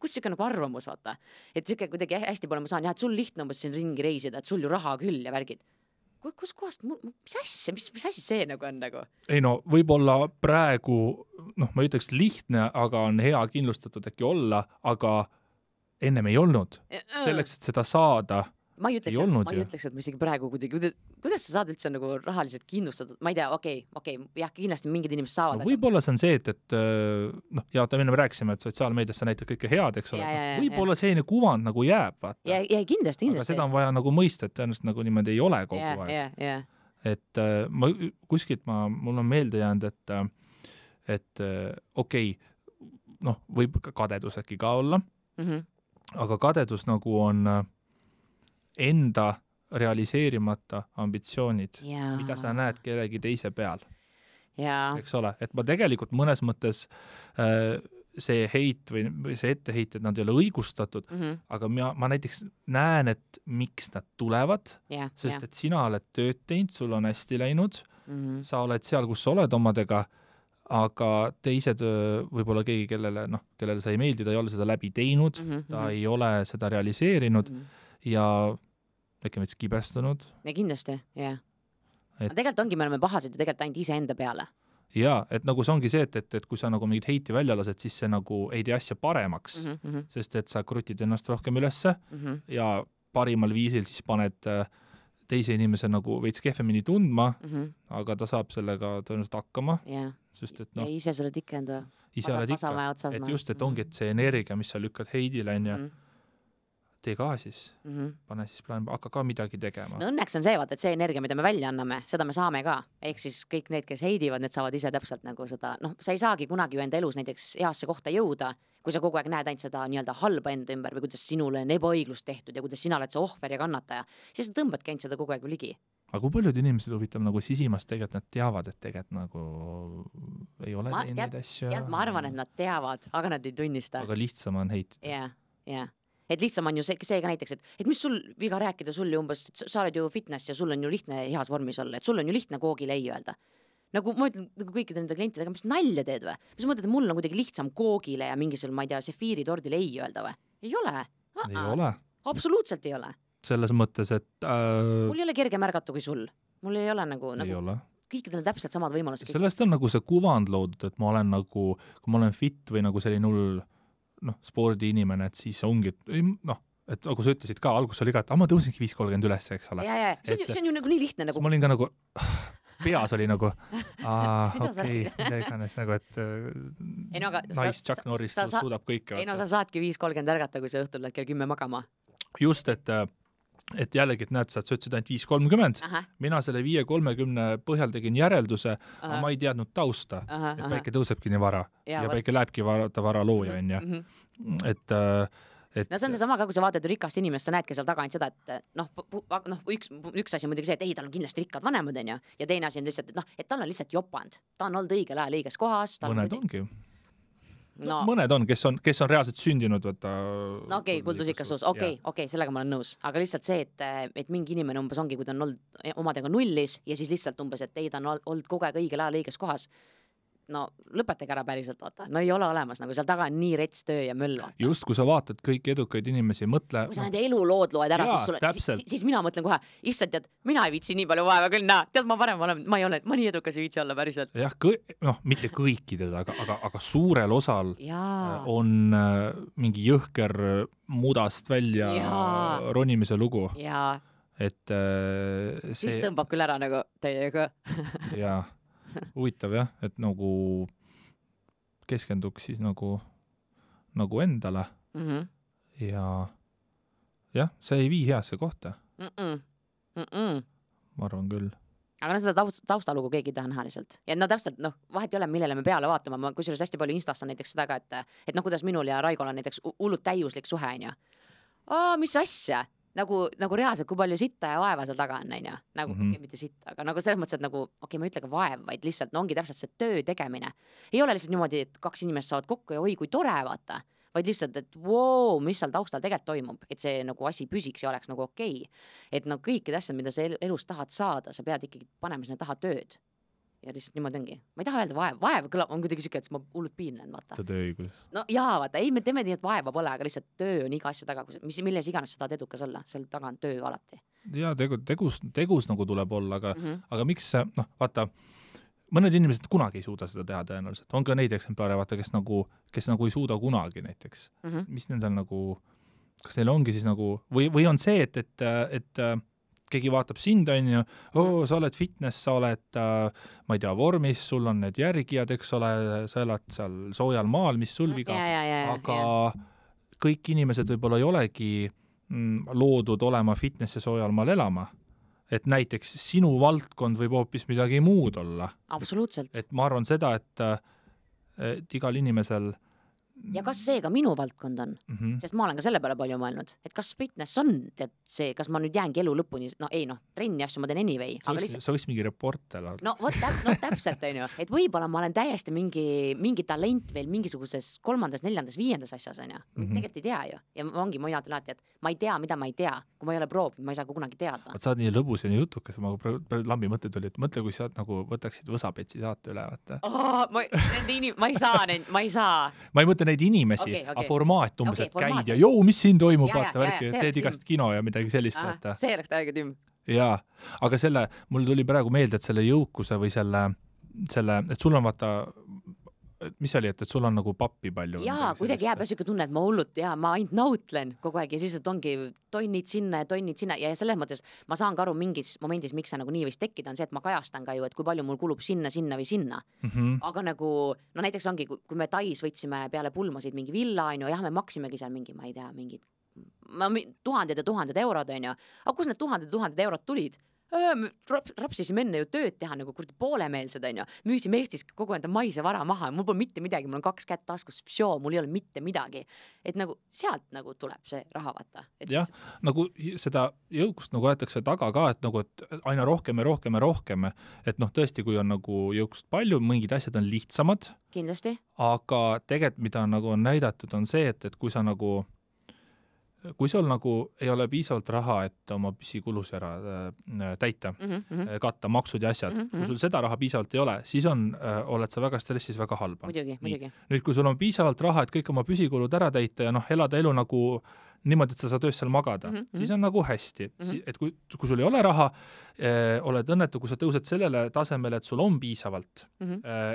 kus siuke nagu arvamus, vaata. Et siuke kuidagi hästi pole ma saan, et sul lihtne umbes siin ringi reisida, et sul ju raha küll ja värgid. Kus kohast, mis asja, mis asi see nagu on nagu? Ei no, võib-olla praegu, ma ütleks lihtne, aga on hea kindlustatud äkki olla, aga ennem ei olnud. Selleks, et seda saada, ma ei ütleks, et ma isegi praegu kuidas sa saad üldse nagu rahaliselt kindlustatud? Ma ei tea, okei, jah, kindlasti mingid inimesed saavad. No, võib-olla see on see, et ja me rääkisime, et sotsiaalmeedias sa näitad kõike head, eks ole. Võib-olla selline kuvand nagu jääb, vaata. Ja kindlasti. Aga seda on vaja nagu mõista, et tõenäoliselt nagu niimoodi ei ole kogu aeg. Et kuskilt mul on meelde jäänud, et okei, võib kadedus äkki ka olla, aga kadedus nagu on enda realiseerimata ambitsioonid, mida sa näed kellegi teise peal. Eks ole, et ma tegelikult mõnes mõttes see heit või see etteheited, nad ei ole õigustatud, aga ma näiteks näen, et miks nad tulevad, sest et sina oled tööd teinud, sul on hästi läinud, sa oled seal, kus sa oled omadega, aga teised võib-olla keegi, kellele sa ei meeldi, ta ei ole seda läbi teinud, ta ei ole seda realiseerinud ja äkki meid kibestunud. Ja kindlasti, jah. Tegelikult ongi, me oleme pahased ju tegelikult ainult ise enda peale. jaa, et nagu see ongi see, et kui sa nagu mingit heiti välja lased, siis see nagu ei tee asja paremaks, sest et sa krutid ennast rohkem ülesse ja parimal viisil siis paned teise inimese nagu veits kehvemini tundma, aga ta saab sellega tõenäoliselt hakkama, sest et ja ise sa oled ikka enda ise oled ikka, et just, et ongi, et see energia, mis sa lükkad heidile, on ju, tee ka siis, pane siis plaan, hakka ka midagi tegema. No õnneks on see, vaata, et see energia, mida me välja anname, seda me saame ka. Ehk siis kõik need, kes heidivad, need saavad ise täpselt nagu seda, noh, sa ei saagi kunagi ju enda elus näiteks heasse kohta jõuda, kui sa kogu aeg näed ainult seda nii-öelda halba enda ümber või kuidas sinule on ebaõiglust tehtud ja kuidas sina oled see ohver ja kannataja, siis sa tõmbadki ainult seda kogu aeg ligi. Aga kui paljud inimesed huvitav nagu sisimas tegelikult nad teavad, et tegelikult nagu ei ole teinud neid asju? Ma arvan, et nad teavad, aga nad ei tunnista. Aga lihtsam on heitida. Jah. Et lihtsam on ju see ka näiteks, et mis sul viga rääkida sul ju umbes, et sa oled ju fitness ja sul on ju lihtne heas vormis olla, et sul on ju lihtne koogile ei öelda. Nagu ma ütlen nagu kõikide nende klientidega, mis nalja teed või? Mis mõtled, et mul on kuidagi lihtsam koogile ja mingisugune, ma ei tea, sefiiritordile ei öelda või? Ei ole. Ei ole. Absoluutselt ei ole. Selles mõttes, et mul ei ole kerge märgata kui sul. Mul ei ole nagu kõikidel on täpselt samad võimalused. Sellest on nagu see kuvand loodud, et ma olen nagu, kui ma olen fit või nagu selline hull spordiinimene, et siis ongi, et nagu sa ütlesid ka, algus oli ka, et ma tõusingi 5.30 üles, eks ole. See on ju nagu nii lihtne nagu. Ma olin ka nagu, peas oli nagu, okei, iganes nagu, et nice Chuck Norris suudab kõike. Ei no sa saadki 5.30 ärgata, kui sa õhtul lähed kell 10 magama. Just, et jällegi, et näed, sa ütlesid ainult 5.30, mina selle 5.30 põhjal tegin järelduse, aga ma ei teadnud tausta, et päike tõusebki nii vara ja päike lähebki vara looja, on ju. No see on see sama ka, kui sa vaatad rikast inimest, sa näedki seal taga ainult seda, et üks asi on muidugi see, et ei, tal on kindlasti rikkad vanemad, on ju, ja teine asi on lihtsalt, et tal on lihtsalt jopand, ta on olnud õigel ajal õiges kohas. Mõned ongi ju. Mõned on, kes on reaalselt sündinud, võtta. No okei, kuldusikas suus, okei, sellega ma olen nõus, aga lihtsalt see, et mingi inimene umbes ongi, kui ta on olnud omadega nullis ja siis lihtsalt umbes, et ei, ta on olnud kogu aeg õigel ajal õiges kohas. No lõpetage ära päriselt, vaata. No ei ole olemas, nagu seal taga on nii rets töö ja möll. Vaata. Just, kui sa vaatad kõiki edukaid inimesi, mõtle... Kui sa nende elulood loed ära, siis mina mõtlen kohe, issand, tead, mina ei viitsi nii palju vaeva küll, tead, ma varem olen, ma nii edukas ei viitsi olla päriselt. Jah, mitte kõikidel, aga suurel osal on mingi jõhker mudast välja ronimise lugu. Et siis tõmbab küll ära nagu teiega. Jaa. Huvitav jah, et nagu keskenduks siis nagu endale ja jah, see ei vii heasse kohta. Ma arvan küll. Aga seda taustalugu keegi ei taha näha lihtsalt. Ja täpselt, vahet ei ole, millele me peale vaatama. Ma kusjuures hästi palju Instas on näiteks seda ka, et kuidas minul ja Raigol on näiteks hullult täiuslik suhe, on ju. Mis asja? Nagu reaalselt, kui palju sitta ja vaeva seal taga on, nagu mitte sitta, aga nagu selles mõttes, et nagu, ma ei ütle ka vaev, vaid lihtsalt ongi täpselt see töö tegemine. Ei ole lihtsalt niimoodi, et 2 inimest saavad kokku ja oi, kui tore, vaata, vaid lihtsalt, et mis seal taustal tegelikult toimub, et see nagu asi püsiks ja oleks nagu okei. Et kõikide asjad, mida sa elus tahad saada, sa pead ikkagi panema sinna taha tööd. Ja lihtsalt niimoodi ongi. Ma ei taha öelda vaev kõlab, on kuidagi siuke, et ma hullult piinlen, vaata. Tööõigus. No jaa, vaata, ei, me teeme nii, et vaeva pole, aga lihtsalt töö on iga asja taga, milles iganes sa tahad edukas olla, seal taga on töö alati. Jaa, tegus nagu tuleb olla, aga miks, vaata, mõned inimesed kunagi ei suuda seda teha tõenäoliselt. On ka neid eksemplare, vaata, kes nagu ei suuda kunagi näiteks. Mis nendel nagu, kas neil ongi siis nagu, või on see, et keegi vaatab sind, on ju, sa oled fitness, sa oled, ma ei tea, vormis, sul on need järgijad, eks ole, sa elad seal soojal maal, mis sul viga, aga kõik inimesed võib-olla ei olegi loodud olema fitness ja soojal maal elama. Et näiteks sinu valdkond võib hoopis midagi muud olla. Absoluutselt. Et ma arvan seda, et igal inimesel ja kas see ka minu valdkond on? Sest ma olen ka selle peale palju mõelnud, et kas fitness on see, kas ma nüüd jäängi elu lõpuni, trenni asju ma teen anyway. Sa võiks mingi reporter olla. Täpselt, on ju, et võib-olla ma olen täiesti mingi talent veel mingisuguses 3., 4., 5. asjas, on ju. Tegelikult ei tea ju. Ja ongi ma ütlen alati, et ma ei tea, mida ma ei tea. Kui ma ei ole proovinud, ma ei saa kunagi teada. Sa oled nii lõbus ja nii jutukas, ma lambi mõte tuli, et mõtle, kui sa nagu võtaksid Võsapetsi saate üle, vaata. Ma ei saa. Ma ei mõtle neid inimesi, aga formaat umbes, et käid ja mis siin toimub, vaata, teed igast kino ja midagi sellist, vaata. See oleks täiega tümm. Jaa, aga mul tuli praegu meelde, et selle jõukuse või selle selle, et sul on vaata, mis oli, et sul on nagu pappi palju? Jaa, kuidagi jääb siuke tunne, et ma hullult ja ma ainult nautlen kogu aeg ja siis et ongi tonnid sinna ja selles mõttes ma saan ka aru mingis momendis, miks see nagu nii võis tekkida, on see, et ma kajastan ka ju, et kui palju mul kulub sinna või sinna. Aga nagu, no näiteks ongi, kui me Tais võtsime peale pulmasid mingi villa, on ju, jah, me maksimegi seal mingi, ma ei tea, mingid tuhanded ja tuhanded eurod, on ju. Aga kus need tuhanded eurod tulid? Rapsisime enne ju tööd teha nagu kurdi poolemeelsed, on ju. Müüsime Eestis kogu enda maise vara maha, mul pole mitte midagi, mul on 2 kätt taskus, mul ei ole mitte midagi. Et nagu sealt nagu tuleb see raha vaata. Jah, nagu seda jõukust nagu aetakse taga ka, et nagu et aina rohkem ja rohkem, et noh, tõesti, kui on nagu jõukust palju, mingid asjad on lihtsamad. Kindlasti. Aga tegelikult, mida nagu on näidatud, on see, et kui sa nagu kui sul nagu ei ole piisavalt raha, et oma püsikulusi ära täita, katta maksud ja asjad, kui sul seda raha piisavalt ei ole, siis oled sa väga stressis, väga halba. Muidugi. Nüüd, kui sul on piisavalt raha, et kõik oma püsikulud ära täita ja elada elu nagu niimoodi, et sa saad öös seal magada, siis on nagu hästi. Et kui sul ei ole raha, oled õnnetu, kui sa tõused sellele tasemele, et sul on piisavalt,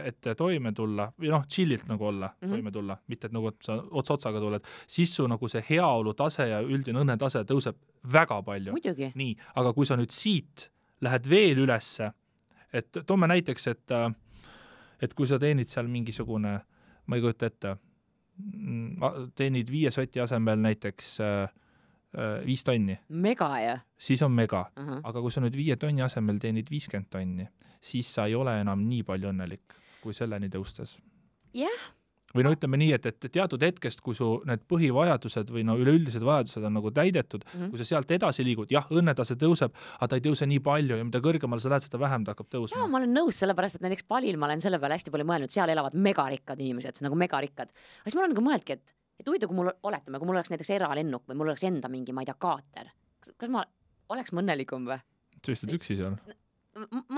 et toime tulla või chillilt nagu olla, toime tulla, mitte et nagu sa otsaga tuled, siis su nagu see heaolu tase ja üldine õnnetase tõuseb väga palju. Muidugi. Nii, aga kui sa nüüd siit lähed veel ülesse, et toome näiteks, et kui sa teenid seal mingisugune, ma ei kujuta ette, teenid 5 soti asemel näiteks 5 tonni. Mega, jah? Siis on mega. Aga kui sa nüüd 5 tonni asemel teenid 50 tonni, siis sa ei ole enam nii palju õnnelik, kui selleni tõustes. Jah. Või ütleme nii, et teatud hetkest, kui su need põhivajadused või üleüldised vajadused on nagu täidetud, kui sa sealt edasi liigud, jah, õnnetase tõuseb, aga ta ei tõuse nii palju ja mida kõrgemal sa lähed, seda vähem ta hakkab tõusma. Jaa, ma olen nõus, sellepärast, et näiteks Palil ma olen selle peale hästi palju mõelnud, seal elavad megarikkad inimesed, nagu megarikkad. Aga siis ma olen nagu mõeldki, et huvitav, kui mul oleks näiteks eralennuk või mul oleks enda mingi, ma ei tea, kaater. Kas ma oleks õnnelikum või? Sa istud üksi seal?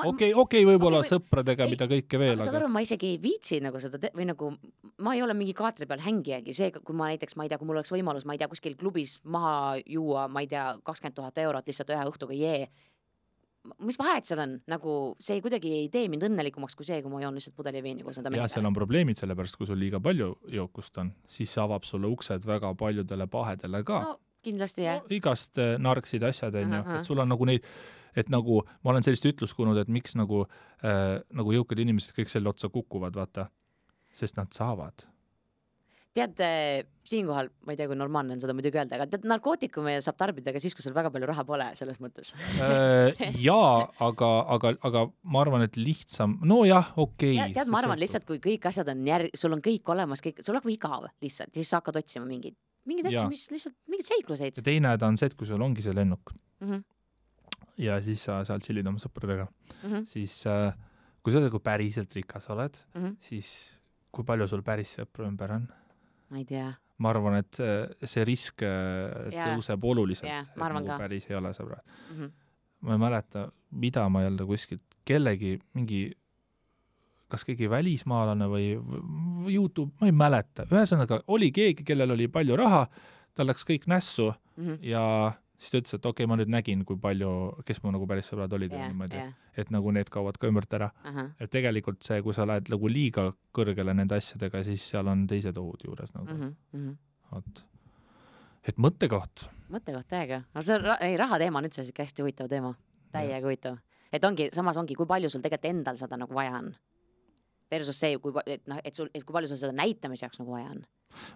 Okei, võib-olla sõpradega, mida kõike veel. Saad aru, ma isegi ei viitsi nagu seda või nagu ma ei ole mingi kaatri peal hängijagi, see, kui ma näiteks, ma ei tea, kui mul oleks võimalus, ma ei tea, kuskil klubis maha juua, ma ei tea, 20 000 eurot lihtsalt ühe õhtuga mis vahet seal on, nagu see kuidagi ei tee mind õnnelikumaks kui see, kui ma joon lihtsalt pudeli veini koos enda mehega. Ja seal on probleemid, sellepärast kui sul liiga palju jookust on, siis avab sulle uksed väga paljudele pahedele ka. No, kindlasti, jah. Igast narksid asjad, et sul on nagu neid, et nagu ma olen sellist ütlust kuulnud, et miks nagu jõukad inimesed kõik selle otsa kukuvad, vaata, sest nad saavad. Tead, siinkohal, ma ei tea, kui normaalne on seda muidugi öelda, aga tead, narkootikume saab tarbida ka siis, kui sul väga palju raha pole, selles mõttes. Jaa, aga ma arvan, et lihtsam, no jah, okei. Tead, ma arvan lihtsalt, kui kõik asjad on sul on kõik olemas, sul hakkab igav lihtsalt, siis sa hakkad otsima mingid asju, mis lihtsalt, mingid seikluseid. Ja teine ta on see, et kui sul ongi see lennuk ja siis sa seal chillid oma sõpradega, siis kui sa päriselt rikas oled, siis kui palju sul päris sõpru ümber on? Ma ei tea. Ma arvan, et see risk tõuseb oluliselt, et nagu päris ei ole sõbrad. Ma ei mäleta, mida ma jälle kuskilt kellegi mingi, kas keegi välismaalane või YouTube, ma ei mäleta. Ühesõnaga, oli keegi, kellel oli palju raha, tal läks kõik nässu ja siis ta ütles, et okei, ma nüüd nägin, kui palju, kes mu nagu päris sõbrad olid et nagu need kaovad ka ümbert ära. Et tegelikult see, kui sa lähed nagu liiga kõrgele nende asjadega, siis seal on teised ohud juures nagu. Et mõttekoht. Mõttekoht täiega. Raha teema on üldse hästi huvitav teema. Täiega huvitav. Et samas ongi, kui palju sul tegelikult endal seda nagu vaja on. Versus see, kui palju sul seda näitamise jaoks nagu vaja on.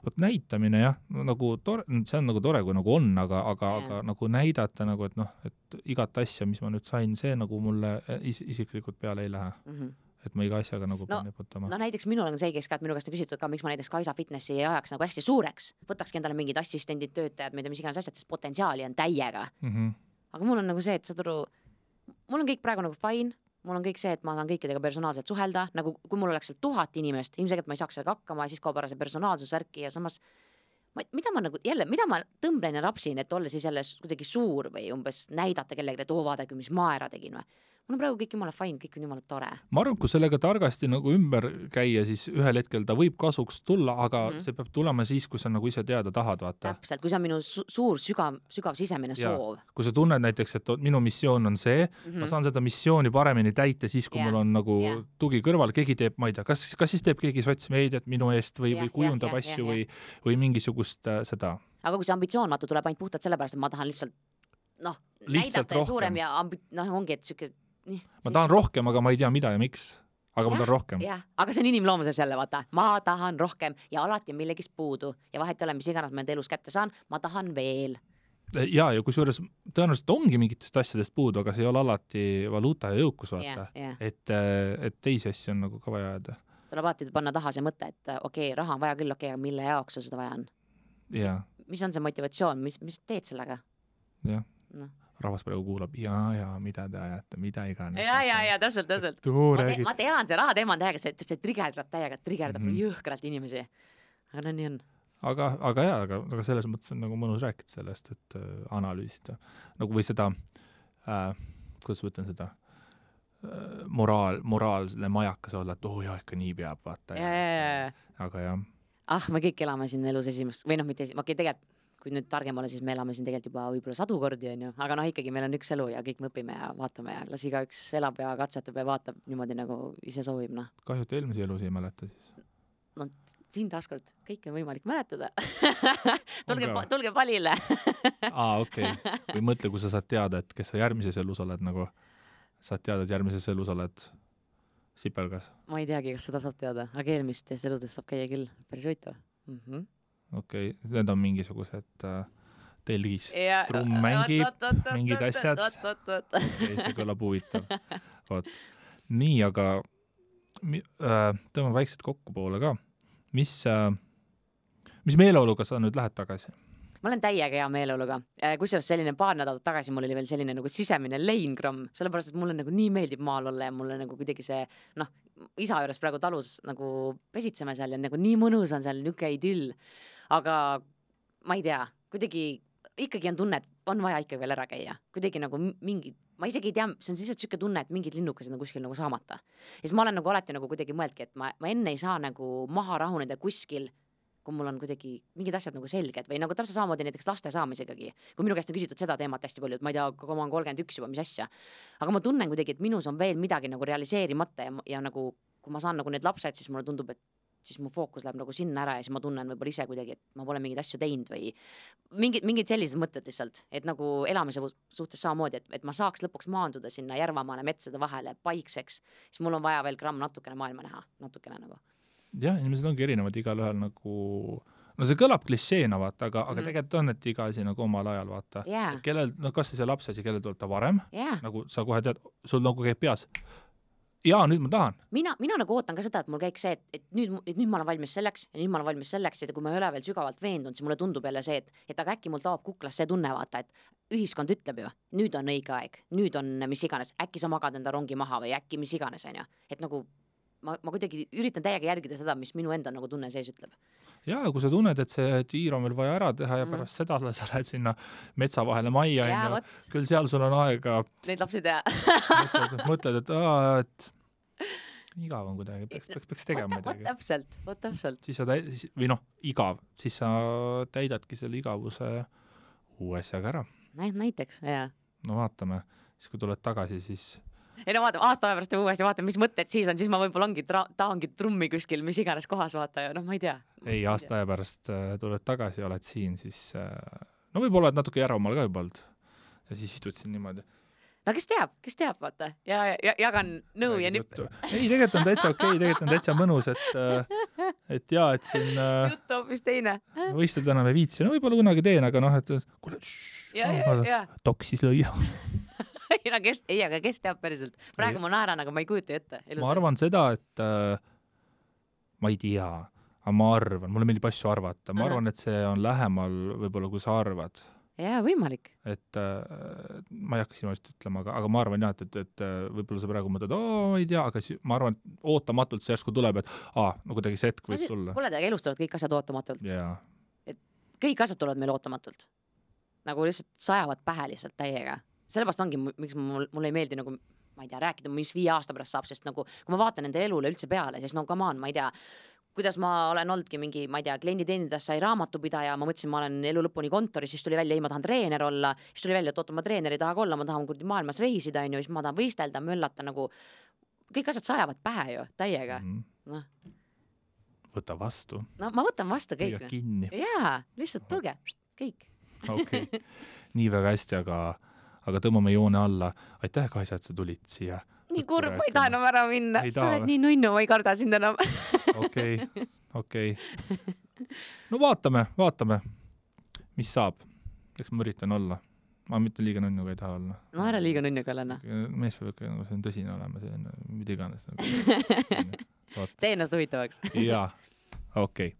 Vot näitamine jah, nagu see on nagu tore, kui nagu on, aga nagu näidata nagu, et igat asja, mis ma nüüd sain, see nagu mulle isiklikult peale ei lähe. Et ma iga asjaga nagu pean neputama. No näiteks minul on see, kes minu käest on küsitud ka, miks ma näiteks Kaisa Fitnessi ei ajaks nagu hästi suureks. Võtakski endale mingid assistendid, töötajad, mis iganes asjad, sest potentsiaali on täiega. Aga mul on nagu see, et mul on kõik praegu nagu fine, mul on kõik see, et ma saan kõikidega personaalselt suhelda, nagu kui mul oleks 1000 inimest, ilmselgelt ma ei saaks sellega hakkama ja siis kaob ära see personaalsusvärki ja samas mida ma tõmblen ja rapsin, et olla siis jälle kuidagi suur või umbes näidata kellegi, et vaadake, mis ma ära tegin või. mul on praegu kõik jumala fine, kõik on jumala tore. Ma arvan, kui sellega targasti nagu ümber käia, siis ühel hetkel ta võib kasuks tulla, aga see peab tulema siis, kui sa nagu ise teada tahad, vaata. Täpselt, kui see on minu suur sügav sisemine soov. Kui sa tunned näiteks, et minu missioon on see, ma saan seda missiooni paremini täita siis, kui mul on nagu tugi kõrval, keegi teeb, ma ei tea, kas siis teeb keegi sotsmeediat minu eest või kujundab asju või mingisugust seda. Aga kui see ambitsioonmatu tuleb ainult puhtalt sellepärast, et ma tahan lihtsalt näidata ja suurem ja ongi, et siuke ma tahan rohkem, aga ma ei tea, mida ja miks. Aga ma tahan rohkem. Aga see on inimloomuses jälle, vaata. Ma tahan rohkem ja alati on millegist puudu. Ja vahet ei ole, mis iganes ma enda elus kätte saan, ma tahan veel. Ja kusjuures tõenäoliselt ongi mingitest asjadest puudu, aga see ei ole alati valuuta ja jõukus, vaata. Et teisi asju on nagu ka vaja ajada. Tuleb alati panna taha see mõte, et okei, raha on vaja küll, okei, aga mille jaoks sul seda vaja on? Mis on see motivatsioon? Mis teed sellega? Jah. Rahvas praegu kuulab, mida te ajate, mida iganes. Ja, täpselt. Ma tean, see raha teema on täiega, see trigerdab jõhkralt inimesi. Aga nii on. Aga selles mõttes on nagu mõnus rääkida sellest, et analüüsida. Nagu või seda, kuidas võtan seda, moraalne majakas olla, et ikka nii peab, vaata. Aga jah. Me kõik elame siin elus esimest, või mitte tegelikult kui nüüd targem ole, siis me elame siin tegelikult juba võib-olla sadu kordi, aga ikkagi meil on üks elu ja kõik me õpime ja vaatame ja las igaüks elab ja katsetab ja vaatab niimoodi, nagu ise soovib. Kahju, et eelmise elus ei mäleta siis. Siin taaskord kõik on võimalik mäletada. tulge palile. Okei. Või mõtle, kui sa saad teada, et kes sa järgmises elus oled, nagu saad teada, et järgmises elus oled sipelgas. Ma ei teagi, kas seda saab teada, aga eelmistes eludest saab käia küll. Päris võitav. Okei, need on mingisugused telgist, trumm mängib, mingid asjad. See kõlab huvitav. Nii, aga tõmbame väikselt kokku poole ka. Mis meeleoluga sa nüüd lähed tagasi? Ma olen täiega hea meeleoluga. Kusjuures selline paar nädalat tagasi mul oli veel selline nagu sisemine leingramm, sellepärast, et mulle nagu nii meeldib maal olla ja mulle nagu kuidagi see, isa juures praegu talus nagu pesitseme seal ja nagu nii mõnus on seal niuke idyll. Aga ma ei tea, kuidagi ikkagi on tunne, et on vaja ikka veel ära käia. Kuidagi nagu mingi, ma isegi ei tea, see on lihtsalt siuke tunne, et mingid linnukesed on kuskil nagu saamata. Ja siis ma olen nagu alati nagu kuidagi mõeldki, et ma enne ei saa nagu maha rahuneda kuskil, kui mul on kuidagi mingid asjad nagu selged või nagu täpselt samamoodi näiteks laste saamisegagi. Kui minu käest on küsitud seda teemat hästi palju, et ma ei tea, kui ma olen 31 juba, mis asja. Aga ma tunnen kuidagi, et minus on veel midagi nagu realiseerimata ja nagu, kui ma saan nagu need lapsed, siis mulle tundub, et siis mu fookus läheb nagu sinna ära ja siis ma tunnen võib-olla ise kuidagi, et ma pole mingid asju teinud või mingid sellised mõtted lihtsalt, et nagu elamise suhtes samamoodi, et ma saaks lõpuks maanduda sinna Järvamaale metsade vahele paikseks, siis mul on vaja veel gramm natukene maailma näha, natukene nagu. Jah, inimesed ongi erinevad igal ühel nagu, see kõlab klišeena, vaata, aga tegelikult on, et iga asi nagu omal ajal, vaata. Et kellel, kas see laps asi, kellel tuleb ta varem, nagu sa kohe tead, sul nagu käib peas. Ja nüüd ma tahan. Mina nagu ootan ka seda, et mul käiks see, et nüüd ma olen valmis selleks ja nüüd ma olen valmis selleks, et kui ma ei ole veel sügavalt veendunud, siis mulle tundub jälle see, et aga äkki mul taob kuklas see tunne, vaata, et ühiskond ütleb ju, nüüd on õige aeg, nüüd on mis iganes, äkki sa magad enda rongi maha või äkki mis iganes, on ju. Et nagu ma kuidagi üritan täiega järgida seda, mis minu enda nagu tunne sees ütleb. Ja kui sa tunned, et see tiir on veel vaja ära teha ja pärast seda sa lähed sinna metsa vahele majja ja küll seal sul on aega neid lapsi teha. mõtled, et igav on kuidagi, peaks tegema midagi. Vot täpselt. Siis sa igav, siis sa täidadki selle igavuse uue asjaga ära. Näiteks, jah. No vaatame, siis kui tuled tagasi, siis ei no vaatame, aasta pärast uuesti vaatame, mis mõtted siis on, siis ma võib-olla tahangi trummi kuskil, mis iganes kohas vaata ja ma ei tea. Ei, aasta aja pärast tuled tagasi ja oled siin, siis no võib-olla oled natuke Järvamaal ka juba olnud ja siis istud siin niimoodi. No kes teab, vaata, ja jagan nõu ja nipp. Ei, tegelikult on täitsa okei, tegelikult on täitsa mõnus, et jaa, et siin juttu hoopis teine. Võistled enam ei viitsi, no võib-olla kunagi teen, aga et kuule, toksis lõia. aga kes teab päriselt? Praegu ma naeran, aga ma ei kujuta ette. Ma arvan seda, et ma ei tea, aga ma arvan, mulle meeldib asju arvata. Ma arvan, et see on lähemal võib-olla, kui sa arvad. Jaa, võimalik. Et ma ei hakka sinu eest ütlema, aga ma arvan jah, et võib-olla sa praegu mõtled, ei tea, aga ma arvan, et ootamatult see järsku tuleb, et no kuidagi see hetk võib tulla. Kuule, elus tulevad kõik asjad ootamatult. Et kõik asjad tulevad meil ootamatult. Nagu lihtsalt sajavad pähe lihtsalt täiega. Sellepärast ongi, miks mulle ei meeldi nagu, ma ei tea, rääkida, mis 5 aasta pärast saab, sest nagu kui ma vaatan nende elule üldse peale, siis no come on, ma ei tea, kuidas ma olen oldki mingi, ma ei tea, klienditeenindas sai raamatupidaja, ma mõtlesin, ma olen elu lõpuni kontoris, siis tuli välja, ei, ma tahan treener olla, siis tuli välja, et oota, ma treener ei taha olla, ma tahan maailmas reisida, on ju, siis ma tahan võistelda, möllata nagu, kõik asjad sajavad pähe ju, täiega, noh. Võta vastu. No ma võtan vastu kõik. Kinni. Jaa, lihtsalt tulge, kõik. Okei, nii väga hästi, aga tõmbame joone alla. Aitäh, Kaisa, et sa tulid siia. Nii kurb, ma ei taha enam ära minna. Sa oled nii nunnu, ma ei karda sind enam. Okei. No vaatame, mis saab. Eks ma üritan olla. Ma mitte liiga nunnuga ei taha olla. No ära liiga nunnuga olla. Mees peab ikka, nagu see on tõsine olema, see on mida iganes. Tee ennast huvitavaks. Jaa, okei.